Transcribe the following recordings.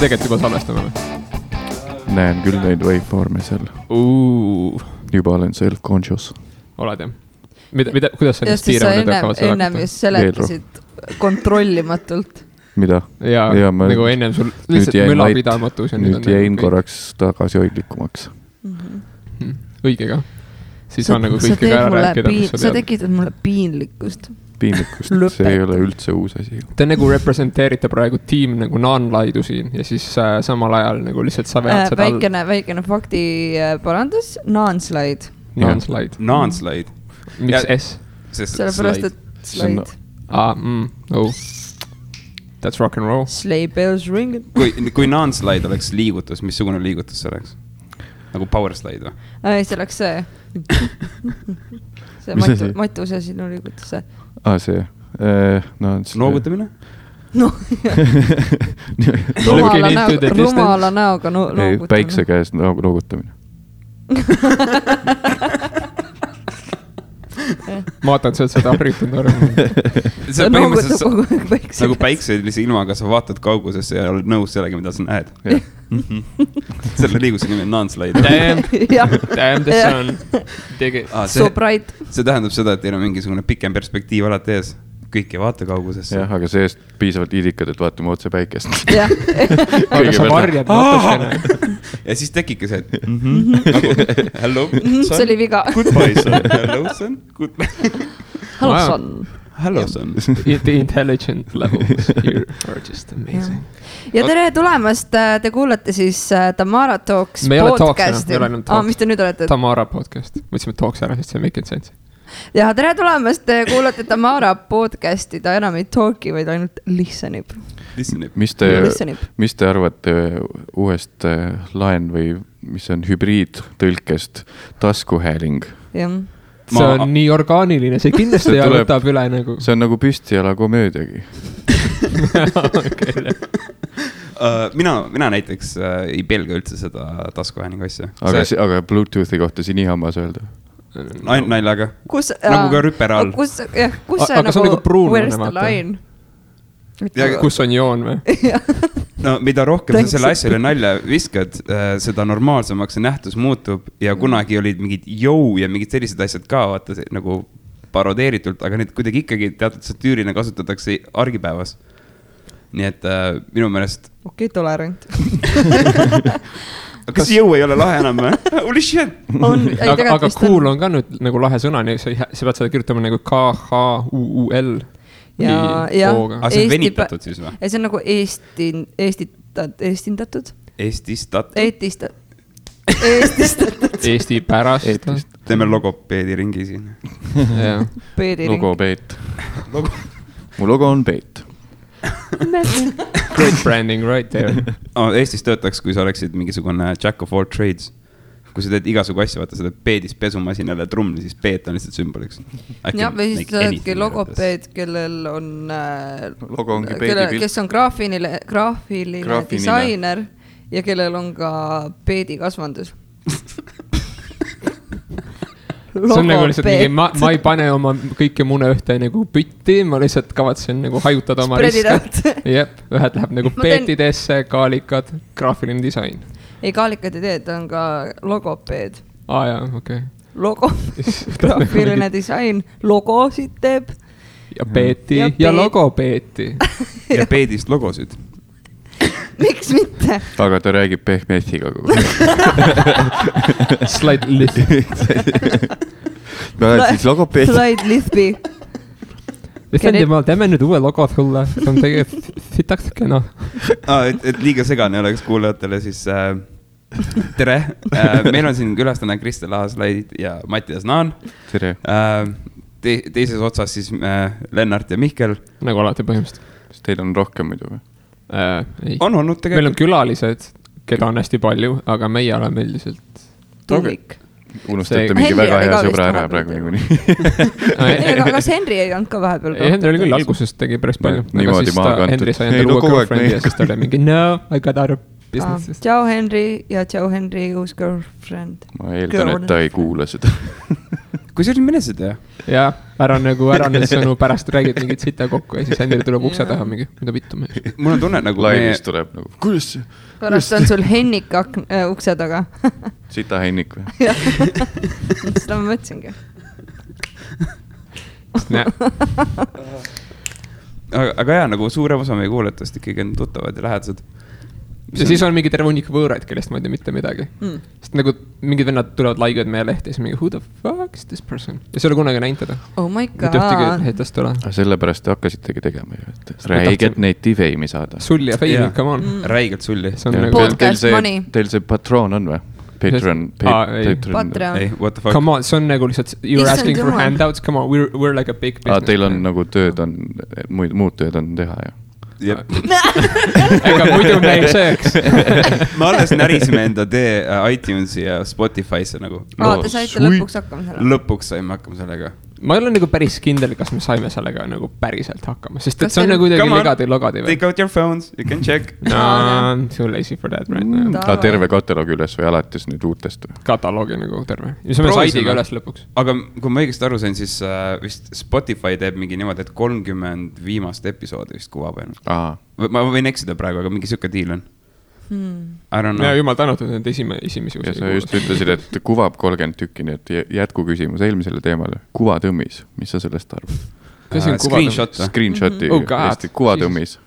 tegelikult juba salvestame või? Näen küll neid waveforme seal. Juba olen self-conscious. Oled jah? Kuidas sa just sa ennem just seletasid kontrollimatult. Mida? Jaa, nagu ennem sul lihtsalt mülapidamatus. Nüüd jäin korraks tagasi hoidlikumaks. Õige ka. Siis on nagu kõike ka ära rääkida. Sa tekitad mulle piinlikkust. See ei ole üldse uus asi. Te nagu representeerite praegu tiim nagu non-laidu siin ja siis samal ajal nagu lihtsalt sa vead seda väikene fakti parandus. Non-slide. Non-slide. Miks S? Sellepärast, et slide. That's rock and roll. Sleigh bells ring. Kui non-slide oleks liigutus, missugune liigutus see oleks? Nagu power slide või? Ei, see oleks see. See Matuse sinu liigutus see. See. Noogutamine? Rumala näoga noogutamine. Päikse käes noogutamine. Ma vaatan seda harjutanud arvama. See on põhimõtteliselt nagu päikselise ilmaga sa vaatad kaugusesse ja oled nõus sellega, mida sa näed. Selle liiguse nimi on non-slide. Damn the sun. So bright. See tähendab seda, et teil on mingisugune pikem perspektiiv alati ees. Kõik ei vaata kaugusesse. Jah, aga seest piisavalt idikad, et vaatame otse päikest. Jah. Aga sa varjad natukene. Ja siis tekibki see, et hello, son. See oli viga. Goodbye, son. Hello, son. Hello, son. Hello, son. The intelligent levels here are just amazing. Ja tere tulemast. Te kuulate siis Tamara Talks podcasti. Me ei ole Talks. Mis te nüüd olete? Tamara podcast. Mõtlesime Talks ära, sest see make it sense. Ja tere tulemast, te kuulate Tamara podcasti, ta enam ei talki, vaid ainult listenib. Mis te arvate uuest laen või mis on hübriidtõlkest taskuhääling? Jah. See on nii orgaaniline, see kindlasti ja võtab üle nagu. See on nagu püstijala komöödiagi. Mina näiteks ei pelga üldse seda taskuhäälingu asja. Aga Bluetoothi kohta siin nii hammas öelda? Naljaga. Nagu ka rüpera all. Kus see nagu where's the line? Kus on joon või? No mida rohkem sa selle asjale nalja viskad, seda normaalsemaks see nähtus muutub ja kunagi olid mingid jõu ja mingid sellised asjad ka vaata nagu parodeeritult, aga need kuidagi ikkagi teatud satüürina kasutatakse argipäevas. Nii et minu meelest okei, tolerant. Kas jõu ei ole lahe enam või? Holy shit! Aga cool on ka nüüd nagu lahe sõna, sa pead seda kirjutama nagu K-H-U-U-L. Ja aga see on venitatud siis või? See on nagu eestindatud. Eesti pärast. Teeme logopeedi ringi siin. Logopeet. Mu logo on peet. Great branding right there. Eestis töötaks, kui sa oleksid mingisugune jack of all trades. Kui sa teed igasugu asja, vaata seda peedis pesumasinale trumli, siis peet on lihtsalt sümboliks. Ja, või siis sa oledki logopeed, kellel on logo ongi peedi kes on graafiline disainer ja kellel on ka peedi kasvandus. See on nagu lihtsalt mingi, ma ei pane oma kõike mune ühte nagu pütti, ma lihtsalt kavatsen nagu hajutada oma riske. Jep, ühed läheb nagu peetidesse, kaalikad, graafiline disain. Ei, kaalikad ei tee, ta on ka logopeed. Jaa, okei. Logo, graafiline disain, logosid teeb. Ja peeti ja logopeeti. Ja peedist logosid. Miks mitte? Aga ta räägib pehmetiga kogu. Slide Lithby. Slide Lithby. Teeme nüüd uue logo sulle. See on tegelikult sitaks kena. Et liiga segane oleks kuulajatele, siis tere. Meil on siin külastane Kristel Aaslaid ja Mattias Naan. Tere. Teises otsas siis Lennart ja Mihkel. Nagu alati põhimõtteliselt. Kas teil on rohkem muidu või? Ei. On olnud tegelikult. Meil on külalised, keda on hästi palju, aga meie oleme üldiselt tulik. Unustate mingi väga hea sõbra ära praegu niikuinii. Aga Henry ei olnud ka vahepeal. Henry oli küll algusest tegi päris palju. Niimoodi maa kantud. Henry sai endale uue girlfriend ja siis ta oli mingi no, I got out of business. Ciao Henry ja ciao Henry uus girlfriend. Ma eeldan, et ta ei kuule seda. kui see oli menesid ja? Jaa, ära need sõnu pärast räägid mingit sita kokku ja siis endile tuleb ukse taha mingi, mida vittu me. Mul on tunne nagu... Laivis tuleb nagu, kuidas see? Pärast on sul Hennik ukse taga. Sita Hennik või? Jah, seda ma mõtlesingi. Aga jah, nagu suurem osa meie kuuletust ikkagi on tuttavad ja lähedased. Ja siis on mingi terve hunnik võõraid, kellest ma ei tea mitte midagi. Sest nagu mingid vennad tulevad laigivad meie lehti ja siis mingi, who the fuck is this person? Ja see oli kunagi näinud teda. Oh my god. Mitte ühtegi heitast ole. Sellepärast te hakkasitegi tegema ju, et räiget neiti feimi saada. Sulli ja feimi, come on. Räigelt sulli. Podcast money. Teil see patroon on või? Patreon. Ei, what the fuck? Come on, see on nagu lihtsalt, you're asking for handouts, come on, we're like a big business. Teil on nagu tööd on, muud tööd on teha ja. Ega muidu me ei sööks. Me alles närisime enda tee iTunesi ja Spotify'sse nagu. Te saite lõpuks hakkama sellega. Lõpuks saime hakkama sellega. Ma ei ole nagu päris kindel, kas me saime sellega nagu päriselt hakkama, sest et see on nagu kuidagi logadi või? Take out your phones, you can check. No, I'm too lazy for that right now. Terve kataloogi üles või alates nüüd uutest või? Kataloogi nagu terve. Ja see on saidiga üles lõpuks. Aga kui ma õigesti aru sain, siis vist Spotify teeb mingi niimoodi, et 30 viimast episoodi vist kuvab ennast. Ma võin eksida praegu, aga mingi sükke diil on. Ja jumal tänatud need esimesi ja sa just ütlesid, et kuvab 30 tükki, nii et jätku küsimus eelmisele teemale. Kuvatõmmis, mis sa sellest arvad? Screenshoti Eesti kuvatõmmis.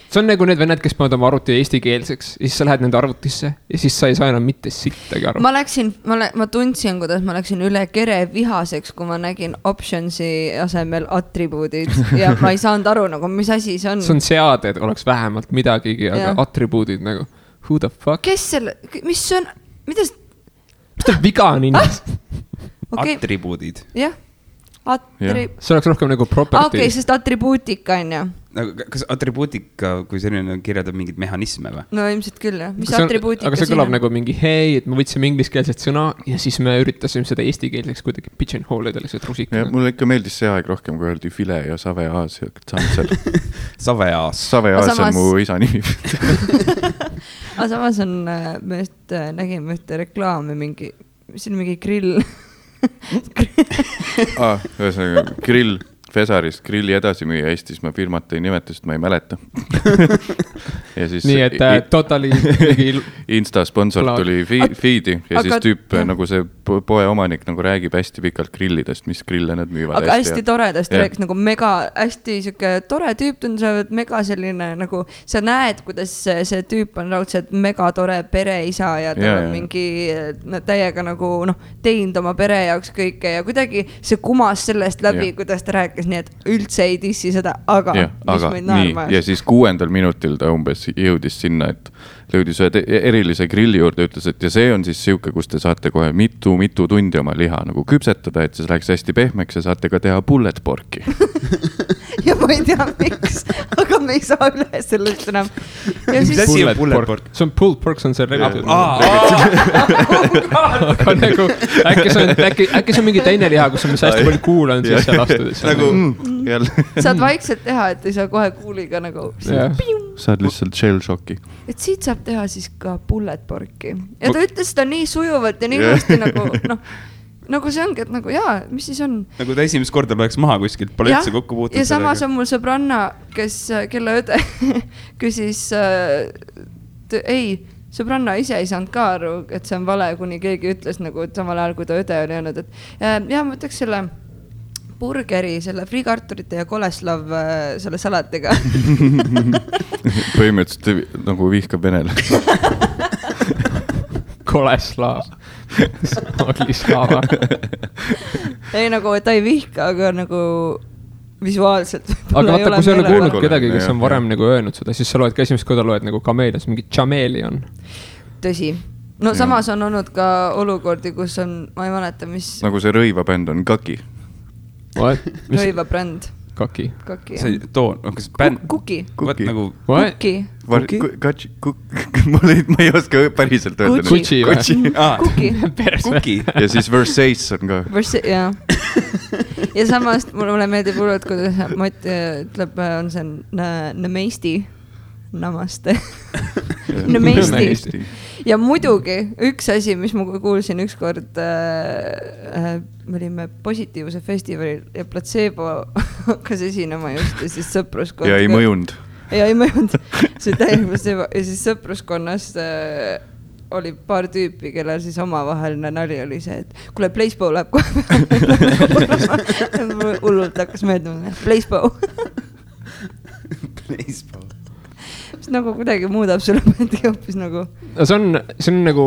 See on nagu need vennad, kes panevad oma arvuti eestikeelseks ja siis sa lähed nende arvutisse ja siis sa ei saa enam mitte sittagi aru. Ma tundsin, kuidas ma läksin üle kere vihaseks, kui ma nägin optionsi asemel attribuudid ja ma ei saanud aru, nagu mis asi see on. See on seade, et oleks vähemalt midagigi, aga attribuudid nagu, who the fuck? Kes selle, mis see on, mida see viga on inimest? Attribuudid. Jah. See oleks rohkem nagu property. Okei, sest attribuutika on jah. Kas attribuutika, kui selline kirjeldab mingid mehhanisme või? No ilmselt küll jah. Mis attribuutika aga see kõlab nagu mingi hei, et me võtsime ingliskeelset sõna ja siis me üritasime seda eestikeelseks kuidagi pigeonhole'ida lihtsalt rusika. Mulle ikka meeldis see aeg rohkem, kui öeldi file ja saveaas ja tsantsel. Saveaas on mu isa nimi. Aga samas on, me nägime ühte reklaami mingi, mis on mingi grill. Ühesõnaga, grill Fesarist, grilli edasi müüa Eestis, ma firmat ei nimeta, sest ma ei mäleta. Nii et totali Insta sponsor tuli feedi ja siis tüüp nagu see poe omanik nagu räägib hästi pikalt grillidest, mis grille nad müüvad. Aga hästi toredast rääks nagu mega, hästi siuke tore tüüp tundub, mega selline nagu, sa näed, kuidas see tüüp on raudselt mega tore pereisa ja tal on mingi täiega nagu teinud oma pere jaoks kõike ja kuidagi see kumas sellest läbi, kuidas ta rääkis, nii et üldse ei dissi seda, aga mis meid naerma. Ja siis 6. minutil ta umbes jõudis sinna, et lõudis ühe erilise grilli juurde, ütles, et ja see on siis siuke, kus te saate kohe mitu tundi oma liha nagu küpsetada, et see läheks hästi pehmeks ja saate ka teha bullet porki. Ja ma ei tea miks, aga me ei saa üle sellest enam. Mis asi on bullet pork? See on pulled pork, see on see regitud. Aga nagu, äkki see on mingi teine liha, kus on mis hästi palju kuul on siis seal astudes. Saad vaikselt teha, et ei saa kohe kuuliga nagu saad lihtsalt shell shocki. Et siit saab teha siis ka bullet porki. Ja ta ütles seda nii sujuvalt ja nii hästi nagu see ongi, et nagu mis siis on? Nagu ta esimest korda loeks maha kuskilt, pole üldse kokku puutud. Ja samas on mul sõbranna, kelle õde küsis, sõbranna ise ei saanud ka aru, et see on vale, kuni keegi ütles nagu, et samal ajal, kui ta õde oli öelnud, et ma võtaks selle burgeri, selle friikarturite ja koleslav selle salatiga. Põhimõtteliselt nagu vihkab venele. Koleslav. Oglislava. Ei nagu, et ta ei vihka, aga nagu visuaalselt. Aga vaata, kui sa ei ole kuulnud kedagi, kes on varem nagu öelnud seda, siis sa loed ka esimest korda loed nagu kameelias, mingi chameleon. Tõsi. No samas on olnud ka olukordi, kus on, ma ei mäleta, mis... Nagu see rõivabänd on Kaki. Rõivabränd. Kaki. See toon, kas bänd... Kuki. Nagu... Kuki. Ma ei oska päriselt öelda. Kutsi või? Kuki. Ja siis Versace on ka. Ja samas mulle meeldib hullult, kuidas Mati ütleb, on see Nemeisti. Namaste. Nemeisti. ja muidugi üks asi, mis ma kuulsin ükskord, me olime Positiivse festivalil ja Placebo hakkas esinema just ja siis sõpruskond. Ja ei mõjunud. Ja ei mõjunud. See täiega Placebo ja siis sõpruskonnas oli paar tüüpi, kellel siis omavaheline nali oli see, et kuule, Placebo läheb kohe. Hullult hakkas meeldima. Placebo. Placebo. Mis nagu kuidagi muudab sulle mõndi hoopis nagu. See on nagu,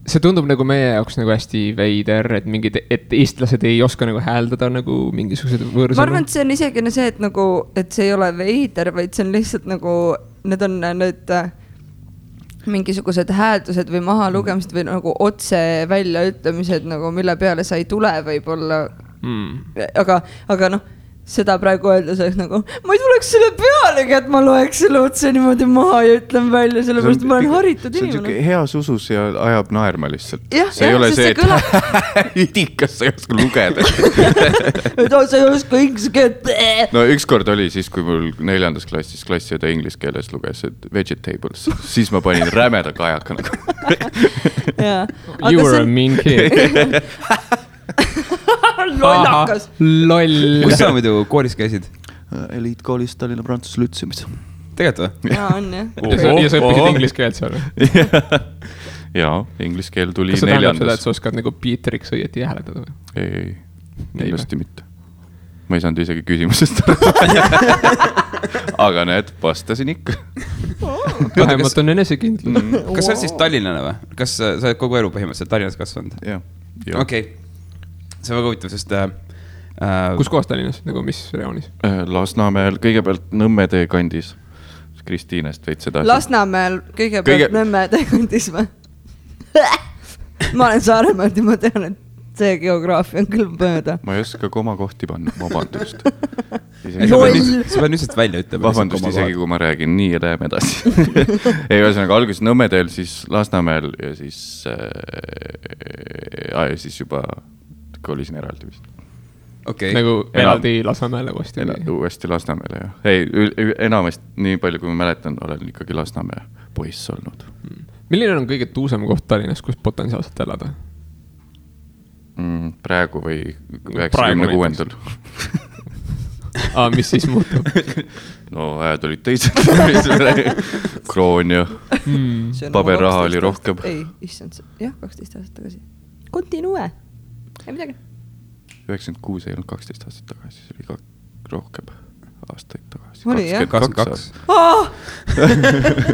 see tundub nagu meie jaoks nagu hästi veider, et eestlased ei oska nagu hääldada nagu mingisugused võõrsõnu. Ma arvan, et see on isegi see, et nagu, et see ei ole veider, vaid see on lihtsalt nagu, need on nüüd mingisugused hääldused või maha lugemised või nagu otse väljaütlemised nagu, mille peale sa ei tule võib-olla. Aga noh, seda praegu öeldes oleks nagu, ma ei tuleks selle pealegi, et ma loeks selle otse niimoodi maha ja ütlen välja, sellepärast ma olen haritud inimene. See on heas usus ja ajab naerma lihtsalt. See ei ole see, et üdikas sa ei oska lugeda. Sa ei oska inglise keelt. No ükskord oli siis, kui mul 4. klassis klassiõde inglise keeles luges, et vegetables, siis ma panin rämeda kajaka nagu. You were a mean kid. Lollakas. Loll. Kus sa muidu koolis käisid? Eliitkoolis Tallinna Prantsuse Lütseumis. Tegelikult või? Jaa, on jah. Ja sa õppisid inglise keelt seal? Jaa, inglise keel tuli 4. Kas sa tähendab seda, et sa oskad nagu Peteriks õieti hääletada või? Ei, kindlasti mitte. Ma ei saanud isegi küsimusest. Aga näed, vastasin ikka. Vähemalt on enesekindlus. Kas sa oled siis Tallinnane või? Kas sa oled kogu elu põhimõtteliselt Tallinnas kasvanud? Jah. Okei. See on väga huvitav, sest... Kus kohas Tallinnas, nagu mis reoonis? Lasnamäel, kõigepealt Nõmmede kandis. Kristiinest veid seda. Lasnamäel kõigepealt Nõmmede kandis või? Ma olen Saaremaalt ja ma tean, et see geograafia on küll mööda. Ma ei oska komakohti panna, vabandust. Sa pead lihtsalt välja ütlema. Vabandust isegi, kui ma räägin, nii läheme edasi. Ei, ühesõnaga alguses Nõmmedel, siis Lasnamäel ja siis juba kolisin eraldi vist. Okay. Nagu eraldi Lasnamäele uuesti? Uuesti Lasnamäele, jah. Ei, enamast nii palju, kui ma mäletan, olen ikkagi Lasnamäe poiss olnud. Milline on kõige tuusem koht Tallinnas, kus potentsiaalselt elada? Praegu või 96. Mis siis muutub? No ajad olid teised. Kroon ja paberraha oli rohkem. Ei, issand, jah, 12 aastat tagasi. Continue. Ei midagi. 96 ei olnud 12 aastat tagasi, see oli ka rohkem aastaid tagasi. Oli jah? 22.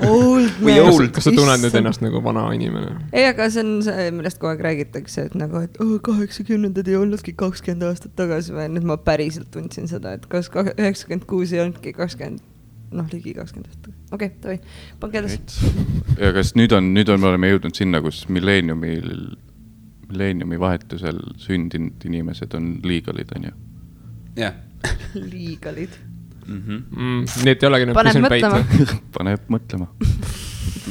Old man. Kas sa tunned nüüd ennast nagu vana inimene? Ei, aga see on see, millest kogu aeg räägitakse, et nagu, et 80-ndad ei olnudki 20 aastat tagasi või nüüd ma päriselt tundsin seda, et kas 96 ei olnudki 20, ligi 20 aastat. Okei, tohi, pange edasi. Ja kas nüüd on, me oleme jõudnud sinna, kus milleeniumi vahetusel sündinud inimesed on liigalid, on ju? Jah. Liigalid. Nii et ei olegi nüüd Paneb mõtlema. Paneb mõtlema.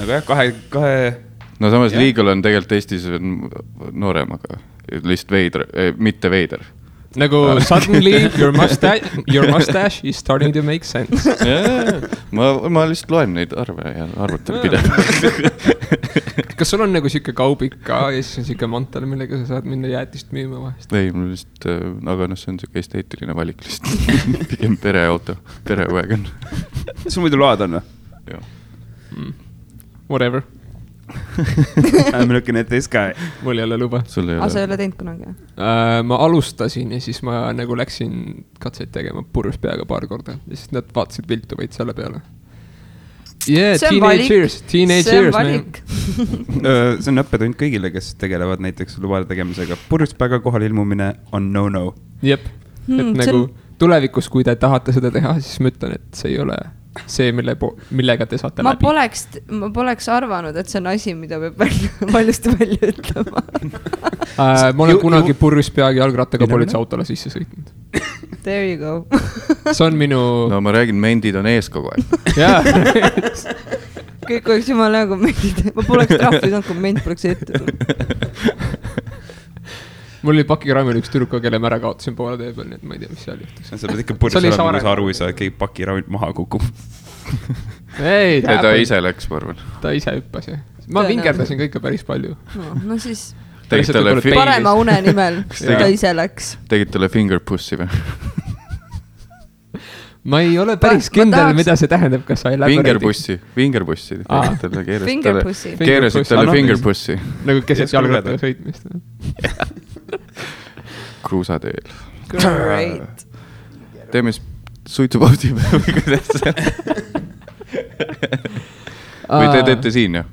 Nagu jah, kahe... No samas liigal on tegelikult Eestis noorem, aga lihtsalt veider, mitte veider. Nagu suddenly your mustache is starting to make sense. Ma lihtsalt loen neid arve ja arvutan pidevalt. Kas sul on nagu siuke kaubik ka ja siis on siuke mantel, millega sa saad minna jäätist müüma vahest? Ei, mul lihtsalt, aga see on siuke esteetiline valik lihtsalt. Pigem pereauto, perewagon. Sul muidu load on või? Jah. Whatever. I'm looking at this guy. Mul ei ole luba. Sa ei ole teinud kunagi? Ma alustasin ja siis ma nagu läksin katseid tegema purjus peaga paar korda ja siis nad vaatasid viltu vaid selle peale. Yeah, teenage years, man. See on õppetund kõigile, kes tegelevad näiteks lubade tegemisega. Purjus peaga kohal ilmumine on no-no. Jep, et nagu tulevikus, kui te tahate seda teha, siis ma ütlen, et see ei ole see, millega te saate läbi. Ma poleks arvanud, et see on asi, mida peab valjusti välja ütlema. Ma olen kunagi purjus peagi jalgrattaga politseiautole sisse sõitnud. There you go. See on minu... No ma räägin, mendid on ees kogu aeg. Jaa. Kõik oleks jumala nagu mendid. Ma poleks trahvi saanud, kui ment poleks ette tulnud. Mul oli pakiraamil üks tüdruka, kelle ma ära kaotasin poole tee peal, nii et ma ei tea, mis seal juhtus. Sa pead ikka purjus olema, kui sa aru ei saa, et keegi pakiraamil maha kukub. ei, ta ise läks, ma arvan. Ta ise hüppas ja ma vingerdasin ka ikka päris palju. No siis parema une nimel ta ise läks. Tegid talle fingerpussi või? Ma ei ole päris kindel, mida see tähendab, kas sa ei läbi Fingerpussi. Fingerpussi. Keerasid talle fingerpussi. Nagu keset jalgrattaga sõitmist. Kruusateel. Great. Teeme suitsupausi või kuidas see? Või te teete siin, jah?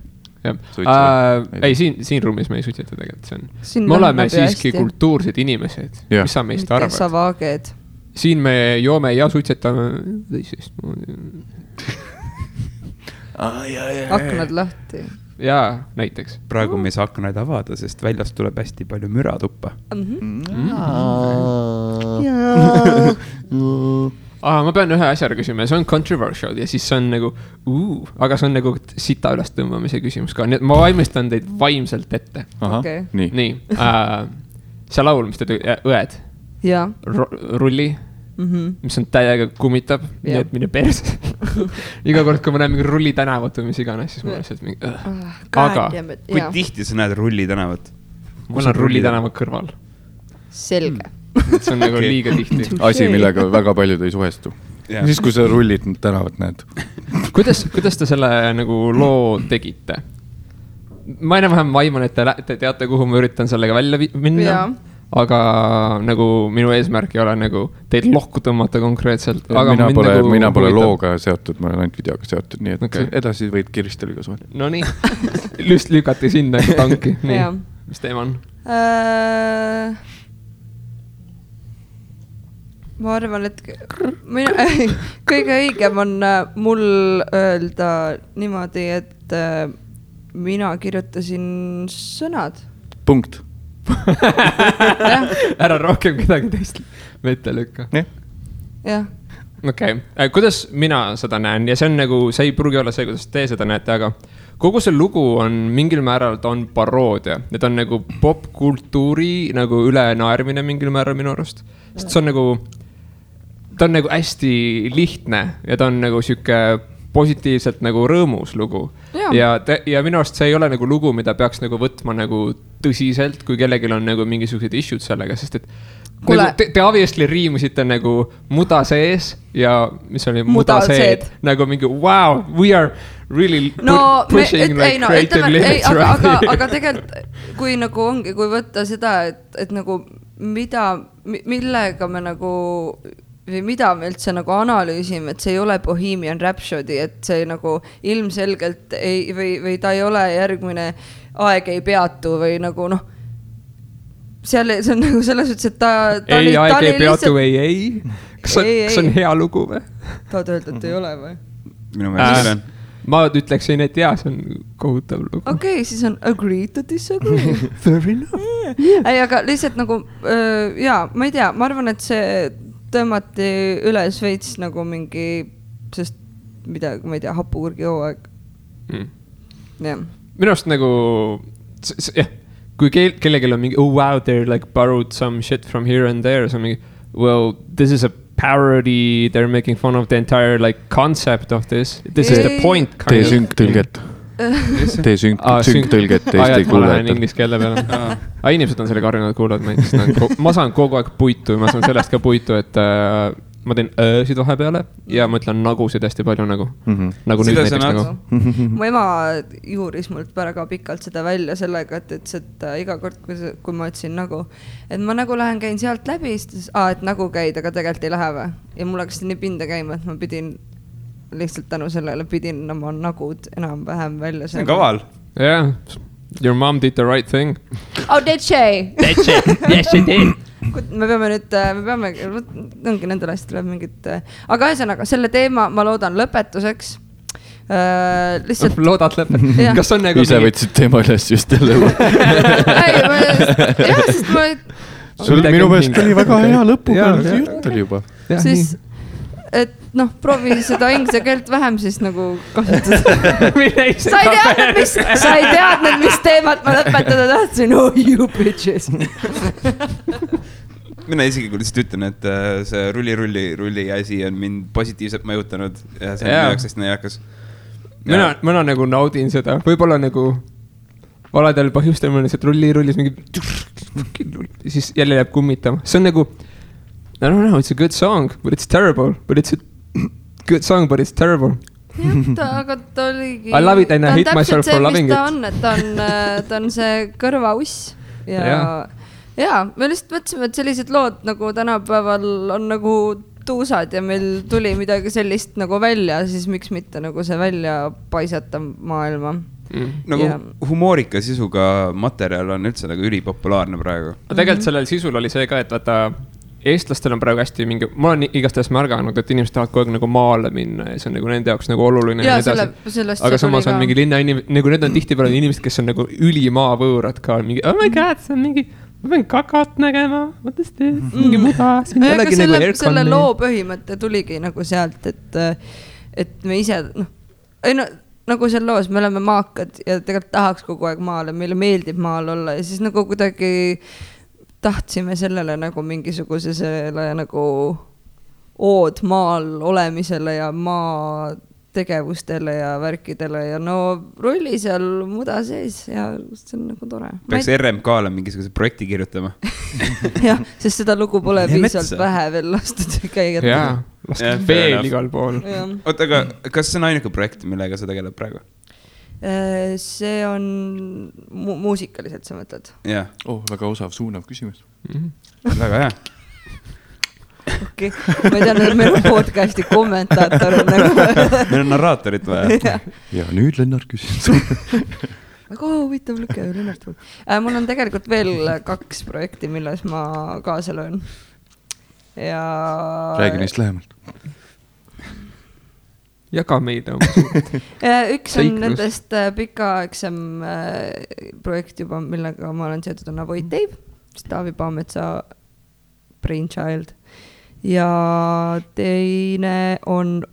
Ei, siin ruumis me ei suitseta tegelikult. Me oleme siiski kultuursed inimesed. Mis sa meist arvad? Mitte sa vaaged. Siin me joome ja suitsetame teisest. Aknad lahti. Jaa, näiteks. Praegu me ei saa aknaid avada, sest väljast tuleb hästi palju müra tuppa. Ma pean ühe asja küsima, see on controversial ja siis see on nagu aga see on nagu sita üles tõmbamise küsimus ka, nii et ma valmistan teid vaimselt ette. Nii. See laul, mis te õed? Rulli, mis on täiega kummitab, nii et mine perse. Iga kord, kui ma näen mingi Rulli tänavat või mis iganes, siis ma lihtsalt mingi aga kui tihti sa näed Rulli tänavat? Mul on Rulli tänavat kõrval. Selge. See on nagu liiga tihti. Asi, millega väga paljud ei suhestu. Siis, kui sa Rullid tänavat näed. Kuidas te selle nagu loo tegite? Ma enam-vähem vaiman, et te teate, kuhu ma üritan sellega välja minna. Aga nagu minu eesmärk ei ole nagu teid lohku tõmmata konkreetselt. Mina pole looga seotud, ma olen ainult videoga seotud, nii et edasi võid Kiristeliga suhelda. No nii, lüst lükati sinna tanki. Nii, mis teema on? Ma arvan, et kõige õigem on mul öelda niimoodi, et mina kirjutasin sõnad. Punkt. Ära rohkem kedagi teist mitte lükka. Jah. Okei, kuidas mina seda näen ja see on nagu, see ei pruugi olla see, kuidas te seda näete, aga kogu see lugu on mingil määral, ta on paroodia. Need on nagu popkultuuri nagu ülenaermine mingil määral minu arust. Sest see on nagu, ta on nagu hästi lihtne ja ta on nagu siuke positiivselt nagu rõõmus lugu. Ja minu arust see ei ole nagu lugu, mida peaks nagu võtma nagu tõsiselt, kui kellegil on nagu mingisugused issued sellega, sest et nagu, te obviously riimusite nagu muda sees ja mis oli muda seed. Nagu mingi wow, we are really pushing creative limits right here. Aga tegelikult, kui nagu ongi, kui võtta seda, et nagu millega me nagu või mida me üldse nagu analüüsime, et see ei ole Bohemian Rhapsody, et see nagu ilmselgelt ei, või ta ei ole järgmine Aeg ei peatu või nagu seal see on nagu selles ütles, et ta ei, Aeg ei peatu ei. Kas on hea lugu või? Tahad öelda, et ei ole või? Minu meelest on. Ma ütleksin, et jaa, see on kohutav lugu. Okei, siis on agree to disagree. Very enough. Ei, aga lihtsalt nagu, ma ei tea, ma arvan, et see tõmmati üles veits nagu mingi, sest midagi, ma ei tea, hapukurgi hooaeg. Minu arust nagu, kui kellegil on mingi, oh wow, they're like borrowed some shit from here and there, so mingi, well, this is a parody, they're making fun of the entire like concept of this. This is the point. Tee synktõlget. Tee synktõlget Eesti kuulajate. Ma lähen inglise keele peale. Inimesed on sellega harjunud kuulavad. Ma saan kogu aeg puitu, ma saan sellest ka puitu, et ma teen öösid vahepeale ja ma ütlen nagusid hästi palju nagu. Nagu nüüd näiteks nagu. Mu ema juuris mult väga pikalt seda välja sellega, et iga kord, kui ma ütlesin nagu, et ma nagu käin sealt läbi, siis et nagu käid, aga tegelikult ei lähe või. Ja mul hakkas nii pinda käima, et ma pidin lihtsalt tänu sellele pidin oma nagud enam-vähem välja. See on kaval. Yeah, your mom did the right thing. Oh, did she? Did she? Yes, she did. Me peame, ongi nendel asjad tuleb mingit, aga ühesõnaga, selle teema ma loodan lõpetuseks. Lihtsalt... Loodad lõpet? Kas on nagu... Ise võtsid teema üles just jälle. Jah, sest ma... Minu meelest oli väga hea lõpuga, jutt oli juba. Siis, et proovi seda inglise keelt vähem siis nagu kasutada. Sa ei teadnud, mis teemat ma lõpetada tahtsin. Oh, you bitches. mina isiklikult lihtsalt ütlen, et see rulli asi on mind positiivselt mõjutanud ja see on minu jaoks hästi naljakas. Mina nagu naudin seda, võib-olla nagu valedel põhjustel mul lihtsalt rullis mingi siis jälle jääb kummitama. See on nagu, I don't know, it's a good song, but it's terrible, but it's a good song, but it's terrible. Aga ta oligi... I love it and I hate myself for loving it. Ta on see kõrvauss ja me lihtsalt mõtlesime, et sellised lood nagu tänapäeval on nagu tuusad ja meil tuli midagi sellist nagu välja, siis miks mitte nagu see välja paisata maailma. Nagu humoorika sisuga materjal on üldse nagu ülipopulaarne praegu. Tegelikult sellel sisul oli see ka, et vaata, eestlastel on praegu hästi mingi, ma olen igastahes märganud, et inimesed tahavad kogu aeg nagu maale minna ja see on nagu nende jaoks nagu oluline. Ja aga samas on mingi linna inimesed, nagu need on tihtipeale inimesed, kes on nagu ülimaa võõrad ka, mingi, oh my god, see on mingi, ma pean kakat nägema, what is this, mingi muda. Selle loo põhimõte tuligi nagu sealt, et me ise, nagu seal loos, me oleme maakad ja tegelikult tahaks kogu aeg maale, meile meeldib maal olla ja siis nagu kuidagi tahtsime sellele nagu mingisuguse selle nagu ood maal olemisele ja maa tegevustele ja värkidele ja no rolli seal muda sees ja see on nagu tore. Peaks RMK-le mingisuguse projekti kirjutama. Jah, sest seda lugu pole piisalt vähe veel lastud käia. Jaa, lastud veel igal pool. Oota, aga kas see on ainuke projekt, millega sa tegeled praegu? See on muusikaliselt, sa mõtled? Jah. Väga osav, suunav küsimus. Väga hea. Okay. Ma ei tea, et meil on podcasti kommentaator nagu. Meil on narraatorit vaja. Ja nüüd Lennart küsis. Väga huvitav lüke, Lennart. Mul on tegelikult veel 2 projekti, milles ma kaasa löön. Ja... Räägi neist lähemalt. Jaga meid. Üks on nendest pikaaegsem projekt juba, millega ma olen seotud, on Avoid Dave, Taavi Paametsa brainchild. Ja teine on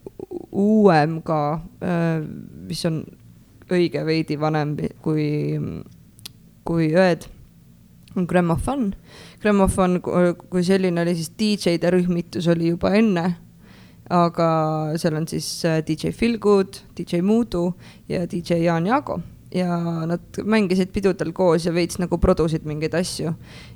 uuem ka, mis on õige veidi vanem kui Ööd, on Grammofon. Grammofon kui selline oli siis DJ-de rühmitus oli juba enne, aga seal on siis DJ Feelgood, DJ Muudu ja DJ Jaan Jaago. Ja nad mängisid pidudel koos ja veits nagu produsid mingeid asju.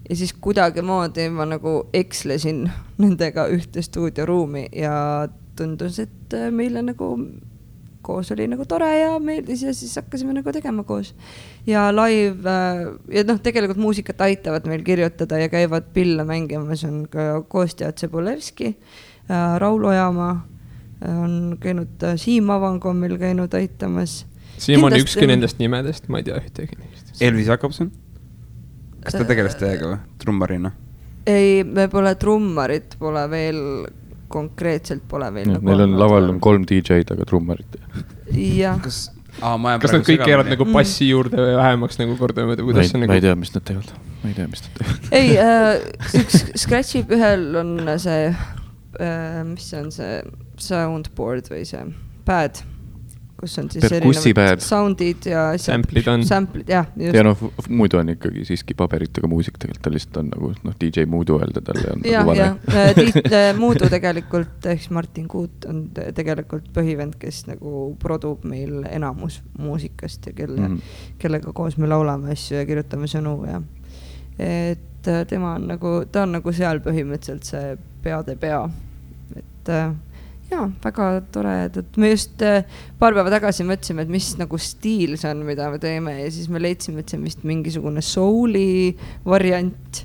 Ja siis kuidagi moodi ma nagu ekslesin nendega ühte stuudioruumi ja tundus, et meile nagu koos oli nagu tore ja meeldis ja siis hakkasime nagu tegema koos. Ja live, ja tegelikult muusikat aitavad meil kirjutada ja käivad pille mängimas, on ka koostajad Cebulevski, Raul Ojamaa, on käinud Siim Avango meil käinud aitamas. Siim on ükski nendest nimedest, ma ei tea ühtegi neist. Elvis Jakobson? Kas ta tegeles teiega või? Trummarina? Ei, me pole trummarit, pole veel konkreetselt pole veel. Meil on laval 3 DJ-d, aga trummarit. Jah. Kas nad kõik keerad nagu passi juurde või vähemaks nagu kordamööda? Ma ei tea, mis nad teevad. Ei, üks Scratchib ühel on see, mis on see soundboard või see pad, kus on siis erinevad soundid ja samplid on. Ja muidu on ikkagi siiski paberitega muusik, tegelikult ta lihtsalt on nagu DJ Muudu öelda talle. Ja Muudu tegelikult, ehk Martin Kuut on tegelikult põhivend, kes nagu produb meil enamus muusikast ja kellega koos me laulame asju ja kirjutame sõnu ja et tema on nagu, ta on nagu seal põhimõtteliselt see peade pea, et jaa, väga tore, et me just paar päeva tagasi mõtlesime, et mis nagu stiil see on, mida me teeme ja siis me leidsime, et see on vist mingisugune souli variant,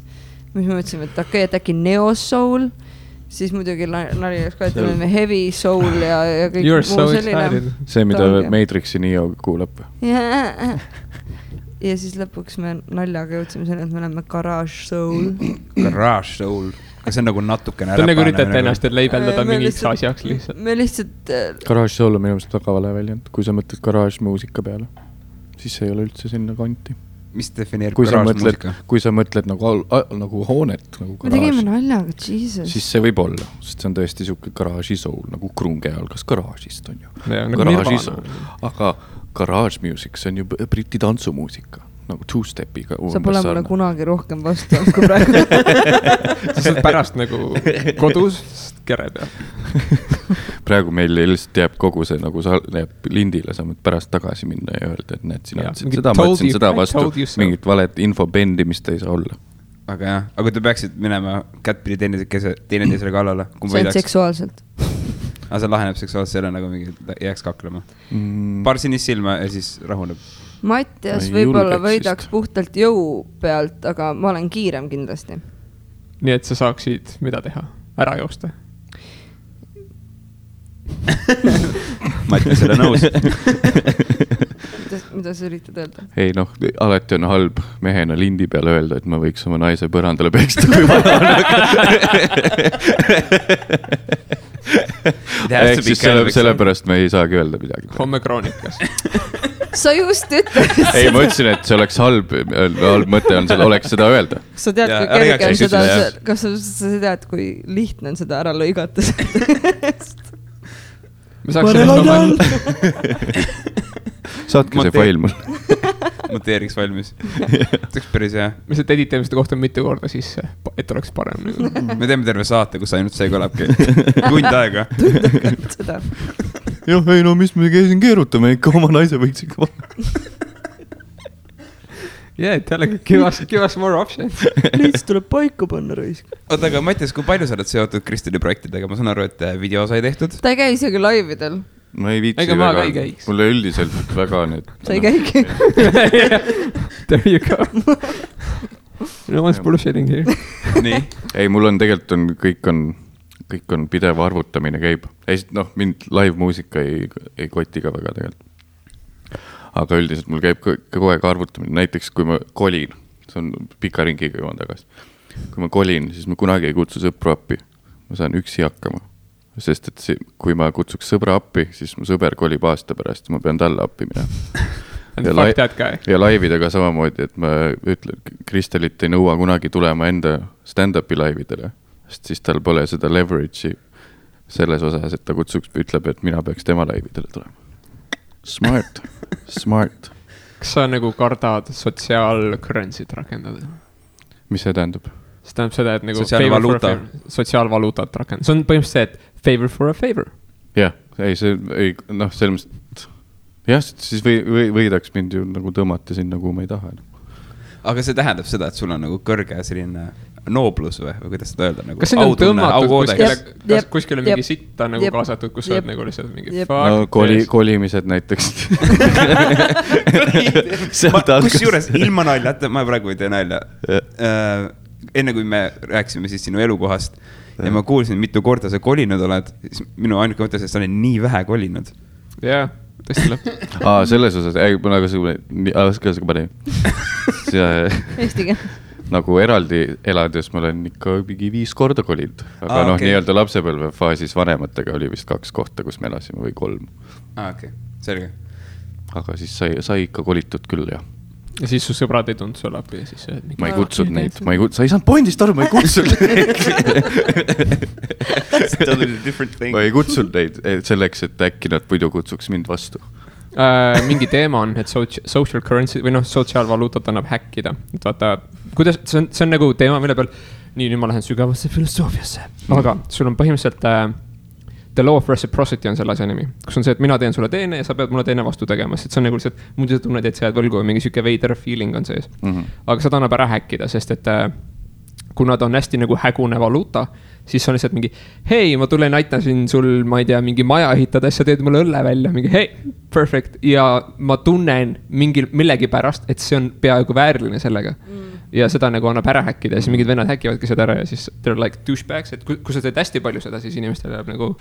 mis me mõtlesime, et okei, et äkki neo-soul, siis muidugi nali oleks ka, et me heavy soul ja kõik muu selline. See, mida Matrixi Neo kuulab. Ja siis lõpuks me naljaga jõudsime selle, et me oleme garage soul. Garage soul. Kas see on nagu natukene räpane? Ta nagu üritate ennast leibeldada mingiks asjaks lihtsalt. Me lihtsalt... Garage soul on minu meelest väga vale väljend. Kui sa mõtled garage muusika peale, siis see ei ole üldse sinna kanti. Mis defineerib garage muusika? Kui sa mõtled nagu hoonet, nagu garage. Me tegime naljaga, Jesus. Siis see võib olla, sest see on tõesti siuke garage soul, nagu krunge algas garage'ist on ju. Garage soul. Aga garage music, see on ju briti tantsumuusika. nagu two-stepiga. Sa pole mulle kunagi rohkem vastu kui praegu. Sa saad pärast nagu kodus kere peal. Praegu meil lihtsalt jääb kogu see nagu jääb lindile, sa võid pärast tagasi minna ja öelda, et näed, sina ütlesid seda, ma ütlesin seda vastu, mingit valet infobendi, mis ta ei saa olla. Aga jah, aga te peaksid minema kättpidi teineteisele kallale. See on seksuaalselt. Aga see laheneb seksuaalselt selle nagu mingi jääks kaklema. Paar sinist silma ja siis rahuneb. Mattias võib-olla võidaks puhtalt jõu pealt, aga ma olen kiirem kindlasti. Nii et sa saaksid mida teha? Ära joosta? Mattias ole nõus. Mida sa üritad öelda? Ei noh, alati on halb mehena lindi peale öelda, et ma võiks oma naise põrandale peksta, kui ma ehk siis sellepärast me ei saagi öelda midagi. Homme kroonikas. Sa just ütlesid. Ei, ma ütlesin, et see oleks halb mõte on, oleks seda öelda. Kas sa tead, kui kerge on seda, kas sa tead, kui lihtne on seda ära lõigata? Saatke see fail mul. Monteeriks valmis. Teks päris hea. Me seda editamiste kohta mitu korda sisse, et oleks parem. Me teeme terve saate, kus ainult see kõlabki. Tund aega. Seda. Jah, ei no mis me käisin keerutame ikka, oma naise võiks ikka jällegi, give us more options. Liits tuleb paika panna raisk. Oota, aga Mattias, kui palju sa oled seotud Kristeli projektidega? Ma saan aru, et video sai tehtud. Ta ei käi isegi laividel. Ma ei viitsi väga, mulle üldiselt väga need. Sa ei käigi. There you go. No one's bullshitting here. Nii. Ei, mul on tegelikult kõik on pidev arvutamine käib. Noh, mind live muusika ei koti ka väga tegelikult. Aga üldiselt mul käib kogu aeg arvutamine. Näiteks kui ma kolin, see on pika ringiga joon tagasi. Kui ma kolin, siis ma kunagi ei kutsu sõpru appi. Ma saan üksi hakkama. Sest et kui ma kutsuks sõbra appi, siis mu sõber kolib aasta pärast ja ma pean talle appi minema. Ja laividega samamoodi, et ma ütlen, Kristelit ei nõua kunagi tulema enda stand-upi laividele. Sest siis tal pole seda leverage'i selles osas, et ta kutsuks, ütleb, et mina peaks tema laividele tulema. Smart. Kas sa nagu kardad sotsiaalcurrency't rakendada? Mis see tähendab? See tähendab seda, et nagu sotsiaalvaluutat rakendada. See on põhimõtteliselt see, et favor for a favor. Jah, noh, selles mõttes, jah, siis võidaks mind ju nagu tõmmata sinna, kuhu ma ei taha. Aga see tähendab seda, et sul on nagu kõrge selline nooblus või kuidas seda öelda? Nagu kas see on tõmmatud kuskil on mingi sitta nagu kaasatud, kus sa oled nagu lihtsalt mingi no, kolimised näiteks. Kus juures ilma nalja, ma praegu ei tee nalja. Enne kui me rääksime siis sinu elukohast ja ma kuulsin, mitu korda sa kolinud oled, siis minu ainuke mõte, et sa oled nii vähe kolinud. Jah, tõesti lõpp. Selles osas, ma nagu Eestiga. Nagu eraldi elades ma olen ikka mingi 5 korda kolinud. Aga noh, nii-öelda lapsepõlve faasis vanematega oli vist 2 kohta, kus me elasime või 3. Okei, selge. Aga siis sai ikka kolitud küll, jah. Ja siis su sõbrad ei tundnud sulle appi ja siis ma ei kutsud neid, sa ei saanud pointist aru, ma ei kutsud neid. Ma ei kutsud neid selleks, et äkki nad muidu kutsuks mind vastu. Mingi teema on, et social currency või noh, sotsiaalvaluutat annab häkkida. Et vaata, kuidas, see on nagu teema, mille peal, nüüd ma lähen sügavasse filosoofiasse. Aga sul on põhimõtteliselt the law of reciprocity on selle asja nimi. Kus on see, et mina teen sulle teene ja sa pead mulle teene vastu tegema. Sest see on nagu lihtsalt, muidu sa tunned, et sa jääd võlgu või mingi süke veider feeling on sees. Aga seda annab ära häkkida, sest et kuna ta on hästi nagu hägune valuuta, siis on lihtsalt mingi, hei, ma tulen aitasin sul, ma ei tea, mingi maja ehitada, sa teed mulle õlle välja, mingi hei, perfect. Ja ma tunnen millegi pärast, et see on peaaegu vääriline sellega. Ja seda nagu annab ära häkkida ja siis mingid vennad häkivadki seda ära ja siis they're like douchebags, et kui sa teed hästi palju seda, siis inimestel jääb nagu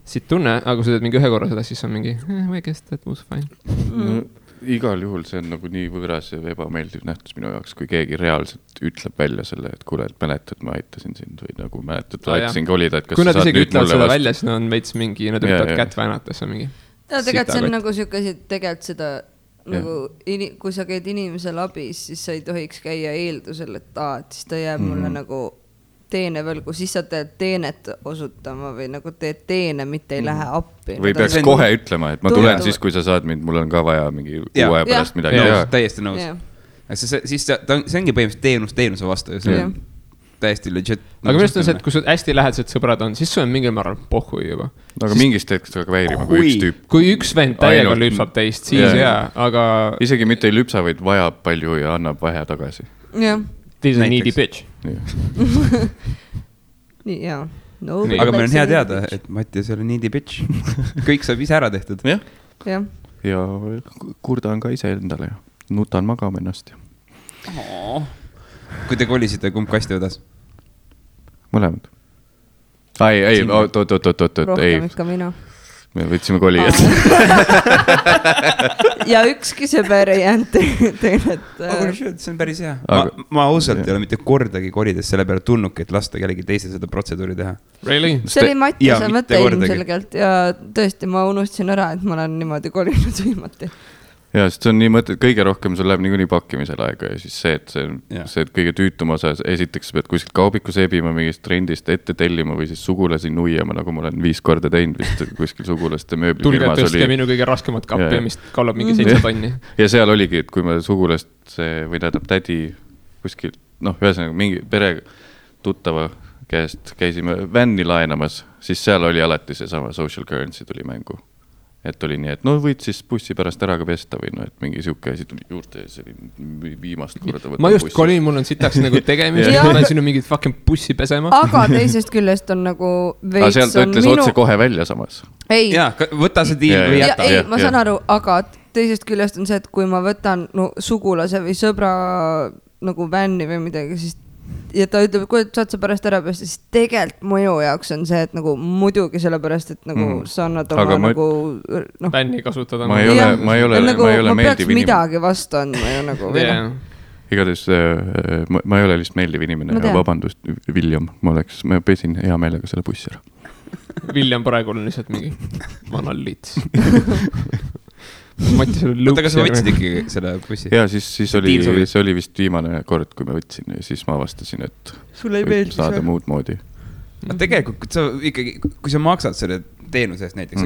siit tunne, aga kui sa teed mingi ühe korra seda, siis on mingi, I guess that was fine. Igal juhul see on nagu nii võõras ja ebameeldiv nähtus minu jaoks, kui keegi reaalselt ütleb välja selle, et kuule, et mäletad, ma aitasin sind või nagu mäletad, aitasin kolida, et kas kui nad isegi ütlevad seda välja, siis nad on veits mingi, nad ütlevad kätt väänata, see on mingi tegelikult see on nagu tegelikult seda nagu, kui sa käid inimesel abis, siis sa ei tohiks käia eeldusel, et siis ta jääb mulle nagu teene võlgu, siis sa teed teenet osutama või nagu teed teene, mitte ei lähe appi. Või peaks kohe ütlema, et ma tulen siis, kui sa saad mind, mul on ka vaja mingi 6 pärast midagi. Täiesti nõus. siis see ongi põhimõtteliselt teenuse vastu ja see on täiesti legit. Aga minu arust on see, et kui sul hästi lähedased sõbrad on, siis sul on mingil määral pohhui juba. Aga mingist hetkest väga väärima, kui üks tüüp. Kui üks vend täiega lüpsab teist, siis aga... Isegi mitte ei lüpsa, vaid vajab palju ja annab vähe tagasi. Jah. This is a needy bitch. Nii, jaa. Aga meil on hea teada, et Mattias ei ole needy bitch. Kõik saab ise ära tehtud. Ja kurdan ka ise endale ja nutan magama ennast. Kui te kolisite, kumb kasti vedas? Mõlemad. Ei, rohkem ikka mina. Me võtsime kolijad. Ja ükski sõber ei jäänud teile, et... See on päris hea. Ma ausalt ei ole mitte kordagi kolides selle peale tulnudki, et lasta kellegi teise seda protseduuri teha. Really? See oli Mattiase mõte ilmselgelt ja tõesti ma unustasin ära, et ma olen niimoodi kolinud viimati. Ja, sest see on nii mõte, kõige rohkem sul läheb niikuinii pakkimisel aega ja siis see, et kõige tüütum osa, esiteks pead kuskilt kaubiku seebima mingist trendist ette tellima või siis sugulasi nuiama, nagu ma olen 5 korda teinud vist kuskil sugulaste mööblifirmas. Tulge tõstke minu kõige raskemat kappi, mis kallab mingi 7 tonni. Ja seal oligi, et kui ma sugulast või tähendab tädi kuskil, ühesõnaga mingi pere tuttava käest käisime vänni laenamas, siis seal oli alati see sama social currency tuli mängu. Et oli nii, et võid siis bussi pärast ära ka pesta või et mingi siuke asi tuli juurde ja see oli viimast korda ma just kolin, mul on sitaks nagu tegemist ma olen sinu mingit fucking bussi pesema. Aga teisest küljest on nagu veits sealt ta ütles otse kohe välja samas. Ei. Jaa, võta see diil või jäta. Ei, ma saan aru, aga teisest küljest on see, et kui ma võtan sugulase või sõbra nagu vänni või midagi, siis ja ta ütleb, et kui saad sa pärast ära pesta, siis tegelikult mõju jaoks on see, et nagu muidugi sellepärast, et nagu sa annad oma nagu bänni kasutada. Ma ei ole meeldiv inimene. Ma peaks midagi vastu andma ju nagu. Igatahes ma ei ole lihtsalt meeldiv inimene ja vabandust, William, ma pesin hea meelega selle bussi ära. William praegu on lihtsalt mingi vanal liits. Oota, kas sa võtsid ikkagi selle bussi? Ja siis oli vist viimane kord, kui ma võtsin ja siis ma avastasin, et võib saada muud moodi. Tegelikult kui sa maksad selle teenuse eest näiteks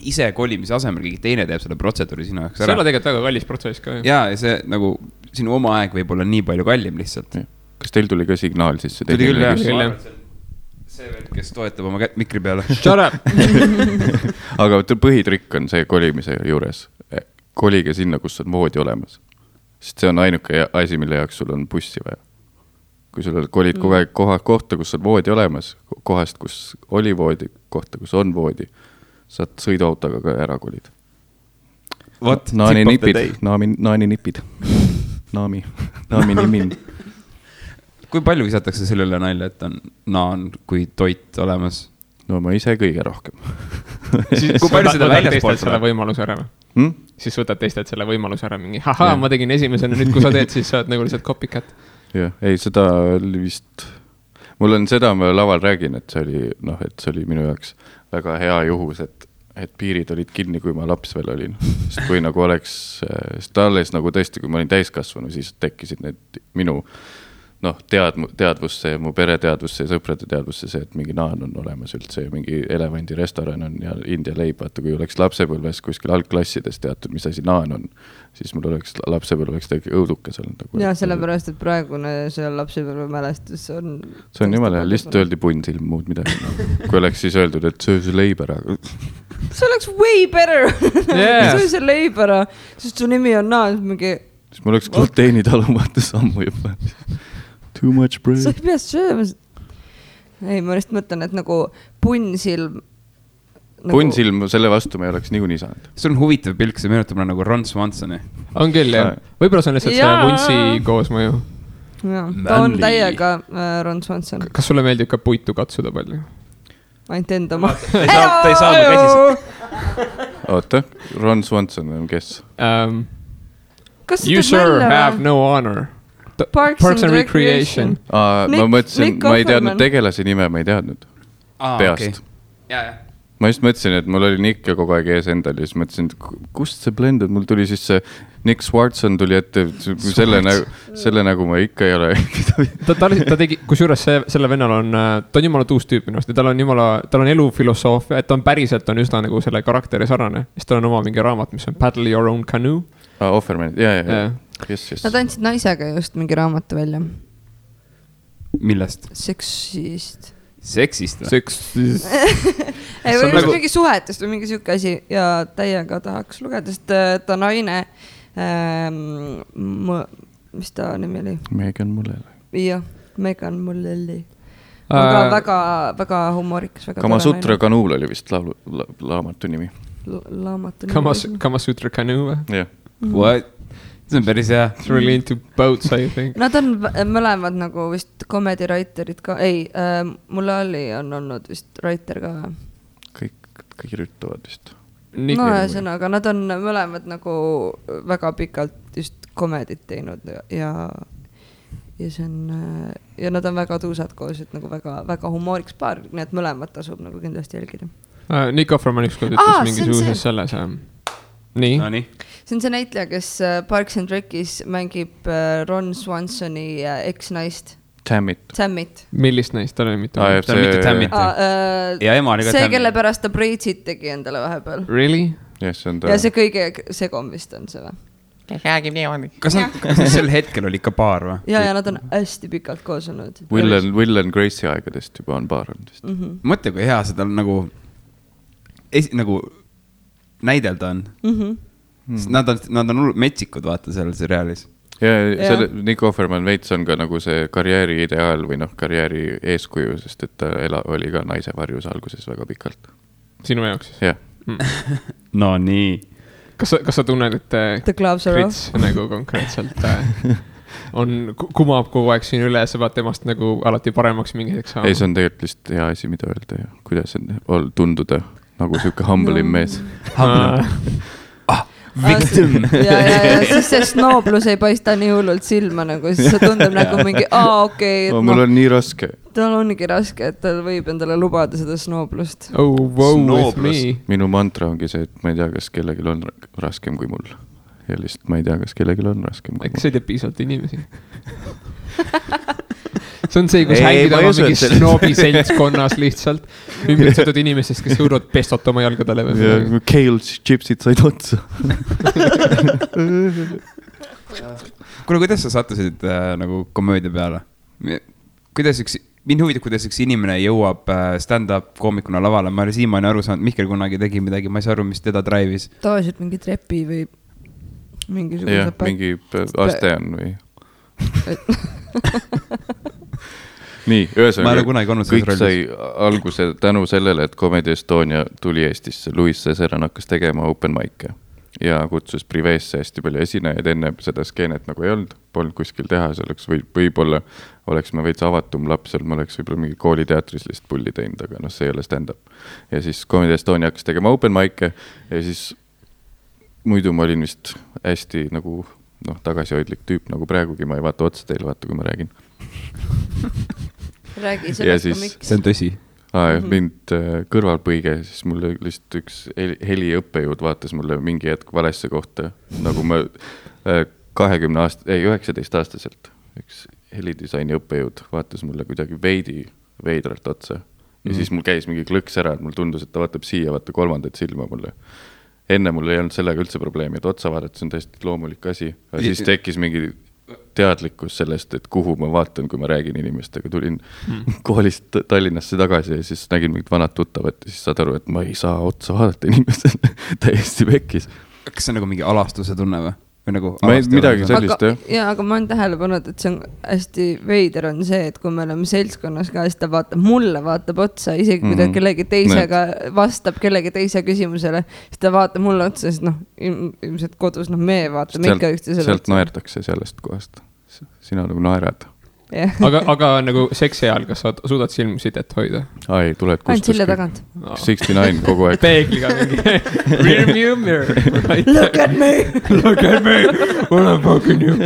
ise kolimise asemel keegi teine teeb selle protseduuri sinu jaoks ära. See on tegelikult väga kallis protsess ka. Ja see nagu sinu oma aeg võib olla nii palju kallim lihtsalt. Kas teil tuli ka signaal siis? Tuli küll, jah. See vend, kes toetab oma mikri peale. Shut up! Aga põhitrikk on see kolimise juures. Kolige sinna, kus on voodi olemas. Sest see on ainuke asi, mille jaoks sul on bussi vaja. Kui sul kolid kogu aeg kohta, kus on voodi olemas, kohast, kus oli voodi, kohta, kus on voodi, saad sõiduautoga ka ära kolid. Naani nipid. Naami nimin. Kui palju visatakse sellele nalja, et on naan kui toit olemas? No ma ise kõige rohkem. Kui palju seda väljaspoolt selle võimaluse ära? Siis võtad teistelt selle võimaluse ära mingi, ma tegin esimesena, nüüd kui sa teed, siis saad nagu lihtsalt copycat. Jah, ei, seda oli vist... Mul on seda, ma laval räägin, et see oli minu jaoks väga hea juhus, et piirid olid kinni, kui ma laps veel olin. Sest kui nagu oleks... alles nagu tõesti, kui ma olin täiskasvanu, siis tekkisid need minu... teadvusse, mu pere teadvusse ja sõprade teadvusse see, et mingi naan on olemas üldse ja mingi elevandi restoran on ja India leib, vaata kui oleks lapsepõlves kuskil algklassides teatud, mis asi naan on, siis mul oleks lapsepõlveks tegelikult õudukas olnud. Ja sellepärast, et praegune see lapsepõlve mälestus on... See on jumala, lihtsalt öeldi punnsilm muud midagi. Kui oleks siis öeldud, et söö see leib ära. See oleks way better. Söö see leib ära, sest su nimi on naan mingi... Siis mul oleks gluteeni talumata sammu juba. Too much bread. Sa ei pea sööma. Ei, ma just mõtlen, et nagu punnsilm... Punnsilm, selle vastu me ei oleks niikuinii saanud. See on huvitav pilk, see meenutab nagu Ron Swansoni. On küll, jah. Võib-olla see on lihtsalt see vuntsi koosmõju. Ta on täiega Ron Swanson. Kas sulle meeldib ka puitu katsuda palju? Ainult enda ma. Ta ei saanud käsis. Oota, Ron Swanson on kes? You sir have no honor. Parks and Recreation. Ma mõtlesin, ma ei teadnud tegelase nime, ma ei teadnud peast. Ma just mõtlesin, et mul oli Nick ja kogu aeg ees endal ja siis mõtlesin, kust see blendud, mul tuli siis see Nick Swartzen tuli ette, selle nagu ma ikka ei ole. Ta tegi, kusjuures selle vennal on, ta on jumala tuus tüüp minust ja tal on elufilosoofia, et ta on päriselt on üsna nagu selle karakteri sarnane. Siis tal on oma mingi raamat, mis on Paddle Your Own Canoe. Offerman, jah. Nad andsid naisega just mingi raamatu välja. Millest? Seksist ei, või nagu... mingi suhetest või mingi siuke asi ja täiega tahaks lugeda, sest ta naine mis ta nimi oli? Megan Mullally. Jah, Megan Mullally. Väga humoorikas. Kamasutra kanuul oli vist laamatu nimi. Kamasutra kanuul? Jah. What? See on päris hea. It's really into boats, I think. Nad on mõlemad nagu vist comedy writerid ka. Ei, Mullally on olnud vist writer ka. Kõik kirjutavad vist. No ühesõnaga, nad on mõlemad nagu väga pikalt just komedit teinud ja see on, ja nad on väga tuusad koos, et nagu väga humooriks paar, nii et mõlemad tasub nagu kindlasti jälgida. Nick Offerman ükskord ütles mingisuguses selles. Nii. No, nii. See on see näitleja, kes Parks and Rec'is mängib Ron Swansoni eks-naist. Tammit. Millist naist? Ta oli mitte Tammit. Ja ema oli ka see, kelle pärast ta Braidsit tegi endale vahepeal. Really? Yes, ja see kõige segom vist on see või? Kas sel hetkel oli ikka paar või? Ja nad on hästi pikalt koos olnud. Will and Gracie aegadest juba on paar olnud vist. Mõtle, kui hea seda nagu näidelda on. Nad on metsikud, vaata seal seriaalis. Ja Nick Offerman veits on ka nagu see karjääri ideaal või karjääri eeskuju, sest et ta oli ka naise varjus alguses väga pikalt. Sinu jaoks siis? Jah. No nii. Kas sa tunned, et Krits nagu konkreetselt kumab kogu aeg siin üle, sa vaat temast nagu alati paremaks mingi hetkeks saama? Ei, see on tegelikult lihtsalt hea asi, mida öelda ja kuidas on tunduda nagu siuke humble'im mees. Victim. Ja siis see snooblus ei paista nii hullult silma nagu, siis see tundub nagu mingi, okei. Mul on nii raske. Tal ongi raske, et tal võib endale lubada seda snooblust. Oh, wow, with me. Minu mantra ongi see, et ma ei tea, kas kellelgi on raskem kui mul. Ja lihtsalt ma ei tea, kas kellelgi on raskem kui mul. Eks see teeb piisavalt inimesi. See on see, kus hängid oma mingi snoobi seltskonnas lihtsalt ümbritsetud inimesest, kes õurvad pestot oma jalgadele. Ja kale chipsid said otsa. Kuule, kuidas sa sattusid nagu komöödia peale? Mind huvitab, kuidas üks inimene jõuab stand-up koomikuna lavale. Ma olen siiamaani aru saanud, Mihkel kunagi tegi midagi, ma ei saa aru, mis teda drive'is. Tavaliselt mingi trepi või mingisuguse... Jah, mingi aste on või... Nii, ühesõnaga, kõik sai alguse tänu sellele, et Comedy Estonia tuli Eestisse. Louis Cesaran hakkas tegema open mic'e ja kutsus priveesse hästi palju esinejaid. Enne seda skeenet nagu ei olnud, polnud kuskil teha, see oleks võib-olla oleks me veits avatum laps, me oleks võib-olla mingi kooliteatris lihtsalt pulli teinud, aga see ei ole stand-up. Ja siis Comedy Estonia hakkas tegema open mic'e ja siis muidu ma olin vist hästi nagu tagasihoidlik tüüp, nagu praegugi ma ei vaata otsa teile, vaata kui ma räägin. Räägi sellest ka miks. See on tõsi. Mind kõrvalpõige, siis mulle lihtsalt üks heliõppejõud vaatas mulle mingi hetk valesse kohta, nagu ma 19-aastaselt üks helidisaini õppejõud vaatas mulle kuidagi veidralt otsa ja siis mul käis mingi klõks ära, et mul tundus, et ta vaatab siia, vaata kolmandat silma mulle. Enne mul ei olnud sellega üldse probleemi, et otsa vaadata, see on täiesti loomulik asi, aga siis tekkis mingi teadlikkus sellest, et kuhu ma vaatan, kui ma räägin inimestega. Tulin koolist Tallinnasse tagasi ja siis nägin mingit vanad tuttavat ja siis saad aru, et ma ei saa otsa vaadata inimestele täiesti pekkis. Kas see on nagu mingi alastuse tunne või? Nagu midagi sellist, jah. Ja, aga ma olen tähele pannud, et see on hästi veider on see, et kui me oleme seltskonnas ka, siis ta mulle vaatab otsa, isegi kui ta kellegi teisega vastab kellegi teise küsimusele, siis ta vaatab mulle otsa, sest ilmselt kodus me vaatame ikka üksteisele otsa. Sealt naerdakse sellest kohast. Sina nagu naerad. Yeah. aga nagu seksi ajal, kas sa suudad silmsidet hoida? Ai, tuled ainult sille tagant. 69 kogu aeg. Peegliga mingi. Rearview mirror. Look at me. Look at me. What I'm fucking you.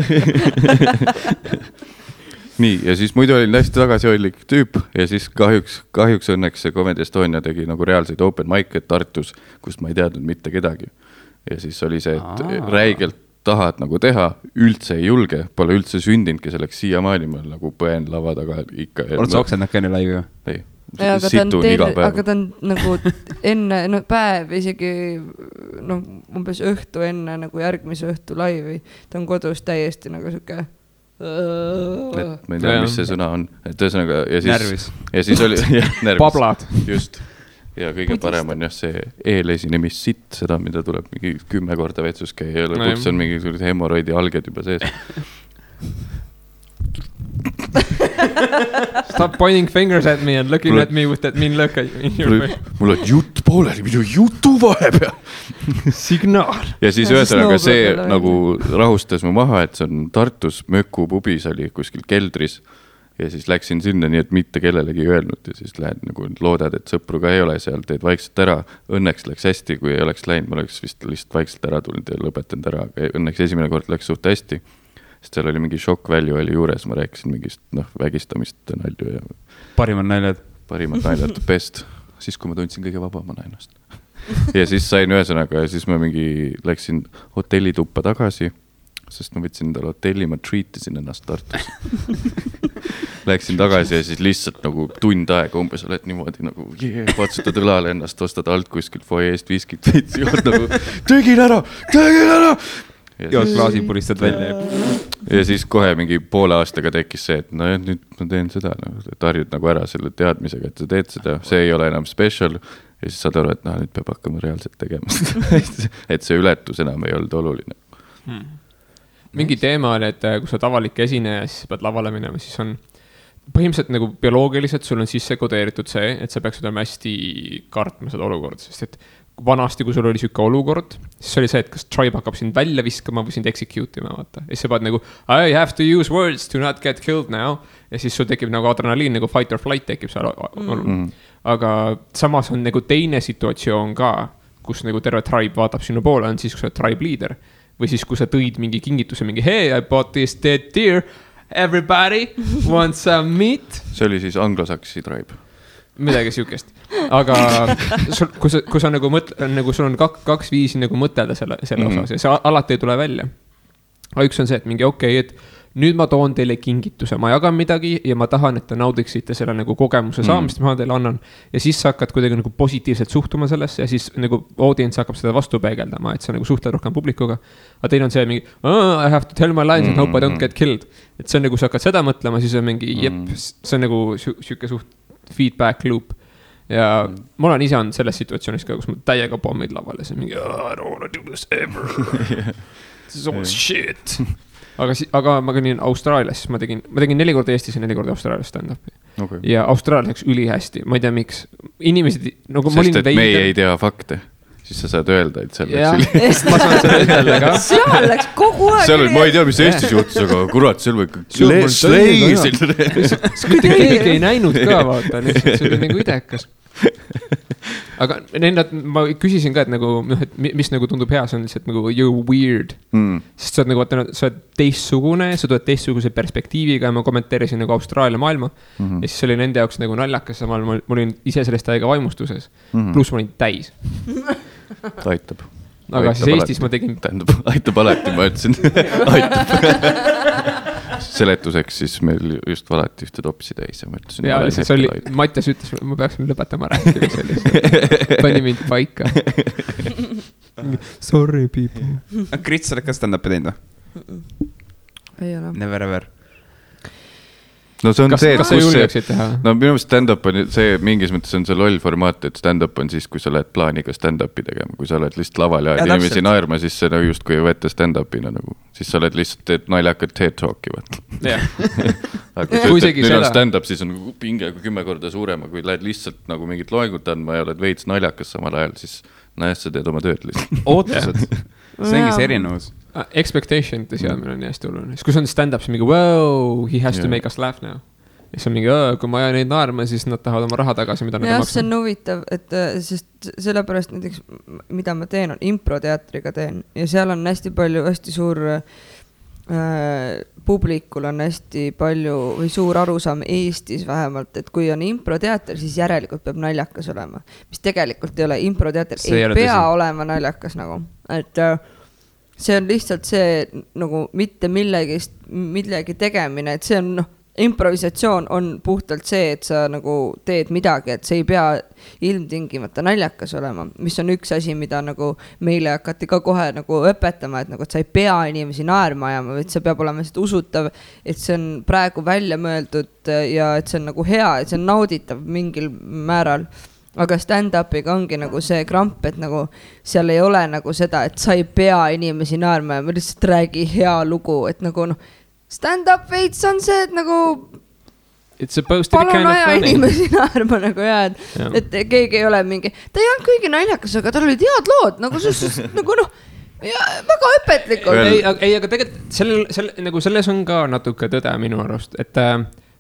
Nii, ja siis muidu olin hästi tagasihoidlik tüüp ja siis kahjuks õnneks see Comedy Estonia tegi nagu reaalseid open mic'e Tartus, kust ma ei teadnud mitte kedagi. Ja siis oli see, et räigelt tahad nagu teha, üldse ei julge, pole üldse sündinudki selleks siiamaani, ma nagu põen lava taga ikka. Oled sa oksendanud ka enne laivi ju? Ei. aga ta on nagu enne, no päev isegi, noh, umbes õhtu enne nagu järgmise õhtu laivi, ta on kodus täiesti nagu siuke. Ma ei tea, mis see sõna on, et ühesõnaga ja siis oli närvis. Pablad. Just. Ja kõige parem on jah see eelesinemist, seda, mida tuleb mingi 10 korda vetsus käia ja lõpuks on mingi hemoroidi alged juba sees. Stop pointing fingers at me and looking at me with that mean look in your face. Mul on jutt pooleli, minu jutu vahepeal. Signaal. Ja siis ühesõnaga see nagu rahustas mu maha, et see on Tartus Möku pubis oli kuskil keldris. Ja siis läksin sinna nii, et mitte kellelegi öelnud ja siis lähed nagu loodad, et sõpru ka ei ole seal, teed vaikselt ära. Õnneks läks hästi, kui ei oleks läinud, ma oleks vist lihtsalt vaikselt ära tulnud ja lõpetanud ära, aga õnneks esimene kord läks suht hästi. Sest seal oli mingi shock value oli juures, ma rääkisin mingist vägistamist nalju ja parimad naljad best, siis kui ma tundsin kõige vabamana ennast. Ja siis sain ühesõnaga ja siis ma mingi läksin hotellituppa tagasi, sest ma võtsin endale hotelli, ma treatisin ennast Tartus. Läksin tagasi ja siis lihtsalt nagu tund aega umbes oled niimoodi nagu patsutad õlale ennast, ostad alt kuskilt foyeest viskit veitsi jood nagu tegin ära! Jood klaasi puristad välja. Ja siis kohe mingi poole aastaga tekkis see, et no nüüd ma teen seda, et harjud nagu ära selle teadmisega, et sa teed seda, see ei ole enam special ja siis saad aru, et nüüd peab hakkama reaalselt tegema. Et see ületus enam ei olnud oluline. Mingi teema on, et kui sa oled avalik esineja, siis pead lavale minema, siis on põhimõtteliselt nagu bioloogiliselt sul on sisse kodeeritud see, et sa peaksid olema hästi kartma seda olukorda, sest et vanasti, kui sul oli siuke olukord, siis oli see, et kas tribe hakkab sind välja viskama või sind execute ima, vaata. Ja siis sa pead nagu, I have to use words to not get killed now. Ja siis sul tekib nagu adrenaliin, nagu fight or flight tekib seal. Aga samas on nagu teine situatsioon ka, kus nagu terve tribe vaatab sinu poole, on siis, kui sa oled tribe leader. Või siis, kui sa tõid mingi kingituse, mingi hey, I bought this dead deer, everybody wants some meat. See oli siis anglosaksi tribe. Midagi siukest. Aga kui sa nagu nagu sul on kaks viisi nagu mõtelda selle osas ja see alati ei tule välja. Aga üks on see, et mingi et nüüd ma toon teile kingituse, ma jagan midagi ja ma tahan, et te naudiksite selle nagu kogemuse saamist, ma teile annan. Ja siis sa hakkad kuidagi nagu positiivselt suhtuma sellesse ja siis nagu audience hakkab seda vastu peegeldama, et sa nagu suhtled rohkem publikuga. Aga teil on see mingi, I have to tell my lines and hope I don't get killed. Et see on nagu, sa hakkad seda mõtlema, siis on mingi, see on nagu siuke suht feedback loop. Ja mul on ise on selles situatsioonis ka, kus ma täiega pommid lavale, see mingi, I don't wanna do this ever. This is all shit. Aga ma käin Austraalias, siis ma tegin 4 korda Eestis ja 4 korda Austraalias stand-upi. Okay. Ja Austraalias läks ülihästi, ma ei tea miks. Inimesed, nagu sest et me ei tea fakte. Siis sa saad öelda, et seal läks üli. Ma saan seda ütelda ka. Seal läks kogu aeg seal, ma ei tea, mis Eestis juhtus, aga kurat, seal või keegi ei näinud ka, vaata. See oli nagu idekas. Aga ma küsisin ka, et nagu, et mis nagu tundub hea, see on lihtsalt nagu you're weird. Sest sa oled nagu, sa oled teistsugune, sa tuled teistsuguse perspektiiviga ja ma kommenteerisin nagu Austraalia maailma. Ja siis oli nende jaoks nagu naljakas, samal ma olin ise sellest täiega vaimustuses. Pluss ma olin täis. Aitab. Aga siis Eestis ma tegin... Aitab alati, ma ütlesin. Aitab. Seletuseks siis meil just valati ühte topsi täis ja ma ütlesin... Ja lihtsalt see oli... Mattias ütles, ma peaksin lõpetama rääkida sellist. Pani mind paika. Sorry, people. Krits, sa oled ka stand-upi teinud või? Ei ole. Never ever. No see on kas sa julgeksid teha? No minu meelest stand-up on see, mingis mõttes on see loll formaat, et stand-up on siis, kui sa oled plaaniga stand-upi tegema, kui sa oled lihtsalt laval ja inimesi naerma, siis see nagu just kui ei võeta stand-upina nagu, siis sa oled lihtsalt teed naljakat TED Talki, võt. Aga kui sa ütled, on stand-up, siis on pinge 10 korda suurema, kui lähed lihtsalt nagu mingit loengut andma ja oled veits naljakas samal ajal, siis sa teed oma tööd lihtsalt. Ootused. See ongi see erinevus. Expectation'ite seadmine on hästi oluline. Siis kui see on stand-up, siis mingi, wow, he has to make us laugh now. Ja siis on mingi, kui ma ajan neid naarma, siis nad tahavad oma raha tagasi, mida nad maksa. See on huvitav, et sest sellepärast näiteks, mida ma teen, on improteatriga teen. Ja seal on hästi palju, hästi suur publikul on hästi palju või suur arusaam Eestis vähemalt, et kui on improteater, siis järelikult peab naljakas olema. Mis tegelikult ei ole, improteater ei pea olema naljakas nagu. Et see on lihtsalt see nagu mitte millegi tegemine, et see on improvisatsioon on puhtalt see, et sa nagu teed midagi, et see ei pea ilmtingimata naljakas olema, mis on üks asi, mida nagu meile hakati ka kohe nagu õpetama, et nagu, et sa ei pea inimesi naerma ajama, et see peab olema lihtsalt usutav, et see on praegu välja mõeldud ja et see on nagu hea, et see on nauditav mingil määral. Aga stand-upiga ongi nagu see kramp, et nagu seal ei ole nagu seda, et sa ei pea inimesi naerma ja ma lihtsalt räägi hea lugu, et nagu noh, stand-up veits on see, et nagu palun aja inimesi naerma nagu et keegi ei ole mingi, ta ei olnud kõigi naljakas, aga tal olid head lood, nagu nagu noh, ja väga õpetlikud. Ei, aga tegelikult nagu selles on ka natuke tõde minu arust, et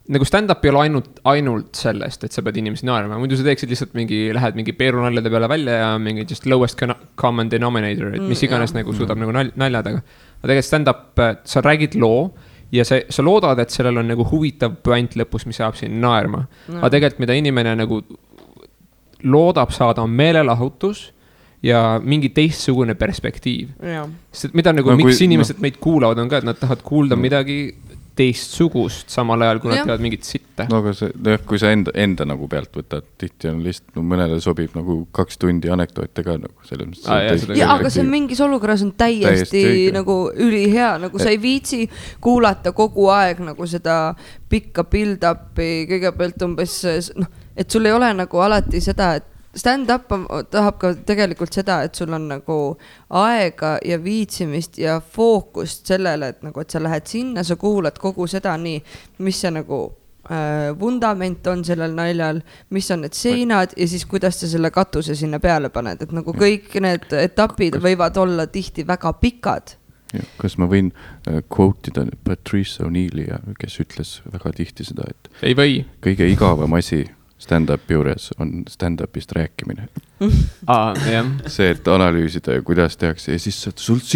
nagu stand-up ei ole ainult sellest, et sa pead inimesi naerma, muidu sa teeksid lihtsalt lähed mingi peerunaljade peale välja ja mingi just lowest common denominator, et mis iganes nagu suudab nagu naljadega. Aga tegelikult stand-up, sa räägid loo ja sa loodad, et sellel on nagu huvitav point lõpus, mis saab siin naerma. Aga tegelikult mida inimene nagu loodab saada on meelelahutus ja mingi teistsugune perspektiiv. Sest mida nagu miks inimesed meid kuulavad on ka, et nad tahavad kuulda midagi teistsugust samal ajal, kui nad teevad mingit sitte. No aga kui sa enda nagu pealt võtad, tihti on lihtsalt, mõnele sobib nagu 2 tundi anekdoote ka nagu selles mõttes. Aga see mingis olukorras on täiesti nagu ülihea, nagu sa ei viitsi kuulata kogu aeg nagu seda pikka build-upi kõigepealt umbes, noh, et sul ei ole nagu alati seda, et stand-up tahab ka tegelikult seda, et sul on nagu aega ja viitsimist ja fookust sellele, et nagu, et sa lähed sinna, sa kuulad kogu seda nii, mis see nagu vundament on sellel naljal, mis on need seinad ja siis kuidas sa selle katuse sinna peale paned, et nagu kõik need etapid võivad olla tihti väga pikad. Ja, kas ma võin quote'ida Patrice O'Neil'i, kes ütles väga tihti seda, et ei või. Kõige igavam asi stand-up juures on stand-upist rääkimine. See, et analüüsida ja kuidas tehakse ja siis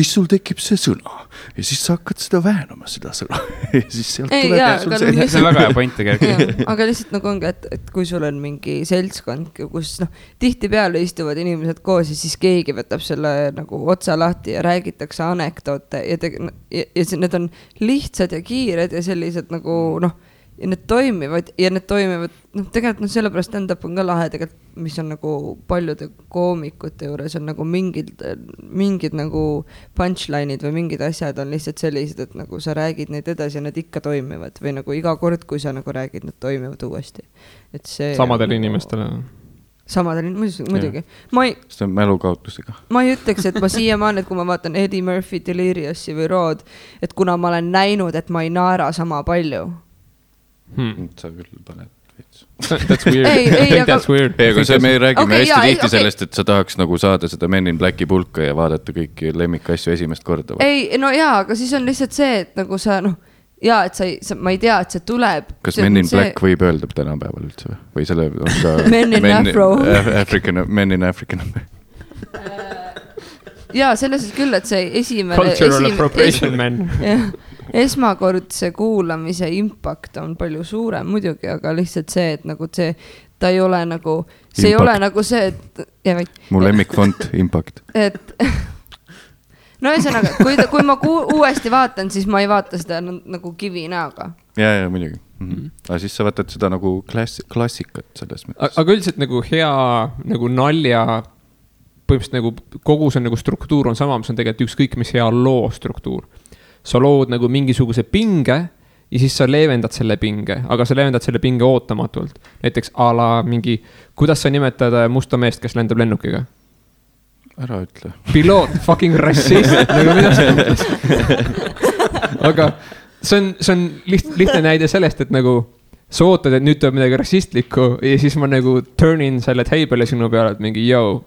sul tekib see sõna ja siis sa hakkad seda väänama seda sõna ja siis sealt tuleb see on väga hea point tegelikult. Aga lihtsalt nagu ongi, et kui sul on mingi seltskond, kus noh, tihti peale istuvad inimesed koos ja siis keegi võtab selle nagu otsa lahti ja räägitakse anekdoote ja need on lihtsad ja kiired ja sellised nagu noh, ja need toimivad, noh, tegelikult sellepärast stand-up on ka lahe tegelikult, mis on nagu paljude koomikute juures on nagu mingid nagu punchline'id või mingid asjad on lihtsalt sellised, et nagu sa räägid neid edasi ja need ikka toimivad või nagu iga kord, kui sa nagu räägid, need toimivad uuesti. Et see samadele inimestele. Muidugi. See on mälukaotusega. Ma ei ütleks, et ma siiamaani, et kui ma vaatan Eddie Murphy, Deliriousi või Rood, et kuna ma olen näinud, et ma ei naera sama palju. Sa küll paned veits. That's weird. I think that's weird. Aga me räägime hästi tihti sellest, et sa tahaks nagu saada seda Men in Blacki pulka ja vaadata kõiki lemmikasju esimest korda. Ei, no jaa, aga siis on lihtsalt see, et nagu sa, noh, jaa, et ma ei tea, et see tuleb. Kas Men in Black võib öelda tänapäeval üldse või selle on ka Men in Afro. Men in African. Jaa, selles küll, et see esimene Cultural appropriation men. Esmakordse kuulamise impact on palju suurem muidugi, aga lihtsalt see, et nagu see, ta ei ole nagu, see ei ole nagu see, et mu lemmikfont impact. Et no ühesõnaga, kui ma uuesti vaatan, siis ma ei vaata seda nagu kivi näoga. Ja, muidugi. Aga siis sa vaatad seda nagu klassikat selles mõttes. Aga üldiselt nagu hea nagu nalja põhimõtteliselt nagu kogu see nagu struktuur on sama, mis on tegelikult ükskõik mis hea loo struktuur. Sa lood nagu mingisuguse pinge ja siis sa leevendad selle pinge, aga sa leevendad selle pinge ootamatult. Näiteks ala mingi, kuidas sa nimetad musta meest, kes lendab lennukiga? Ära ütle. Piloot, fucking rassist. Nagu mida sa mõtlesid? Aga see on lihtne näide sellest, et nagu sa ootad, et nüüd tuleb midagi rassistlikku ja siis ma nagu turnin selle teibele sinu peale, et mingi yo.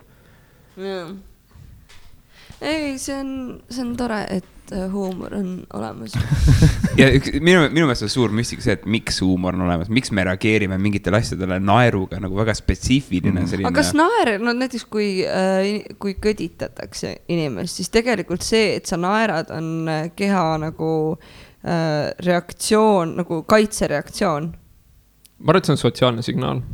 Ei, see on tore, et huumor on olemas. Ja minu meelest on suur müstika see, et miks huumor on olemas, miks me reageerime mingitele asjadele naeruga nagu väga spetsiifiline selline. Aga kas naer, no näiteks kui kõditatakse inimest, siis tegelikult see, et sa naerad, on keha nagu reaktsioon, nagu kaitsereaktsioon. Ma arvan, et see on sotsiaalne signaal.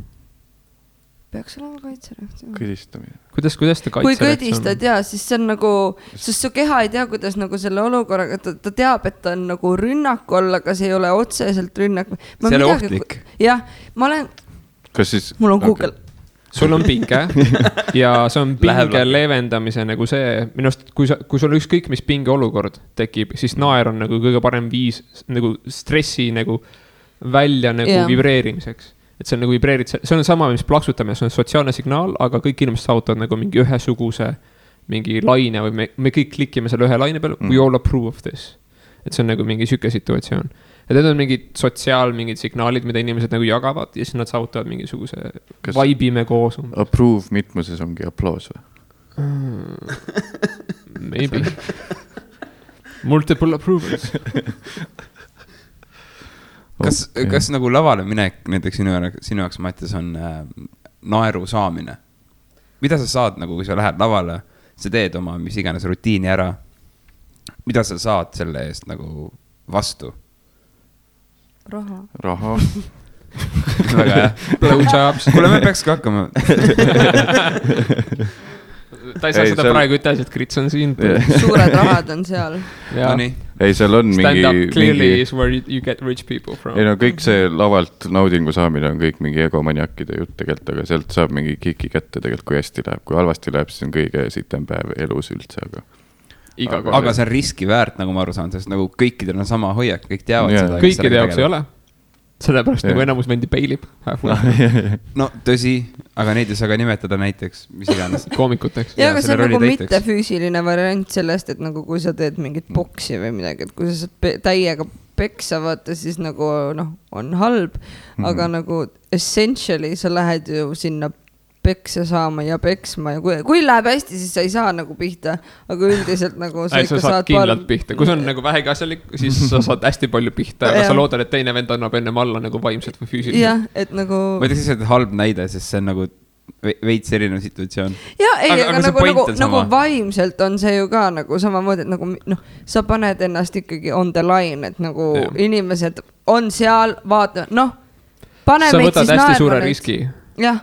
peaks olema kaitsereaktsioon. Kõdistamine. Kuidas ta kaitsereaktsioon? Kui kõdistad, jaa, siis see on nagu, sest su keha ei tea, kuidas nagu selle olukorraga, ta teab, et ta on nagu rünnak olla, aga see ei ole otseselt rünnak. See ei ole ohtlik. Jah, ma olen, mul on Google. Sul on pinge ja see on pinge leevendamise nagu see, minust, kui sul ükskõik mis pinge olukord tekib, siis naer on nagu kõige parem viis nagu stressi nagu välja nagu vibreerimiseks. Et see on nagu vibreerid, see on sama, mis plaksutamine, see on sotsiaalne signaal, aga kõik inimesed saavutavad nagu mingi ühesuguse mingi laine või me kõik klikime selle ühe laine peale, we all approve of this. Et see on nagu mingi süke situatsioon. Et need on mingid mingid signaalid, mida inimesed nagu jagavad ja siis nad saavutavad mingisuguse vaibime koos. Approve mitmuses ongi applaus või? Maybe. Multiple approvals. Kas nagu lavale minek näiteks sinu jaoks, Mattias, on naeru saamine? Mida sa saad, nagu kui sa lähed lavale, sa teed oma mis iganes rutiini ära, mida sa saad selle eest nagu vastu? Raha. Väga hea. Blowjobs. Kuule, me peakski hakkama. Ta ei saa seda praegu ütelda, et Krits on siin. Suured rahad on seal. Ei, seal on stand up clearly is where you get rich people from. Ei no kõik see lavalt naudingu saamine on kõik mingi egomaniakide jutt tegelikult, aga sealt saab mingi kiki kätte tegelikult, kui hästi läheb. Kui halvasti läheb, siis on kõige sitem päev elus üldse, aga see on riski väärt, nagu ma aru saan, sest nagu kõikidel on sama hoiak, kõik teavad seda. Kõikide jaoks ei ole. Sellepärast nagu enamus vendi peilib. No tõsi, aga neid ei saa ka nimetada näiteks, mis iganes. Koomikuteks. Ja, aga see on nagu mitte füüsiline variant sellest, et nagu kui sa teed mingit boksi või midagi, et kui sa saad täiega peksa vaata, siis nagu on halb, aga nagu essentially sa lähed ju sinna peksa saama ja peksma ja kui läheb hästi, siis sa ei saa nagu pihta, aga üldiselt nagu sa ikka saad kindlalt pihta. Kui see on nagu vähegi asjalik, siis sa saad hästi palju pihta, aga sa loodad, et teine vend annab ennem alla nagu vaimselt või füüsiliselt. Jah, et nagu... Ma ei tea, siis on halb näide, sest see on nagu veits erinev situatsioon. Ja, ei, aga nagu vaimselt on see ju ka nagu samamoodi, et nagu sa paned ennast ikkagi on the line, et nagu inimesed on seal, vaata, pane sa võtad hästi suure riski. Jah.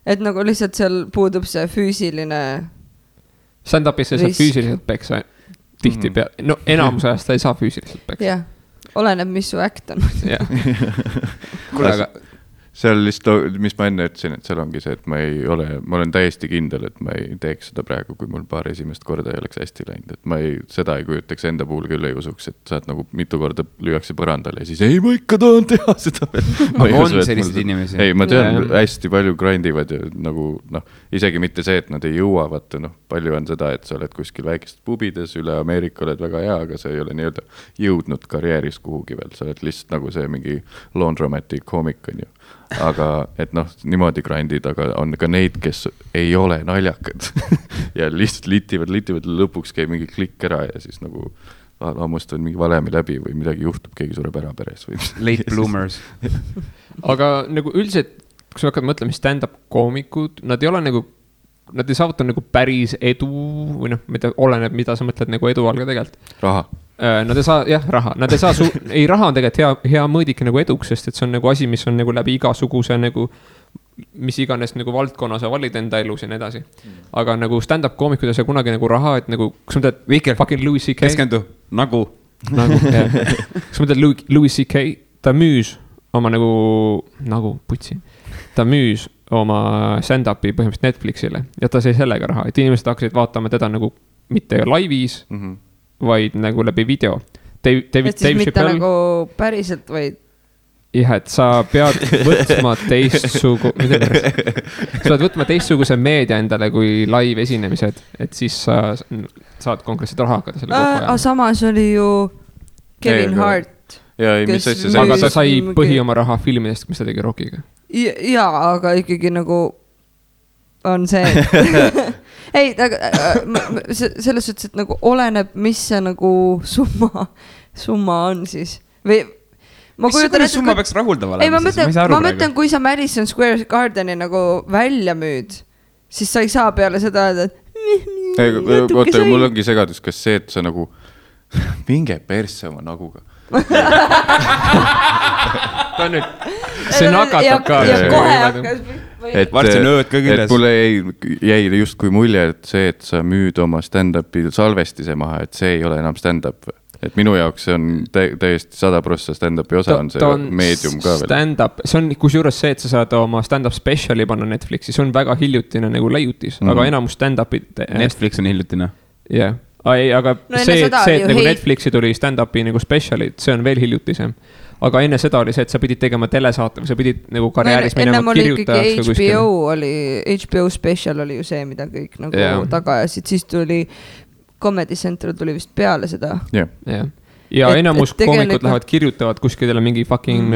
Et nagu lihtsalt seal puudub see füüsiline stand-upis sa saad füüsiliselt peksa tihti pea. No enamus ajast sa ei saa füüsiliselt peksa. Jah, oleneb, mis su äkt on. Kuule, aga seal lihtsalt, mis ma enne ütlesin, et seal ongi see, et ma olen täiesti kindel, et ma ei teeks seda praegu, kui mul paar esimest korda ei oleks hästi läinud. Et seda ei kujutaks enda puhul küll ei usuks, et saad nagu mitu korda lüüakse põrandale ja siis ei, ma ikka tahan teha seda veel. Aga on sellised inimesi? Ei, ma tean, hästi palju grindivad ja nagu, isegi mitte see, et nad ei jõua, vaata, palju on seda, et sa oled kuskil väikest pubides, üle Ameerika oled väga hea, aga sa ei ole nii-öelda jõudnud karjääris kuhugi veel. Sa oled lihtsalt nagu see mingi laundromatic koomik on ju. Aga et niimoodi grindid, aga on ka neid, kes ei ole naljakad ja lihtsalt litivad lõpuks käib mingi klikk ära ja siis nagu hammustavad mingi valemi läbi või midagi juhtub, keegi sureb ära peres või late bloomers. Aga nagu üldiselt, kui sa hakkad mõtlema stand-up koomikud, nad ei ole nagu, nad ei saavuta nagu päris edu või oleneb, mida sa mõtled nagu edu all ka tegelikult. Raha. Nad ei saa, raha. Nad ei saa, raha on tegelikult hea mõõdik nagu eduks, sest et see on nagu asi, mis on nagu läbi igasuguse nagu, mis iganes nagu valdkonna sa valid enda elus ja nii edasi. Aga nagu stand-up koomikud ei saa kunagi nagu raha, et nagu, kus ma teed fucking Louis C.K. Keskendu, nagu, kus ma teed Louis C.K. Ta müüs oma nagu putsi. Ta müüs oma stand-upi põhimõtteliselt Netflixile ja ta sai sellega raha, et inimesed hakkasid vaatama teda nagu mitte laivis, vaid nagu läbi video. Et siis mitte nagu päriselt, vaid... Jah, et sa pead võtma sa pead võtma teistsuguse meedia endale kui live esinemised, et siis sa saad konkreetselt raha hakata selle kokku ajal. Samas oli ju Kevin Hart. Aga ta sai põhi oma raha filmidest, mis ta tegi Rockiga. Jaa, aga ikkagi nagu on see... Ei, selles suhtes, et nagu oleneb, mis see nagu summa on siis. Või mis summa peaks rahuldava olema? Ma mõtlen, kui sa Madison Square Gardeni nagu välja müüd, siis sa ei saa peale seda, et oota, mul ongi segadus, kas see, et sa nagu minge persse oma naguga. Ta nüüd, see nakatab ka. Ja kohe hakkas varsti on ööd ka küljes. Mulle jäi justkui mulje, et see, et sa müüd oma stand-upi salvestise maha, et see ei ole enam stand-up. Et minu jaoks see on täiesti 100% stand-upi osa on see meedium ka veel. Stand-up, see on kusjuures see, et sa saad oma stand-up speciali panna Netflixi, see on väga hiljutine nagu leiutis, aga enamus stand-upid... Netflix on hiljutine? Jah, aga see, et nagu Netflixi tuli stand-upi nagu specialid, see on veel hiljutisem. Aga enne seda oli see, et sa pidid tegema telesaate või sa pidid nagu karjääris minema kirjutajaks. HBO special oli ju see, mida kõik nagu taga ajasid, siis tuli Comedy Central tuli vist peale seda. Ja enamus koomikud lähevad kirjutavad kuskile mingi fucking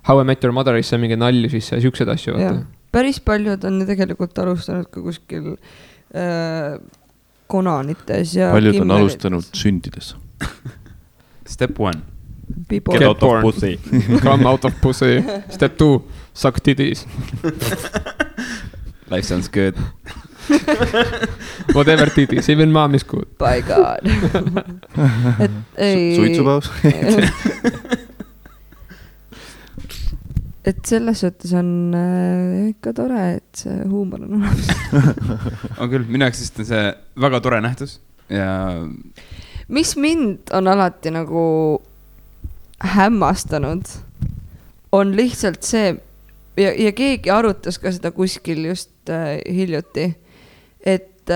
How I Met Your Motherisse mingi nalju sisse ja siuksed asju. Päris paljud on tegelikult alustanud ka kuskil Konanites ja paljud on alustanud sündides. Step 1 Get out of pussy. Come out of pussy. Step 2 Suck titties. Life sounds good. Whatever titties, even mom is good. By God. Suitsupaus. Et selles suhtes on ikka tore, et see huumor on olemas. On küll, minu jaoks on see väga tore nähtus ja... Mis mind on alati nagu hämmastanud, on lihtsalt see, ja keegi arutas ka seda kuskil just hiljuti, et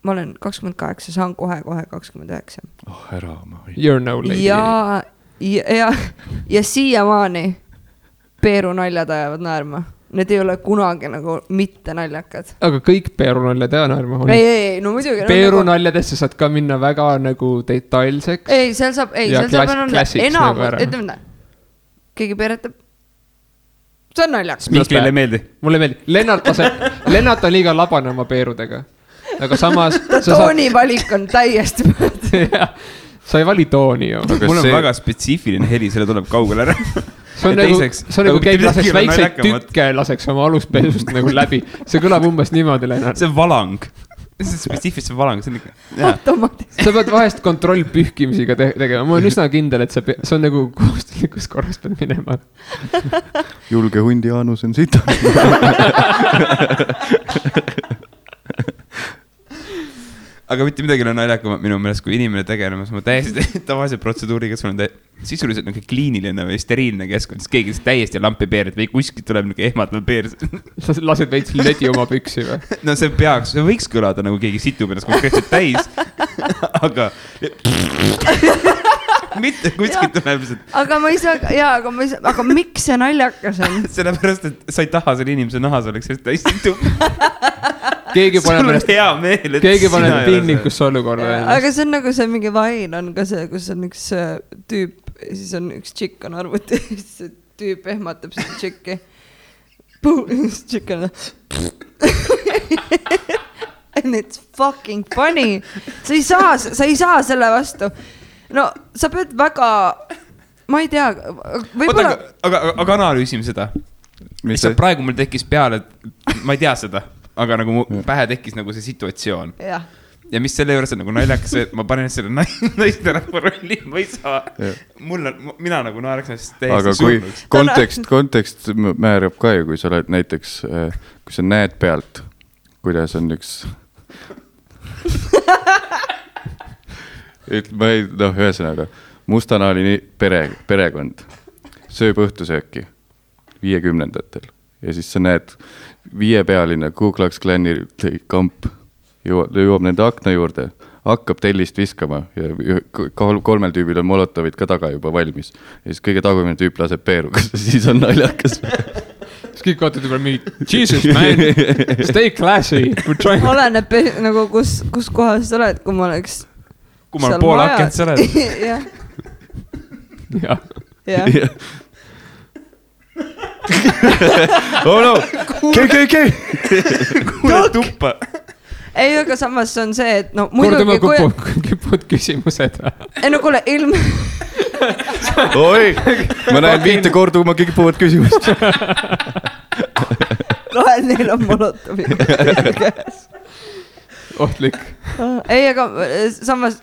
ma olen 28, saan kohe 29. Ära ma. You're no lady. Ja siiamaani Peeru naljad ajavad naerma. Need ei ole kunagi nagu mitte naljakad. Aga kõik Peeru naljad ja naerma on. Ei, no muidugi. Peeru naljadesse saad ka minna väga nagu detailseks. Ei, seal saab enam, ütleme, keegi peeretab. See on naljakas. Miklile meeldi. Mulle meeldi. Lennart on liiga labane oma peerudega. Aga samas... toonivalik on täiesti mõõd. Sa ei vali tooni ju. Mul on väga spetsiifiline heli, selle tuleb kaugele ära. See on nagu keegi laseks väikseid tükke laseks oma aluspesust nagu läbi. See kõlab umbes niimoodi, Lennart. See on valang. See on spetsiifilise valang. Automaatiliselt. Sa pead vahest kontroll pühkimisiga tegema. Ma olen üsna kindel, et see on nagu kohustuslikus korras pead minema. Julge hundi anus on sita. Aga mitte midagi on naljakam minu meelest, kui inimene tegelemas ma täiesti tavalise protseduuriga, sul on sisuliselt nagu kliiniline või steriilne keskkond, siis keegi täiesti lampi peerid või kuskilt tuleb nagu ehmatav peer. Sa lased veits ledi oma püksi või? No see võiks kõlada nagu keegi situb ennast konkreetselt täis, aga mitte kuskilt tuleb lihtsalt. Aga ma ei saa, aga miks see naljakas on? Sellepärast, et sa ei taha selle inimese nahas oleks täis situb. Keegi paneb piinlikusse olukorda. Aga see on nagu see mingi vain on ka see, kus on üks tüüp, siis on üks tšikk on arvuti, siis see tüüp ehmatab seda tšikki. Tšikk on and it's fucking funny. Sa ei saa selle vastu. No sa pead väga, ma ei tea, võib-olla... Aga analüüsime seda. Mis praegu mul tekkis peale, ma ei tea seda. Aga nagu pähe tekkis nagu see situatsioon. Ja mis selle juures on nagu naljakas, et ma panen selle naisterahva rolli, ma ei saa. Mina nagu naeraks näiteks täiesti surnuks. Aga kui kontekst määrab ka ju, kui sa oled näiteks, kui sa näed pealt, kuidas on üks... ühesõnaga, mustanaali perekond sööb õhtusööki 50-ndatel. Ja siis sa näed 5-pealine Ku Klux Klani kamp jõuab nende akna juurde, hakkab tellist viskama ja 3 tüübil on molotovid ka taga juba valmis. Ja siis kõige tagumine tüüp laseb peeru, siis on naljakas. Siis kõik vaatad juba mingi, Jesus man, stay classy. Oleneb nagu kus kohas sa oled, kui ma oleks... Kui ma olen pool akent sa oled. Jah. Oh no, KKK. Kuule tuppa. Ei, aga samas on see, et no muidugi... Kordama kipud küsimused. Ei no kuule, Oi, ma näen 5 korda, kui ma kipuvad küsimust. Kahel neil on molotovi. Ohtlik. Ei, aga samas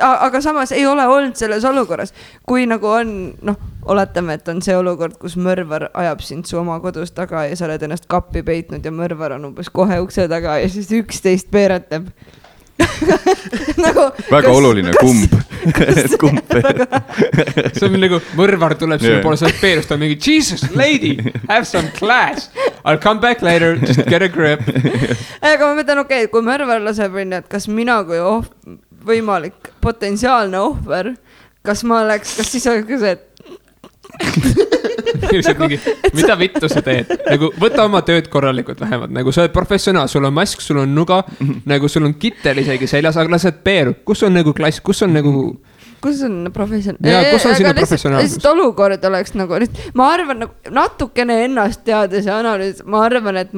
aga samas ei ole olnud selles olukorras, kui nagu on, noh, oletame, et on see olukord, kus mõrvar ajab sind su oma kodus taga ja sa oled ennast kappi peitnud ja mõrvar on umbes kohe ukse taga ja siis 11 peeretab. Nagu, väga oluline, kumb see on nagu, mõrvar tuleb sinna poole sellest peerust, on mingi Jesus, lady, have some class, I'll come back later, just get a grip. Aga ma mõtlen, okei, kui mõrvar laseb, et kas mina kui võimalik potentsiaalne ohver, kas siis oleks ka see, mingi, mida vittu sa teed, nagu võta oma tööd korralikult vähemalt, nagu sa oled professionaal, sul on mask, sul on nuga, nagu sul on kittel isegi seljas, aga lased peeru, kus on nagu klass, kus on professionaal? Kus on sinna professionaalsus? Lihtsalt olukord oleks nagu, ma arvan, natukene ennast teades ja analüüs, ma arvan, et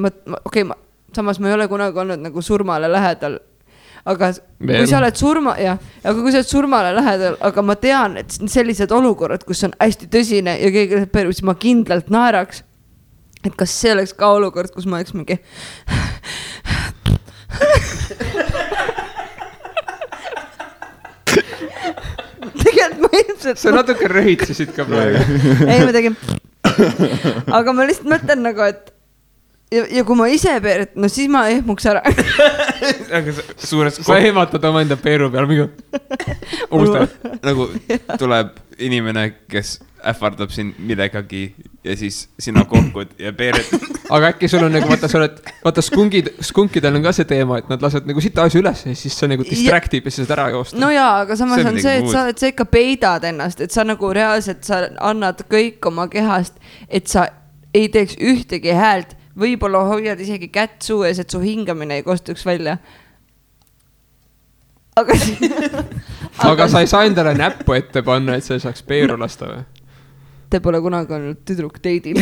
samas ma ei ole kunagi olnud nagu surmale lähedal. Aga kui sa oled surmale lähedal, aga ma tean, et sellised olukorrad, kus on hästi tõsine ja keegi läheb peru, siis ma kindlalt naeraks, et kas see oleks ka olukord, kus ma oleks mingi tegelikult ma ilmselt sa natuke röhitsisid ka praegu. Ei, ma tegin aga ma lihtsalt mõtlen nagu, et ja kui ma ise peeret, no siis ma ehmuks ära. Aga sa ehmatad oma enda peeru peal, mingi nagu tuleb inimene, kes ähvardab sind millegagi ja siis sina kohkud ja peered. Aga äkki sul on nagu, vaata skunkidel on ka see teema, et nad lased nagu sita asju üles ja siis sa nagu distractib ja siis ära joosta. No jaa, aga samas on see, et sa ikka peidad ennast, et sa nagu reaalselt sa annad kõik oma kehast, et sa ei teeks ühtegi häält. Võibolla hoiad isegi kätt suu ees, et su hingamine ei kostuks välja. Aga sa ei saa endale näppu ette panna, et sa saaks peeru lasta või? Te pole kunagi olnud tüdruk teidil.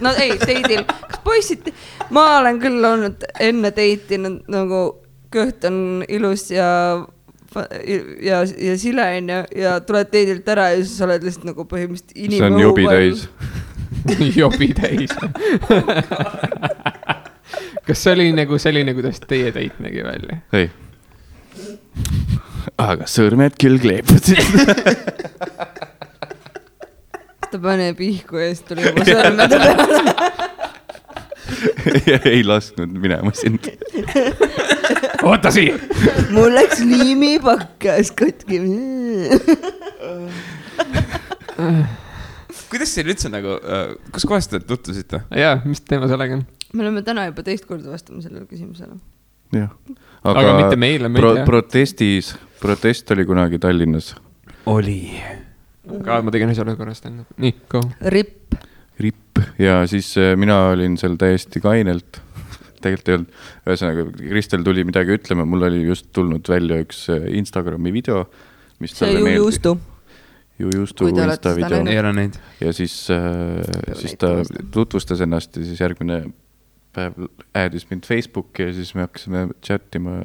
No ei, teidil. Kas poisid? Ma olen küll olnud enne teiti, nagu kõht on ilus ja sile ja tuled teidilt ära ja siis oled lihtsalt nagu põhimõtteliselt inimõu. See on jobi täis. Jobi täis. Kas see oli nagu selline, kuidas teie teit nägi välja? Ei. Aga sõrmed küll kleepusid. Ta paneb ihku ja siis tuli juba sõrmede peale. Ei lasknud minema sind. Oota siia. Mul läks liimipakkas katki. Kuidas see üldse nagu, kus kohast te tutvusite? Jaa, mis teema sellega on? Me oleme täna juba teist korda vastama sellele küsimusele. Jah. Aga mitte meile, protest oli kunagi Tallinnas. Oli. Ka ma tegin asjale korrast enne. Nii, go. Ripp. Ja siis mina olin seal täiesti kainelt. Tegelikult ei olnud. Ühesõnaga, Kristel tuli midagi ütlema. Mul oli just tulnud välja üks Instagrami video. See Jujustu. Jujustu Insta video. Ei ole neid. Ja siis ta tutvustas ennast ja siis järgmine päev äädis mind Facebooki ja siis me hakkasime chattima.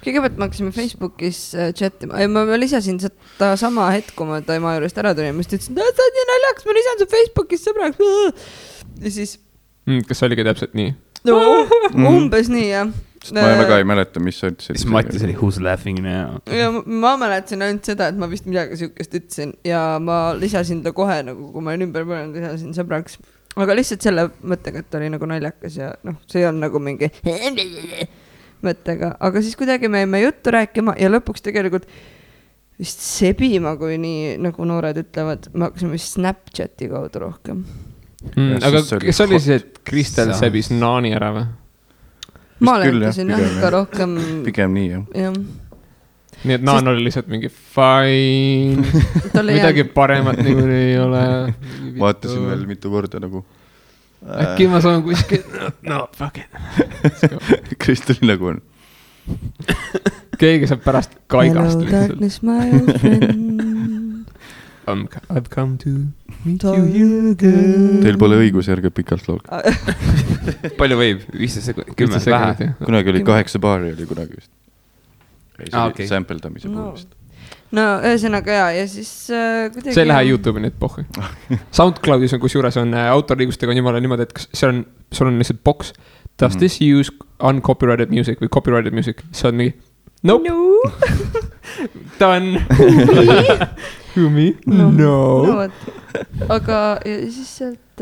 Kõigepealt me hakkasime Facebookis chattima. Ma lisasin seda sama hetk, kui ma ta ema juurest ära tulin. Ma ütlesin, et sa oled nii naljaks, ma lisan su Facebookis sõbraks. Ja siis... Kas oligi täpselt nii? No, umbes nii, jah. Ma väga ei mäleta, mis sa ütlesid. Siis Mattis oli who's laughing now. Ja ma mäletasin ainult seda, et ma vist midagi sihukest ütlesin ja ma lisasin ta kohe, nagu kui ma olin ümber põlenud, lisasin sõbraks. Aga lihtsalt selle mõttega, et ta oli nagu naljakas ja see on nagu mingi mõttega. Aga siis kuidagi me jäime juttu rääkima ja lõpuks tegelikult vist sebima, kui nii nagu noored ütlevad, me hakkasime Snapchati kaudu rohkem. Aga kes oli see, et Kristel sebis naani ära või? Ma oletasin jah, ikka rohkem... Pigem nii, jah. Nii et naan oli lihtsalt mingi fine, midagi paremat nagu ei ole. Vaatasin veel mitu korda nagu. Äkki ma saan kuskil, no fuck it. Kristel nagu on. Keegi saab pärast kaigast. Hello darkness my old friend. I've come to meet you again. Teil pole õigus järge pikalt laulga. Palju võib? 15 sekundit? 10 vähe? Kunagi oli 8 baari oli kunagi vist. Okay. Sampeldamise puhulist. No ühesõnaga ja siis kuidagi... See ei lähe YouTube'i nüüd pohhi. SoundCloudis on kusjuures on autorliigustega jumala niimoodi, et sul on lihtsalt box. Does this use uncopyrighted music või copyrighted music? See on mingi Nope. Done. Who me? No. Aga siis sealt